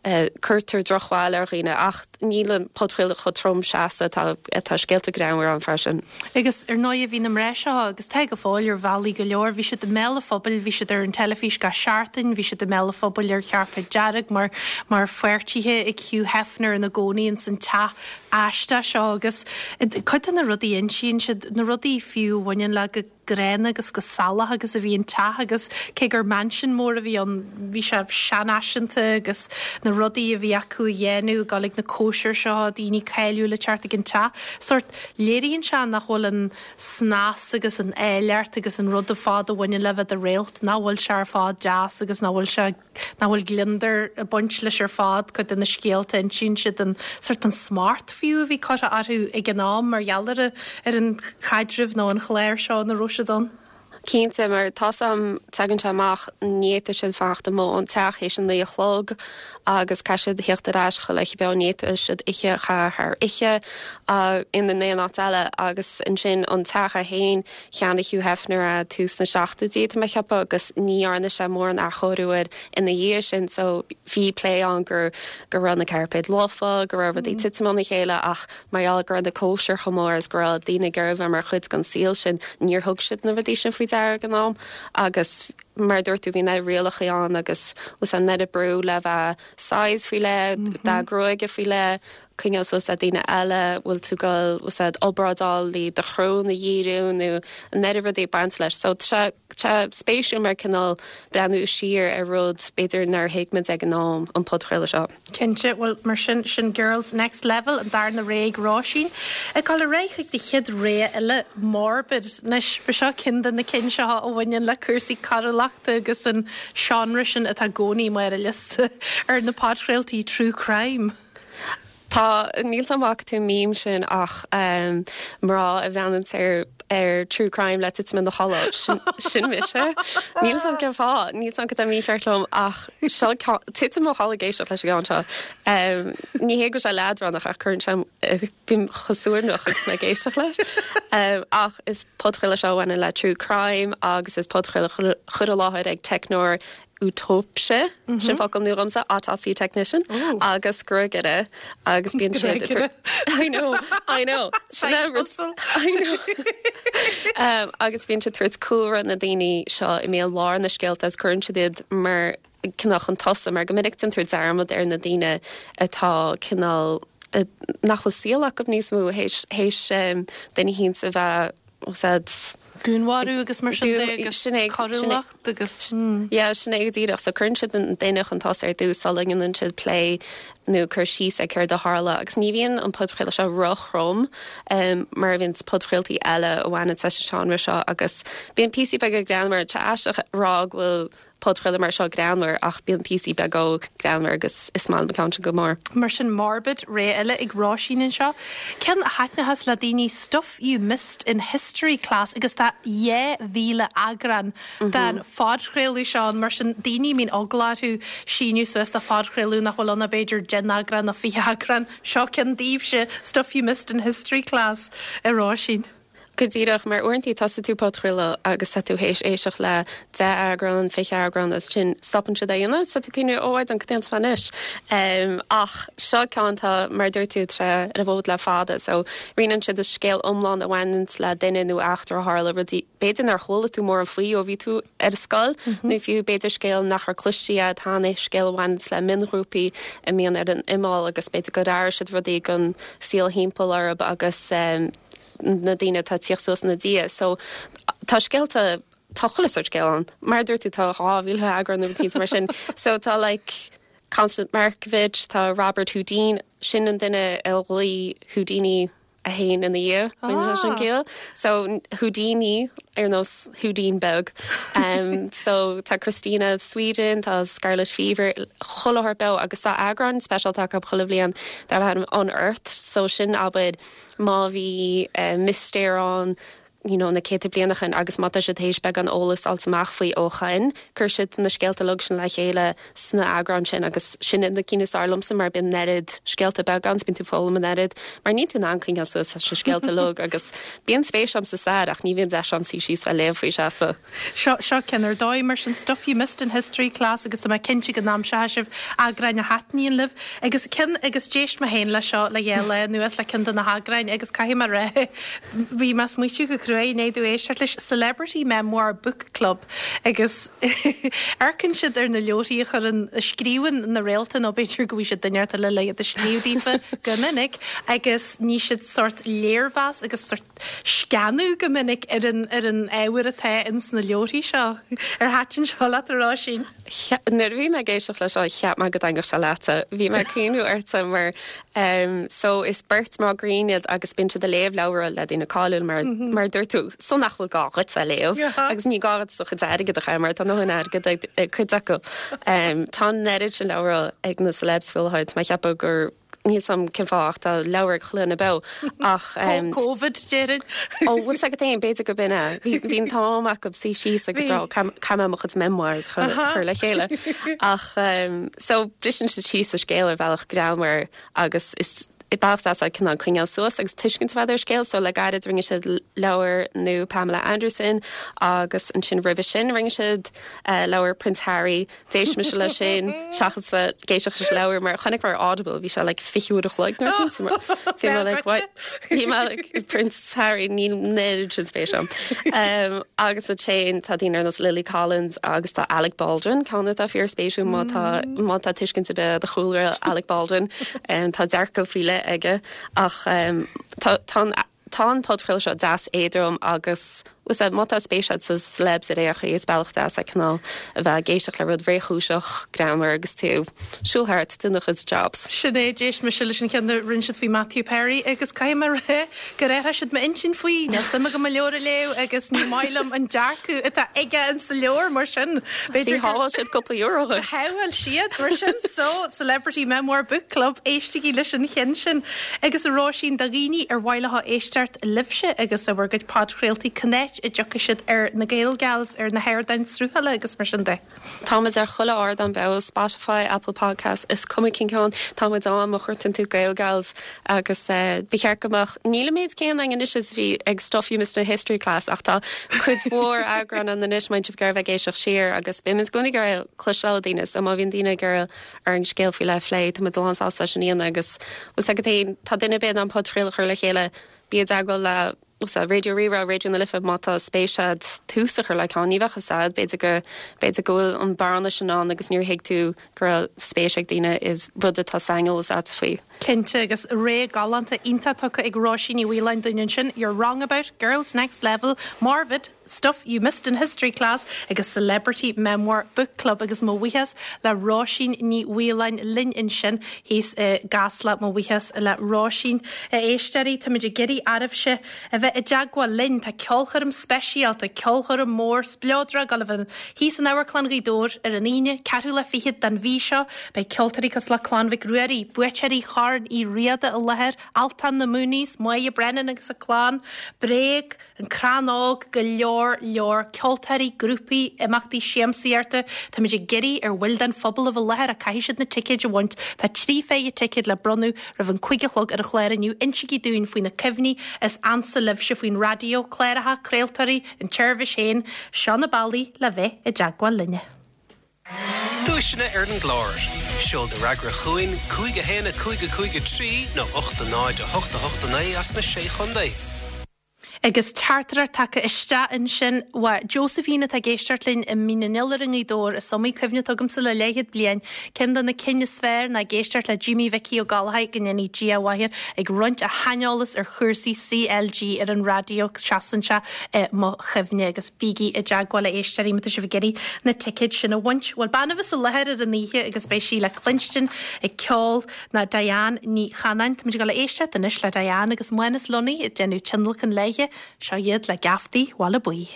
cuirtear drochbhail ar dhaoine ach níl an podchraoladh chomh trom seasta, tá, tá scéalta greannmhara ann freisin. Agus ar ndóighe bhí na mná seo, agus tá go fóill ar bhealaí go leor, bhí siad i mbéal an phobail, bhí siad ar an teilifís gach seachtain, bhí siad i mbéal an phobail ar chairpéad dearg mar mar pháirtithe ag Hugh Hefner ina gcónaí ins an teach aisteach seo agus cuid de na rudaí a insíonn siad, na rudaí fiú a bhaineann le go gránna agus go salach agus a bhí an teach agus cé gur mansion mór a bhí ann bhí sé seanfhaiseanta agus na rudaí a bhí acu a dhéanamh, ag dul ag na cóisir seo, daoine cáiliúla ag teacht ag an teach. Sórt, léiríonn sé nach bhfuil an snas agus an áilleacht agus an rud ar fad a bhaineann le bheith i do réalt, nach bhfuil sé ar fad deas agus nach bhfuil sé nach bhfuil gliondar ag baint leis ar fad, cuid de na scéalta a insíonn siad, an sórt an smacht fiú a bhí curtha orthu ag an am mar gheall ar ar an chaidreamh nó an chlár seo ina raibh siad ann. Cinnte, mar tá's a'm, tagann sé amach, ní fhéadfadh siad fanacht amuigh ón teach théis a naoi a chlog agus caithfidh siad a theacht ar ais chuile oíche beo, ní fhéadfadh siad oíche a chaitheamh thar oíche in aon áit eile agus ansin an teach é féin, Cheannaigh Hugh Hefner é tús na seachtóidí, tá mé ag ceapadh, agus ní dhearna sé mórán athchóiriú air ina dhiaidh sin so bhí plé ann go go raibh na cairpéid lofa, go raibh rudaí ag titim óna chéile ach mar gheall go raibh na cóisir chomh mór agus go raibh daoine ag iarraidh bheith mar chuid den saol sin, níor thug siad na rudaí sin faoi deara ag an am agus mar a dúirt tú bhí na rialacha ann agus an oiread brú le bheith size faoi leith, dath gruaige faoi leith, coinneáil suas le daoine eile, bhfuil tú ag dul úsáid obráid le do shrón a dhíriú nó an oiread rudaí ag baint leis. So tá sé spéisiúil mar cineál breathnú siar ar rud b'fhéidir nár thuig muid ag an am, an podchraoladh seo. Cinnte, bhuel mar sin, sin Girls Next Level, an darna rogha ag Róisín. Ag dul ar aghaidh chuig do chéad rogha eile, Morbid. Anois, ba seo ceann de na cinn seo a bhaineann le cúrsaí coiriúlachta agus an seánra sin atá i gcónaí mar ar liosta ar na podchraoltaí true crime. Tá, níl 's a'm an bhfaca tú an meme sin ach mná a bhreathnaíonns ar ar true crime le titim ina chodladh, sin sin mise. Níl 's a'm cén fáth, níl 's a'm cad tá mícheart liom ach seo ceann, titim i mo chodladh ag éisteacht leis an gceann seo. Ní hé go bhfuil sé leadránach ach cuireann sé, bím chomh suaimhneach agus mé ag éisteacht leis. Ach is podchraoladh seo a bhaineann le true crime agus is podchraoladh curtha i láthair ag teicneoir Autóipse, sin focal nua dhomsa, autopsy technician, agus gruagaire agus bíonn siad Gruagaire. I know, I know. Sin é rud- I know. Um, agus bíonn siad ag tabhairt cúlra na daoine seo i mbéal lár na scéalta agus cuireann siad iad mar cineál chun tosaigh mar go minic déantar dearmad ar na daoine atá cineál eh, nach bhfuil saol acu níos mó théis théis um, duine éicint a bheith úsáid. Dúnmharú agus mar sin de agus coiriúlacht agus. Yeah, sin é go díreach. So cuireann siad an duine chun tosaigh ar dtús sula ndéanann siad plé nó cur síos ar céard a tharla agus ní bhíonn an podchraoladh seo ro-throm mar a bhíonn podchraoltaí eile a bhaineann leis an seánra seo agus bíonn píosaí beaga greannmhar. Tá sé aisteach a rá go bhfuil podchraoladh mar seo greannmhar ach bíonn píosaí beaga greannmhar agus is maith liom an ceann sin go mór. Mar sin Morbid, rogha eile ag Róisín anseo. Ceann a thaitneochas le daoine Stuff You Missed in History Class agus tá 2,000 eagrán den phodchraoladh seo ann mar sin daoine a mbíonn eagla orthu síniú suas do phodchraoladh nach bhfuil ann ach b'fhéidir 10 n-eagrán nó 20 eagrán, seo ceann daoibhse, Stuff You Missed in History Class, a Róisín. Go díreach, mar uaireantaí tosaíonn tú podchraoladh agus tá tú théis éisteacht le 10 eagrán, 20 eagrán agus ansin stopann siad é a dhéanamh is tá tú ag cuimhniú oh I don't cad déanfaidh mé anois. Ach seo ceann atá, mar a dúirt tú, tá sé ar an bhfód le fada so roinneann siad an scéal iomlán a bhaineanns le duine nó eachtra a tharla, rudaí b'fhéidir nár chuala tú mórán faoi ó bhí tú ar scoil nó fiú b'fhéidir scéal nach raibh cloiste agat cheana, scéal a bhaineanns le mionghrúpaí a mbíonn ar an imeall agus b'fhéidir gur athraigh siad rudaí don saol thimpeall orthu agus na daoine atá ag tíocht suas ina diaidh. So tá scéalta, tá chuile sórt scéal ann. Mar a dúirt tú tá 2,000 eagrán nó rud mar sin. So tá like Constance Markievicz, tá Robert Houdin, sin an duine a ghlaoigh Houdini é féin ina dhiaidh, baineann sé sin ciall. So Houdini ar nós Houdin beag. Um, so tá Christina of Sweden, tá Scarlet Fever, chuile shórt beo agus tá eagrán speisialta acu chuile bhliain darb ainm Unearthed, so sin abair má bhí mistéir ann you know na céadta bliain ó shoin agus má tá siad théis beagán eolas fháilt amach faoi ó shoin, cuir siad na scéalta uilig sin le chéile sna eagráin sin agus sin iad na cinn is fearr liomsa mar bíonn an oiread scéalta beaga ann 's bíonn tú ag foghlaim an oiread mar níl tú in ann coinneáil suas leis na scéalta uilig agus bíonn spéis a'm sa stair ach ní bhíonn deis a'm suí síos bheith léamh faoi seasta. Seo, seo ceann ar dóigh mar sin, Stuff You Missed in History Class agus tá mé cinnte go n-aimseoidh sibh eagráin a thaitníonn libh. Agus ceann, agus d'éist mé féin leis seo le dhá lá anuas le ceann de na heagráin agus caithfidh mé a rá, bhí mé ag smaoitiú go cruaidh i ndiaidh domh éisteacht leis, Celebrity Memoir Book Club agus amharcann siad ar na leabharthaí a chuireann, a scríobhann na réalta nó b'fhéidir go bhfaighidh siad duine inteacht eile le iad a scríobh daofa go minic agus ní siad sórt léirmheas agus sórt sceanadh go minic ar an ar an ábhar atá ins na leabharthaí seo. Ar thaitin seo leat, a Róisín? Nuair a bhí mé ag éisteacht leis seo, cheap mé go dtaitneodh sé leatsa. Bhí mé ag cuimhniú ortsa mar so is beirt mná grinn iad agus bíonn siad ag léamh leabhra le daoine cáiliúil mar mar a dúirt tú, so nach bhfuil gá dhuit a léamh agus ní gá dhuit do chuid airgid a chaitheamh mar tá a ndóthain airgid ag cuid acu. Tá an oiread sin leabhra ag na celebs faoi láthair, tá mé ag ceapadh gur Níl 's a'm cén fáth ach tá leabhar ag chuile dhuine beo ach. Covid, déarfainn. Ó, bhfuil 's agat féin, b'fhéidir gurb in é. Bhí, bhí an t-am acu suí síos agus rá, caithfidh mé mo chuid memoirs a chur, chur le chéile. Ach, so, briseann siad síos an scéal ar bhealach greannmhar agus is bealach deas é cineál coinneáil suas agus tuiscint a bheith ar scéal. So, le gairid rinne siad leabhar nua Pamela Anderson agus ansin roimhe sin rinne siad leabhar Prince Harry. D'éist mise leis sin seachas bheith ag éisteacht leis an leabhar mar chonaic mé ar Audible bhí sé like 20 uair a chloig nuair a bhí mé like what bhí mé like Prince Harry níl an oiread sin spéis agam. Um, agus ansin tá daoine ar nós Lily Collins agus tá Alec Baldwin ceann atá fíor spéisiúil má tá má tá tuiscint ar bith de chúlra Alec Baldwin um, tá dearcadh faoi leith aige ach um, tá tá an Tá an podchraoladh seo deas éadrom agus bhfuil 's a'd, má tá spéis agat sa celebs ar aon chaoi, is bealach deas é cineál a bheith ag éisteacht le rud réchúiseach, greannmhar agus tú ag siúl thart ag déanamh do chuid jobs. Sin é, d'éist mise leis an cheann a rinne siad faoi Matthew Perry agus caithfidh mé a rá gur athraigh siad m'intinn faoi. Níl suim agam a leabhar a léamh agus ní maith liom an dearcadh atá aige in sa leabhar mar sin b'fhéidir gur shábháil siad cúpla euro dhuit. Shábháil siad mar sin so Celebrity Memoir Book Club éistigí leis an cheann sin. Agus a Róisín, do dhaoine ar mhaith leo éisteacht libhse agus le bhur gcuid podchraoltaí, cá háit a dtiocfaidh siad ar na Gaelgals, ar na hardáin sruthála agus mar sin de? Táimid ar chuile ardán beo, Spotify, Apple Podcasts, is cuma cén ceann, táimid ann má chuartaíonn tú Gaelgals agus ba cheart go mbeadh, níl an méid céanna againn anois is a bhí ag Stuff You Missed in History Class ach tá cuid mhór eagrán ann anois má bhíonn sibh ag iarraidh bheith ag éisteacht siar agus bímid i gcónaí ag iarraidh cloisteáil ó daoine so má bhíonn daoine ag iarraidh orainn scéal faoi leith a phlé. Tá muid lán sásta leis sin a dhéanamh agus bhfuil 's agat féin, tá duine ar bith in ann podchraoladh a chur le chéile, bí i dteagmháil le. Raidió Rí-Rá, Raidió na Life, má tá spéis a'd tús a chur le ceann, ní bheadh fhios a'd, b'fhéidir go, b'fhéidir go bhfuil an bearna sin ann agus níor thuig tú go raibh spéis ag daoine i rud atá saineolas a'd faoi. Cinnte, agus rogha galánta iontach tugtha ag Róisín Ní Mhaoláin dúinn ansin, You're Wrong About, Girls Next Level, Morfydd, Stuff You Missed in History Class agus Celebrity Memoir Book Club agus mo bhuíochas le Róisín Ní Mhaoláin linn ansin thíos i gCasla. Mo bhuíochas le Róisín. A éisteoirí, táimid ag iarraidh oraibhse a bheith i dteagmháil linn. Tá ceolchoirm speisialta, ceolchoirm mór spleodrach ag dul a bheith thíos in Amharclann Ghaoth Dobhair ar an Aoine, ceathrú lá fichead den mhí seo. Beidh ceoltóirí cosúil le Clann Mhic Ruairí, buaiteoirí Chorn Uí Riada i láthair, Altan, na Mooneys, Máire Brennan agus a clann, Bréag, An Crann Óg, go leor leor ceoltóirí, grúpaí, imeachtaí siamsaíochta. Táimid ag iarraidh ar bhaill den phobal a bheith i láthair ach caithfidh siad na ticéid a bhaint. Tá 3 phéire ticéad le bronnadh roimh an 5 a chlog ar an chlár inniu. Insígí dúinn faoi na cuimhní is ansa libhse faoin raidió, cláracha, craoltóirí, an tseirbhís féin. Seo na bealaí le bheith i dteagmháil linne. Duaiseanna ar an gclár. Seol do fhreagra chugainn, 5 1 5 5 3 nó 8 0 8 8 9 as na Sé Chontae. Agus teachtaireacht tagtha isteach ansin uaidh Josephine atá ag éisteacht linn i Mín an Iolair i nGaoth Dobhair. Is iomaí cuimhne atá agamsa le leathchéad bliain. Ceann de na cinn is fearr ná ag éisteacht le Jimí Mhicí Ó Gallchóir, go ndéanaí Dia a mhaith air, ag roinnt a shaineolas ar chúrsaí CLG ar an raidió. Seasann sé i mo chuimhne. Agus bígí i dteagmháil a éisteoirí má tá sibh ag iarraidh na ticéid sin a bhaint. Bhuel, bean a bheas i láthair ar an oíche agus beidh sí le cluinstin ag ceol ná Diane Ní Chanainn. Táimid ag dul a éisteacht anois le Diane agus Mánas Lunny ag déanamh tionlacan léithe. Seo iad le Geaftaí Bhaile Buí.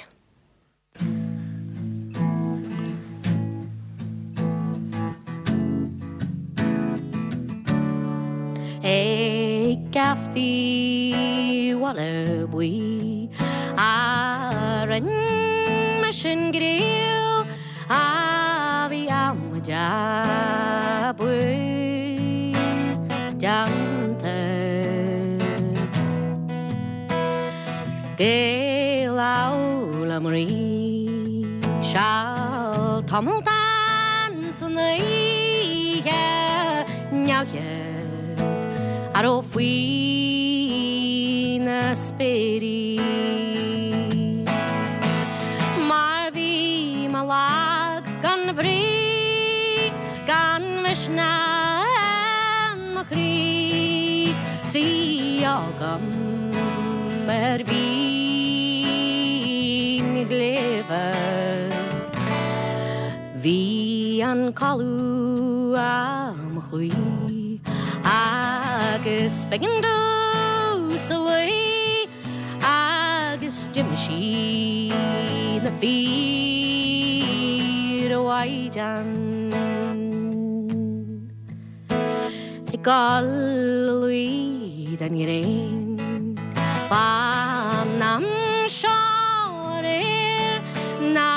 Ag Geaftaí Bhaile Buí a rinne mise an gcraobh. A bhí amaide buí déanta. Gael fhoghlaim rí seal tamall dan san oíche neamhchead a raibh faoi na spéirí. Mar bhí mé lag gan bhrí, gan mhisneach in mo chroí, 's í agam ar mhín shléibhe. Bhí an codladh á mo chloí agus b'éigean domhsa luí. Agus d'imigh sí na fir a mhaighdean Ag dul a luí den ghréin Fán am seo aréir ná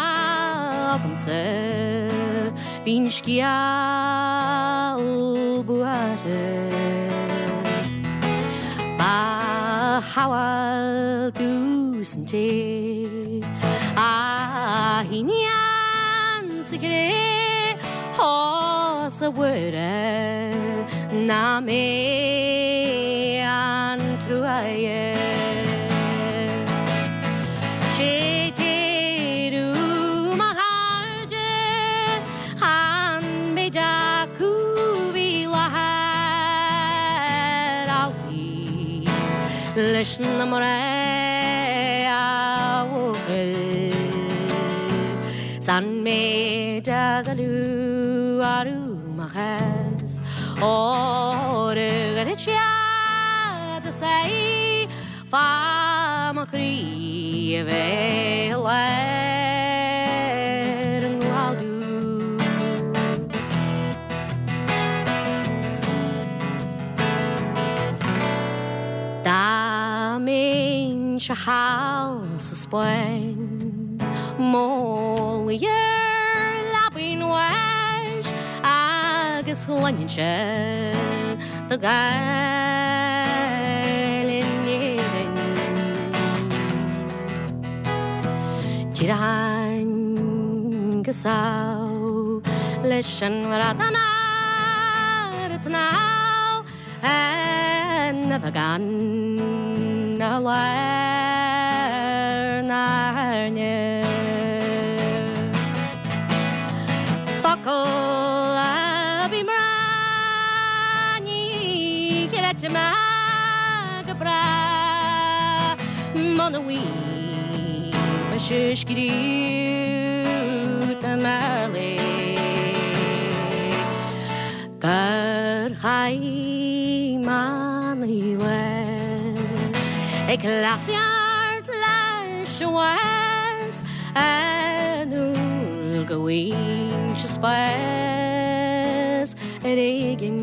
agamsa Bhí'n scéal buartha. Ba shamhail domhsa an té a shíníonn sa chré Ós a Mhuire nach mé an truaighe. Sé deireadh mo chairde an méid acu bhí i láthair amhlaidh leis na mná a bhuachaill 's an méid a goilleadh arú mo chás óir a ghoiread siad is é Fá mo chroí a bheith i lár an ghládú. Dá mbeinnse thall sa Spáinn, mo luí ar leabaidh an bháis agus chluinfinnse do Ghaeil in Éirinn. D'éireoinn go sámh leis an bhradán ar an tsnámh ina bheagán a lán. Cloisfidh mé go bráth muna bhfaighidh mise scríobh i mBéarla gur chaith manaí lá ag cleasaíocht leis an bhás an uair go bhfaighinn spás ar éigin.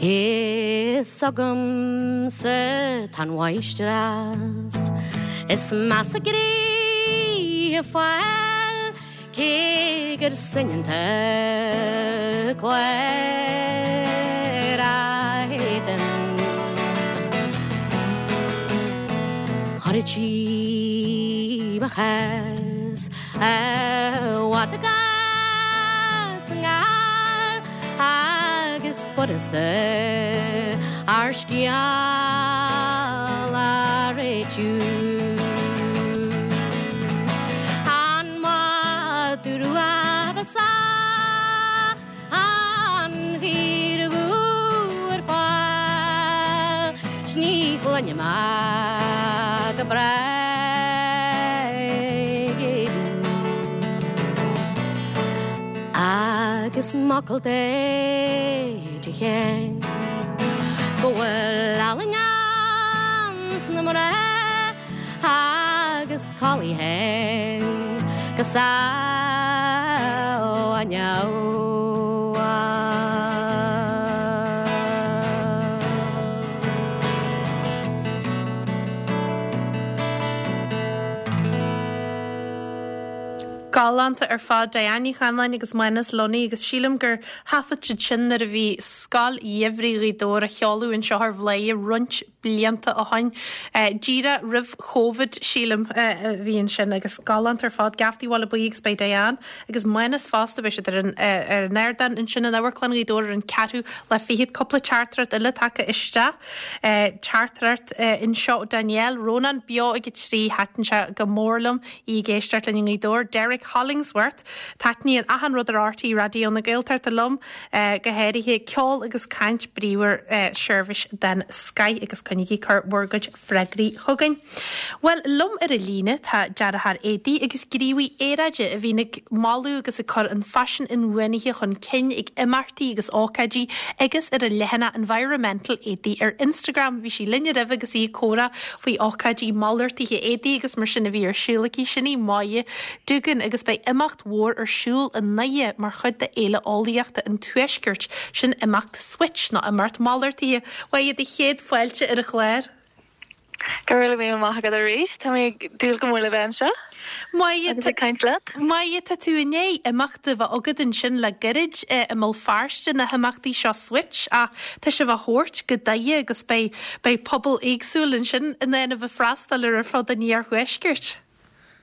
Is agamsa tá an mháistreás is measa gnoithe fáil cé gur soineanta clár a héadan. Chuirtí mo chás i bhfad agus i ngar agus b'fhurasta ár scéal a réitiú. An madadh rua ba An chaora dhubh ar fáil 's ní chluinim ach go bráth ag éalú. Agus m'fhocal Dé de cheann go bhfuil ealaín ins na mná agus codladh féin go sámh inniu. Galánta ar fad, Diane Ní Chanainn agus Mánas Lunny agus sílim gur thaifead siad sin nuair a bhí Scoil Gheimhridh Ghaoth Dobhair á sheoladh anseo ar Bhladhaire roinnt blianta ó shoin. Díreach roimh Chóivid, sílim, a bhí ansin agus galánta ar fad. Geaftaí Bhaile Buí agus beidh Diane agus Mánas fosta, beidh siad ar an ar an ardán ansin in Amharclann Ghaoth Dobhair ar an ceathrú lá fichead. Cúpla teachtaireacht eile tagtha isteach. Teachtaireacht anseo ó Danielle, Rónán beo ag a 3, thaitin sé go mór liom í ag éisteacht linn i nGaoth Dobhair. Derek Hollingsworth, Taitníonn achan rud ar RTÉ Raidió na Gaeltachta liom, go háirithe ceol agus caint bríomhar, seirbhís den scoith agus coinnígí ag cur bhur gcuid freagraí chugainn. Bhuel, liom ar an líne tá dearthóir éadaí agus gníomhaí aeráide a bhíonn ag moladh agus ag cur an faisean inbhuanaithe chun cinn ag imeachtaí agus ócáidí agus ar a leathanach Environmental Éadaí ar Instagram. Bhí sí linn roimhe agus í ag comhrá faoi ócáidí malartaithe éadaí agus mar sin a bhí ar siúl aici. Sin í Máire Doogan agus beidh imeacht mhór ar siúl i nDoire mar chuid de Fhéile Eolaíochta an Tuaiscirt, sin imeacht Switch nó imeacht malartaithe. Máire, do chéad fáilte ar an chlár. Go raibh míle maith agat arís. Tá mé ag dúil go mór le bheith anseo agus ag caint leat. Máire, tá tú i ndiaidh imeacht a bheith agat ansin le gairid i mBéal Feirste, na himeachtaí seo Switch, ach tá sibh á thabhairt go Doire agus beidh beidh pobal éagsúil ansin in ann a bheith freastal ar ar fud an iarthuaiscirt.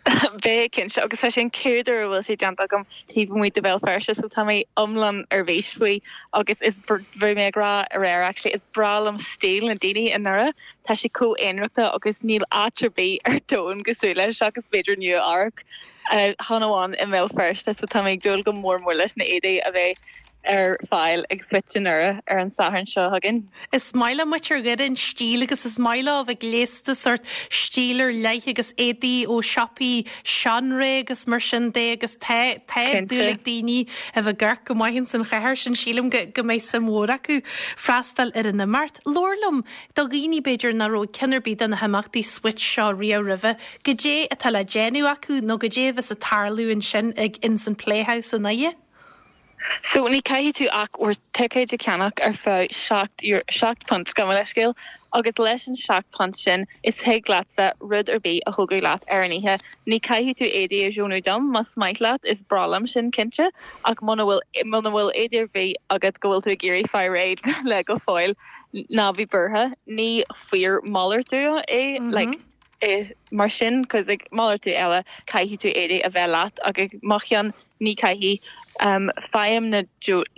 Beidh, cinnte, agus tá sé an chéad uair a bhfuil sé déanta agam taobh amuigh de Bhéal Feirste so tá mé iomlán ar bís faoi agus is bhí mé ag rá aréir actually is breá liom stíl na daoine i nDoire, tá sé chomh aonarachta agus níl áit ar bith ar domhan cosúil leis seachas b'fhéidir Nua Eabhrac chan amháin i mBéal Feirste so tá mé ag dúil go mór mór leis na éadaí a bheidh ar fáil ag Switch i nDoire ar an Satharn seo chugainn. Is maith le muintir Dhoire an stíl agus is maith leo a bheith gléasta sórt stíl ar leith agus éadaí ó siopaí seanré agus mar sin de agus tá tá dúil ag daoine a bheith ag amharc go maith ins an chathair sin sílim go go mbeidh suim mhór acu freastal ar an imeacht. Labhair liom do dhaoine b'fhéidir nach raibh ag ceann ar bith de na himeachtaí Switch seo riamh roimhe, goidé atá le déanamh acu nó goidé a bheas ag tarlú ansin ag ins an Playhouse i nDoire? So ní caithfidh tú ach bhur ticéid a cheannach ar feadh £7 gabh mo leithscéal, agus leis an £7 sin is thig leatsa rud ar bith a thógadh leat ar an oíche. Ní caithfidh tú éadaí a dheonú dom, más maith leat, is breá liom sin cinnte, ach muna bhfuil muna bhfuil éadaí ar bith agat go bhfuil tú ag iarraidh fáil réidh le go fóill, ná bí buartha, ní fíor-malartú é, like, mar sin, 'cause ag malartú eile caithfidh tú éadaí a bheith leat ach ag mo cheann ní caithfidh. Faighim na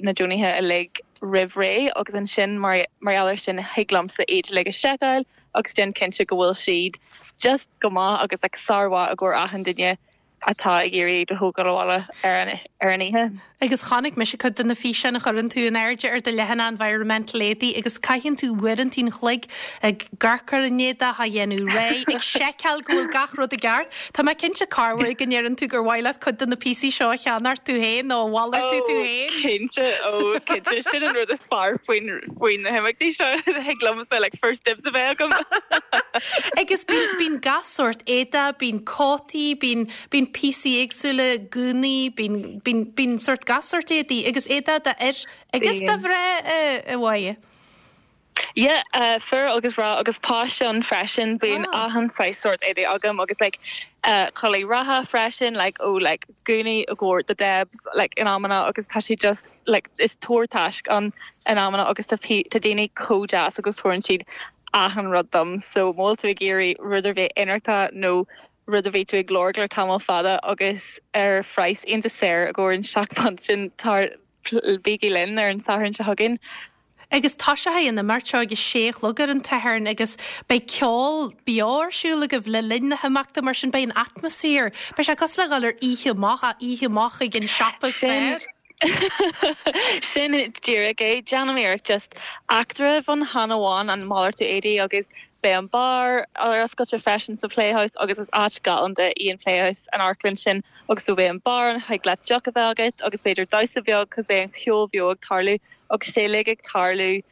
na deonaithe uilig roimh ré agus ansin mar mar gheall ar sin thig liomsa iad uilig a seiceáil agus déan cinnte go bhfuil siad just go maith agus like sármhaith i gcomhair achan duine. atá ag iarraidh iad a thógáil abhaile ar an ar an oíche. Agus chonaic mise cuid de na físeáin a chuireann tú in airde ar do leathanach Environmental Éadaí agus caitheann tú uaireanta an chloig ag amharc ar an éadach, á dhéanamh réidh, ag seiceáil go bhfuil gach rud i gceart. Tá mé cinnte corruair go ndeireann tú gur mhaith leat cuid de na píosaí seo a cheannacht tú féin nó a mhalartú tú féin. Cinnte, ó cinnte, sin an rud is fearr faoin faoi na himeachtaí seo, thig liomsa like first dibs a bheith agam. Agus bíonn bíonn gach sórt éadaí, bíonn cótaí, bíonn bíonn píosaí éagsúla, gúnaí, bíonn bíonn bíonn sórt gach sórt éadaí agus éadaí d'fhir agus do mhná a Mháire. Yeah, fir agus mná agus páiste ann freisin, bíonn achan saghas sórt éadaí agam agus like culaith reatha freisin like ó like gúnaí i gcomhair the Debs like in amanna agus tá sé just like is tabhair taisc ann in amanna agus tá tá daoine chomh deas agus tabharann siad achan rud dom so má bhfuil tú ag iarraidh rud ar bith ionractha nó rud a bhí tú ag lorg le tamall fada agus ar phraghas iontach saor i gcomhair an £7 sin tar bígí linn ar an Satharn seo chugainn. Agus toiseoidh an imeacht seo ag a sé a chlog ar an tSatharn agus beidh ceol beo ar siúl agaibh le linn na himeachta mar sin beidh an atmaisféar, beidh sé cosúil le dhul ar oíche amach, ach oíche amach ag an siopa is fearr. Sin díreach é. Déanaim iarracht just eachtra a bheith ann chan amháin an malartú éadaí agus beidh an beár ar oscailte freisin sa Playhouse agus is áit galánta í an Playhouse, an amharclann sin agus so beidh an beár ann, thig leat deoch a bheith agat agus b'fhéidir damhsa beag cos beidh an cheol bheo ag tarlú agus sé uilig ag tarlú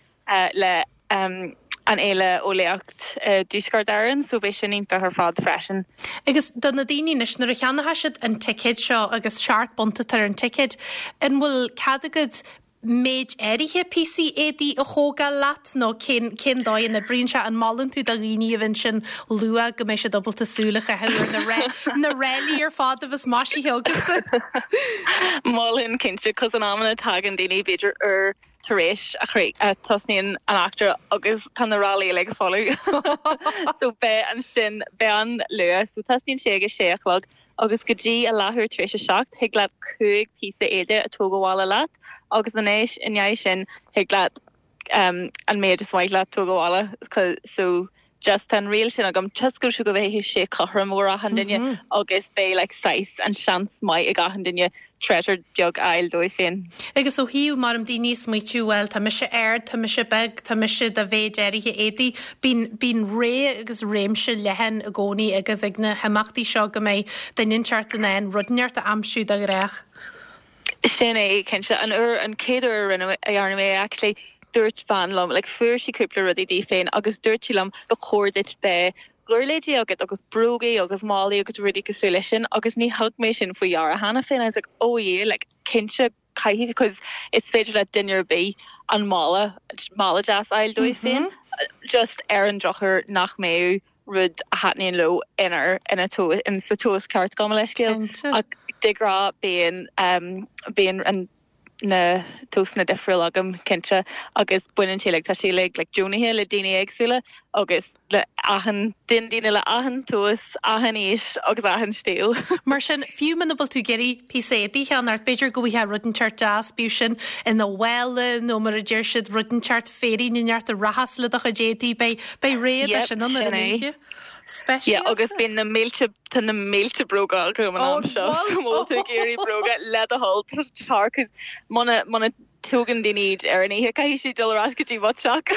le an Fhéile Eolaíocht i dTuaisceart Éireann so beidh sin iontach ar fad freisin. Agus do na daoine anois, nuair a cheannóidh siad an ticéad seo agus £7 atá ar an ticéad, an bhfuil cead agat méid áirithe píosaí éadaí a thógáil leat nó cén cén dóigh a n-oibríonn sé? An molann tú do dhaoine a bheith ansin luath go mbeidh siad ábalta súil a chaitheamh ar na na ráillí ar fad a bheas maisithe agatsa? Mholfainn cinnte, cos in amanna tagann daoine b'fhéidir uair tar éis a chríoch a tosnaíonn an eachtra agus tá na ráillí uilig folamh. So beidh ansin beidh an luath. So tosnaíonn sé ag a sé a chlog agus go dtí a leathuair tar éis a 7 thig leat 5 píosa éide a tóg abhaile leat agus anois i ndiaidh sin thig leat an méid is maith leat tóg abhaile so just tá an riail sin agam toisc go go mbeidh sé cothrom do achan duine agus beidh like saghas an seans maith ag achan duine treasure beag a fháil dóibh féin. Agus ó thaobh mar daoine ag smaoitiú, bhuel, tá mise ard, tá mise beag, tá mise de mhéid áirithe éadaí, bíonn, bíonn rogha agus réimse leathan i gcónaí agaibh ag na himeachtaí seo go mbeidh duine inteacht in ann rud inteacht a aimsiú dá ghnách. Sin é, cinnte. An uair, an chéad uair a rinne, a dhearna mé é actually, dúirt bean liom, like fuair sí cúpla rudaí di féin agus dúirt sí liom ba chóir duit beith giuirléidí agat agus brógaí agus málaí agus rudaí cosúil leis sin agus ní thug mé sin faoi deara cheana féin. I was like oh yeah like cinnte caithfidh because is féidir le duine ar bith an mála, mála deas a fháil dóibh féin just ar an drochuair nach mbeadh rud a thaitníonn leo inar ina in sa tomhas ceart gabh mo leithscéal ach de ghnáth bíonn bíonn an na tomhasanna difriúil agam cinnte agus baineann sé like tá sé uilig like deonaithe le daoine éagsúla agus le achan duine daoine le achan tomhas, achan aois agus achan stíl. Mar sin, fiú muna bhfuil tú ag iarraidh píosa éadaí a cheannacht, b'fhéidir go bhfaighfeá rud inteacht deas, bíodh sin ina mhála nó mar a deir siad rud inteacht féirín inteacht a rachas le do chuid éadaí, beidh beidh rogha de Yep, sin ann ar sin an é. oíche. Yeah, agus Speisialta. bíonn na mílte, tá na mílte bróga agam an am seo, so má bhfuil tú ag iarraidh bróga le do thoil, tar, 'cause muna, muna tógann daoine iad ar an oíche, caithfidh siad dul ar ais go dtí mo theach.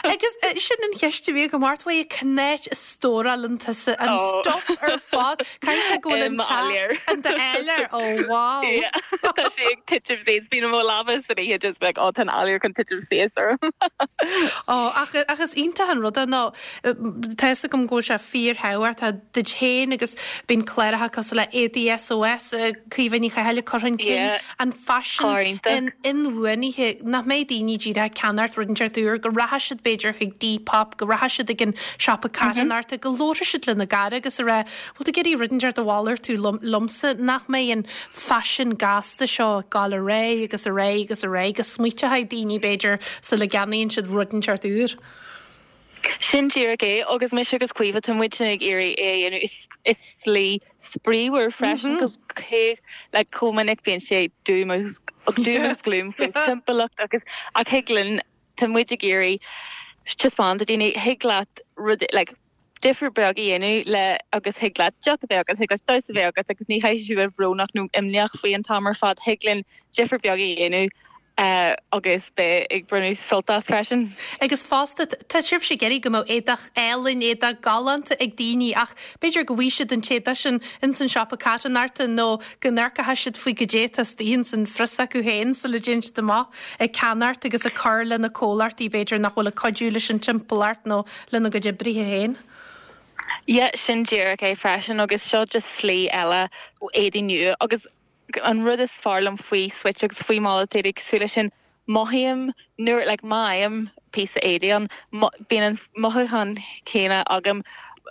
Agus sin an cheist a bhí agam ort, bhuel, cén áit a stórálann tusa an stuff ar fad? Caithfidh sé go bhfuil an teach in d'áiléar, oh wow. Yeah, tá sé ag titim suas, bíonn mo lámha san oíche just like, oh tá an áiléar chun titim suas orm. Oh, ach, ach is iontach an rud é nó tá fhios agam go bhfuil sé fíorthábhachtach duit féin agus bíonn cláracha cosúil le Éadaí SOS, Caoimhe Ní Chathail ag cur chun cinn an faisean inbhuanaithe, nach mbeidh daoine díreach ag ceannacht rud inteacht úr, go rachaidh siad b'fhéidir chuig Depop, go rachaidh siad ag an siopa carthanachta, go labharfaidh siad lena gcara agus a rá, bhfuil tú ag iarraidh rud inteacht a mhalartú liomsa, nach mbeidh an faisean gasta seo ag gabháil ar aghaidh agus ar aghaidh agus ar aghaidh, go smaointeoidh daoine b'fhéidir sula gceannaíonn siad rud inteacht úr. Sin díreach é, agus mise agus Caoimhe, tá muidne ag iarraidh é a dhéanamh i slí spraíúil freisin, cos cé, like, chomh minic bíonn sé doom agus, doom agus gloom faoin timpeallacht agus, ach thig linn, tá muid ag iarraidh taispeáint do daoine, thig leat rud, like, difear beag a dhéanamh le agus thig leat deoch a bheith agat, thig leat damhsa a bheith agat agus ní chaithfidh tú bheith brónach nó imníoch faoi an t-am ar fad, thig linn difear beag a dhéanamh agus beith ag bronnadh sult as freisin. Agus fosta, tá sibhse ag iarraidh go mbeadh éadach álainn, éadach galánta ag daoine ach b'fhéidir go bhfaighidh siad an t-éadach sin ins an siopa carthanachta nó go n-amharcfaidh siad faoi goidé atá istigh ins an phrios acu féin sula dtéann siad amach ag ceannacht agus ag cur le na comhlachtaí b'fhéidir nach bhfuil ag cuidiú leis an timpeallacht nó lena gcuid oibrithe féin. Yeah, sin díreach é freisin agus seo just slí eile éadaí nua agus an rud is fearr liom faoi Switch agus faoi malartú éadaí cosúil leis sin, mothaím nuair, like, má fhaighim píosa éadaí ann, bíonn an mothúchán céanna agam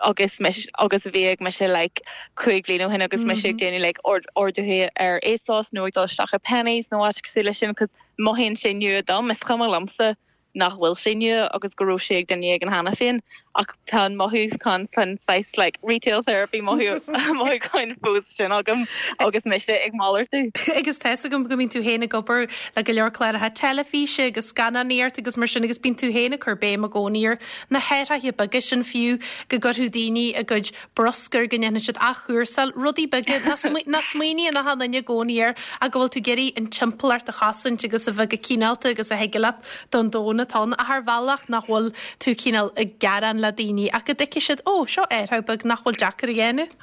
agus mise, agus a bhí ag mise like 5 bhliain ó shin agus mise ag déanamh like orduithe ar ASOS nó ag dul isteach i Penneys nó áit cosúil leis sin 'cause mothaíonn sé nua dom, is cuma liomsa nach bhfuil sé nua agus go raibh sé ag duine éigin cheana féin ach tá an mothúchán san saghas like retail therapy mothúchán fós sin agam agus mise ag malartú. Agus tá 'fhios agam go mbíonn tú féin ag obair le go leor cláracha teilifíse agus scannánaíocht agus mar sin agus bíonn tú féin ag cur béim i gcónaí ar na hathruithe beaga sin fiú go gcuirfeadh daoine a gcuid bruscar, go ndéanfaidh siad athchúrsáil, rudaí beaga nach smaoiníonn achan duine i gcónaí air ach go bhfuil tú ag iarraidh an timpeallacht a chosaint agus a bheith go cineálta agus a thig leat don domhan atá ann ach ar bhealach nach bhfuil tú cineál ag gearán le daoine ach go dtuigfidh siad, ó, seo athrú beag nach bhfuil deacair a dhéanamh.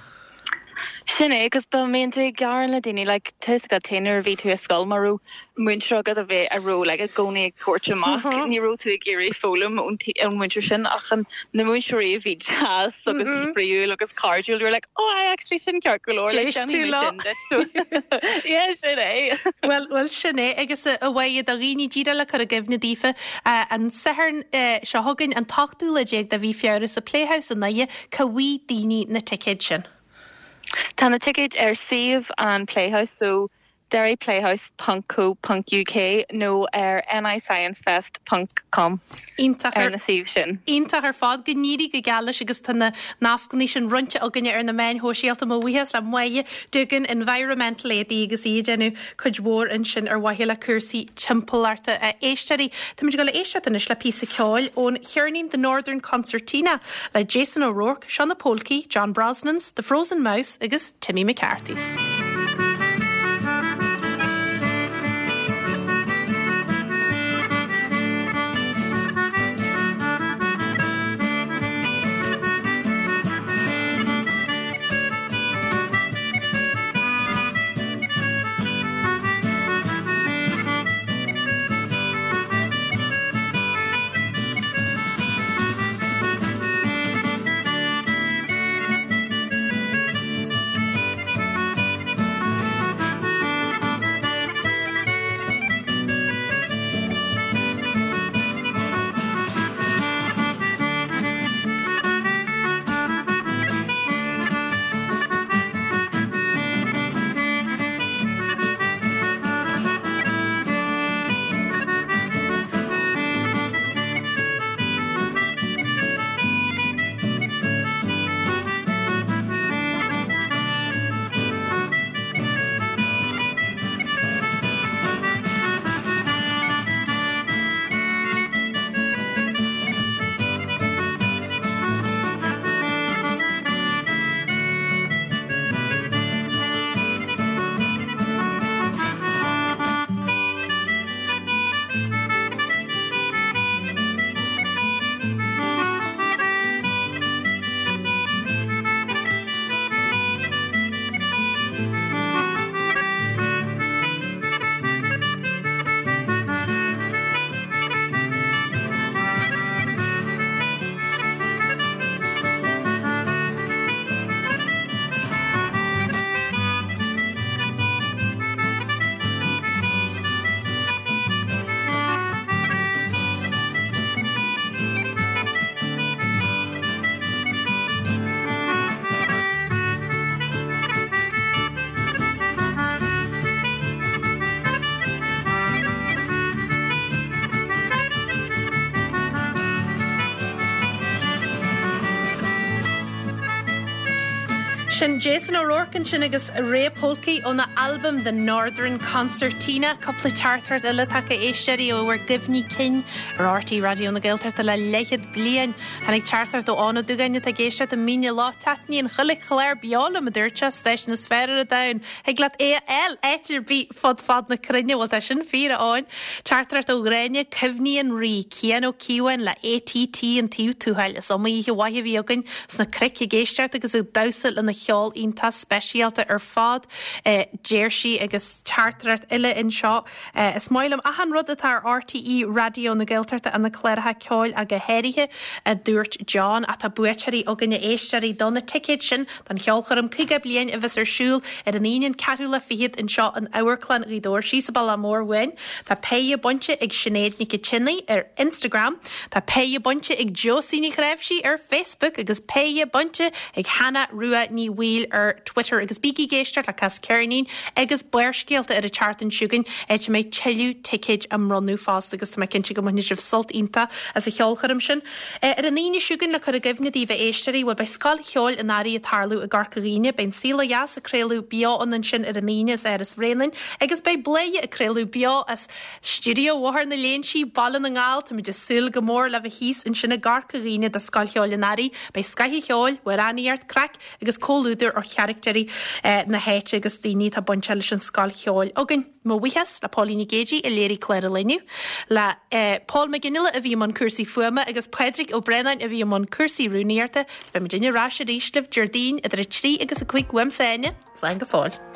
Sin é, agus dá mbíonn tú ag gearán le daoine, like, tá 'fhios agat féin nuair a bhí tú i scoil, má raibh múinteoir agat a bheith, a raibh, like, i gcónaí ag tabhairt amach, ní raibh tú ag iarraidh foghlaim ón, ón múinteoir sin, ach an, na múinteoirí a bhí deas agus spraíúil agus cairdiúil, you were like, oh, I actually, sin ceart go leor, like, D'éist tú déanfaidh mé leo. sin duit. Yeah, sin é. Bhuel, bhuel, sin é, agus a Mháire, do dhaoine díreach le cur i gcuimhne daofa, an Satharn seo chugainn, an t-ochtú lá déag de mhí Feabhra sa Playhouse i nDoire, Cá bhfaighidh daoine na ticéid sin? Tá na ticéid ar suíomh an Playhouse, so derryplayhouse ponc co ponc uk nó ar nisciencefest ponc com Iontach ar na suímh sin. Iontach ar fad. Go n-éirí go geal leis agus tá na nascanna sin roinnte againne ar na meáin shóisialta. Mo bhuíochas le Máire Doogan, Environmental AD agus í ag déanamh cuid mhór ansin ar mhaithe le cúrsaí timpeallachta. A éisteoirí, táimid ag dul a éisteacht anois le píosa ceoil ón cheirnín The Northern Concertina le Jason O'Rourke, seo na Pólcaí, John Brosnans, The Frozen Mouse agus Timmy McCarthy's. Sin Jason O'Rourke ansin agus Ray Polky óna albam The Northern Concertina. Cúpla teachtaireacht eile tagtha a éisteoirí ó bhur gcuimhní cinn ar RTÉ Raidió na Gaeltachta le leathchéad bliain. Tháinig teachtaireacht ó Eoin Ó Dúgáin atá ag éisteacht i Mín an Loch. Taitníonn chuile chlár beo liom, a dúirt sé, stáisiún is fearr ar an domhan. Thig leat é a fháil áit ar bith fud fad na cruinne. Bhuel, tá sin fíor, a Eoin. Teachtaireacht ó Ghráinne, Cuimhní an Rí, Cian Ó Cíobháin le ATT an Taobh Tuathail. Is iomaí oíche mhaith a bhí againn sna cnoic ag éisteacht agus ag damhsa lena cheol iontach speisialta ar fad, a deir sí. Agus teachtaireacht eile anseo, Is maith liom achan rud atá ar RTÉ Raidió na Gaeltachta, na cláracha ceoil ach go háirithe, a dúirt John. Ach tá buaiteoirí againn, a éisteoirí, do na ticéid sin don cheolchoirm 50 bliain a bheas ar siúl ar an Aoine an ceathrú lá fichead anseo in Amharclann Ghaoth Dobhair síos an bealach mór uainn. Tá péire bainte ag Sinéad Nic an tSionnaigh ar Instagram, tá péire bainte ag Josie Ní Chnáimhsí ar Facebook agus péire bainte ag Hannah Rua Ní Bhaoill ar Twitter. Agus bígí ag éisteacht le Cas Ceirnín agus Barrscéalta ar an tseachtain seo chugainn áit a mbeidh tuilleadh ticéid á mbronnadh fosta agus tá mé cinnte go mbainfidh sibh sult iontach as an cheolchoirm sin. Ar an Aoine seo chugainn, le cur i gcuimhne daoibh a éisteoirí, bhuel, beidh Scoil Cheoil an Earraigh ag tarlú i gCorca Dhuibhne. Beidh An Saol Ó Dheas ag craoladh beo ann ansin ar an Aoine as Áras Bhréanainn agus beidh Bladhaire ag craoladh beo as Stiúideo Bhóthar na Léinsí, Baile na nGall. Táimid ag súil go mór le bheith thíos ansin i gCorca Dhuibhne do Scoil Cheoil an Earraigh. Beidh scoth an cheoil, amhránaíocht, craic agus comhluadar ó charachtéirí na háite agus daoine atá bainteach leis an Scoil Cheoil againn. Mo bhuíochas le Póilín Nic Géidigh a léirigh clár an lae inniu, le Paul Mac Fhionnghaile a bhí i mbun cúrsaí fuaime agus Pádraig Ó Braonáin a bhí i mbun cúrsaí rúnaíochta. Is beidh muidinne ar ais arís libh Déardaoin idir 3 agus 5 uaimse Áine. Slán go fóill.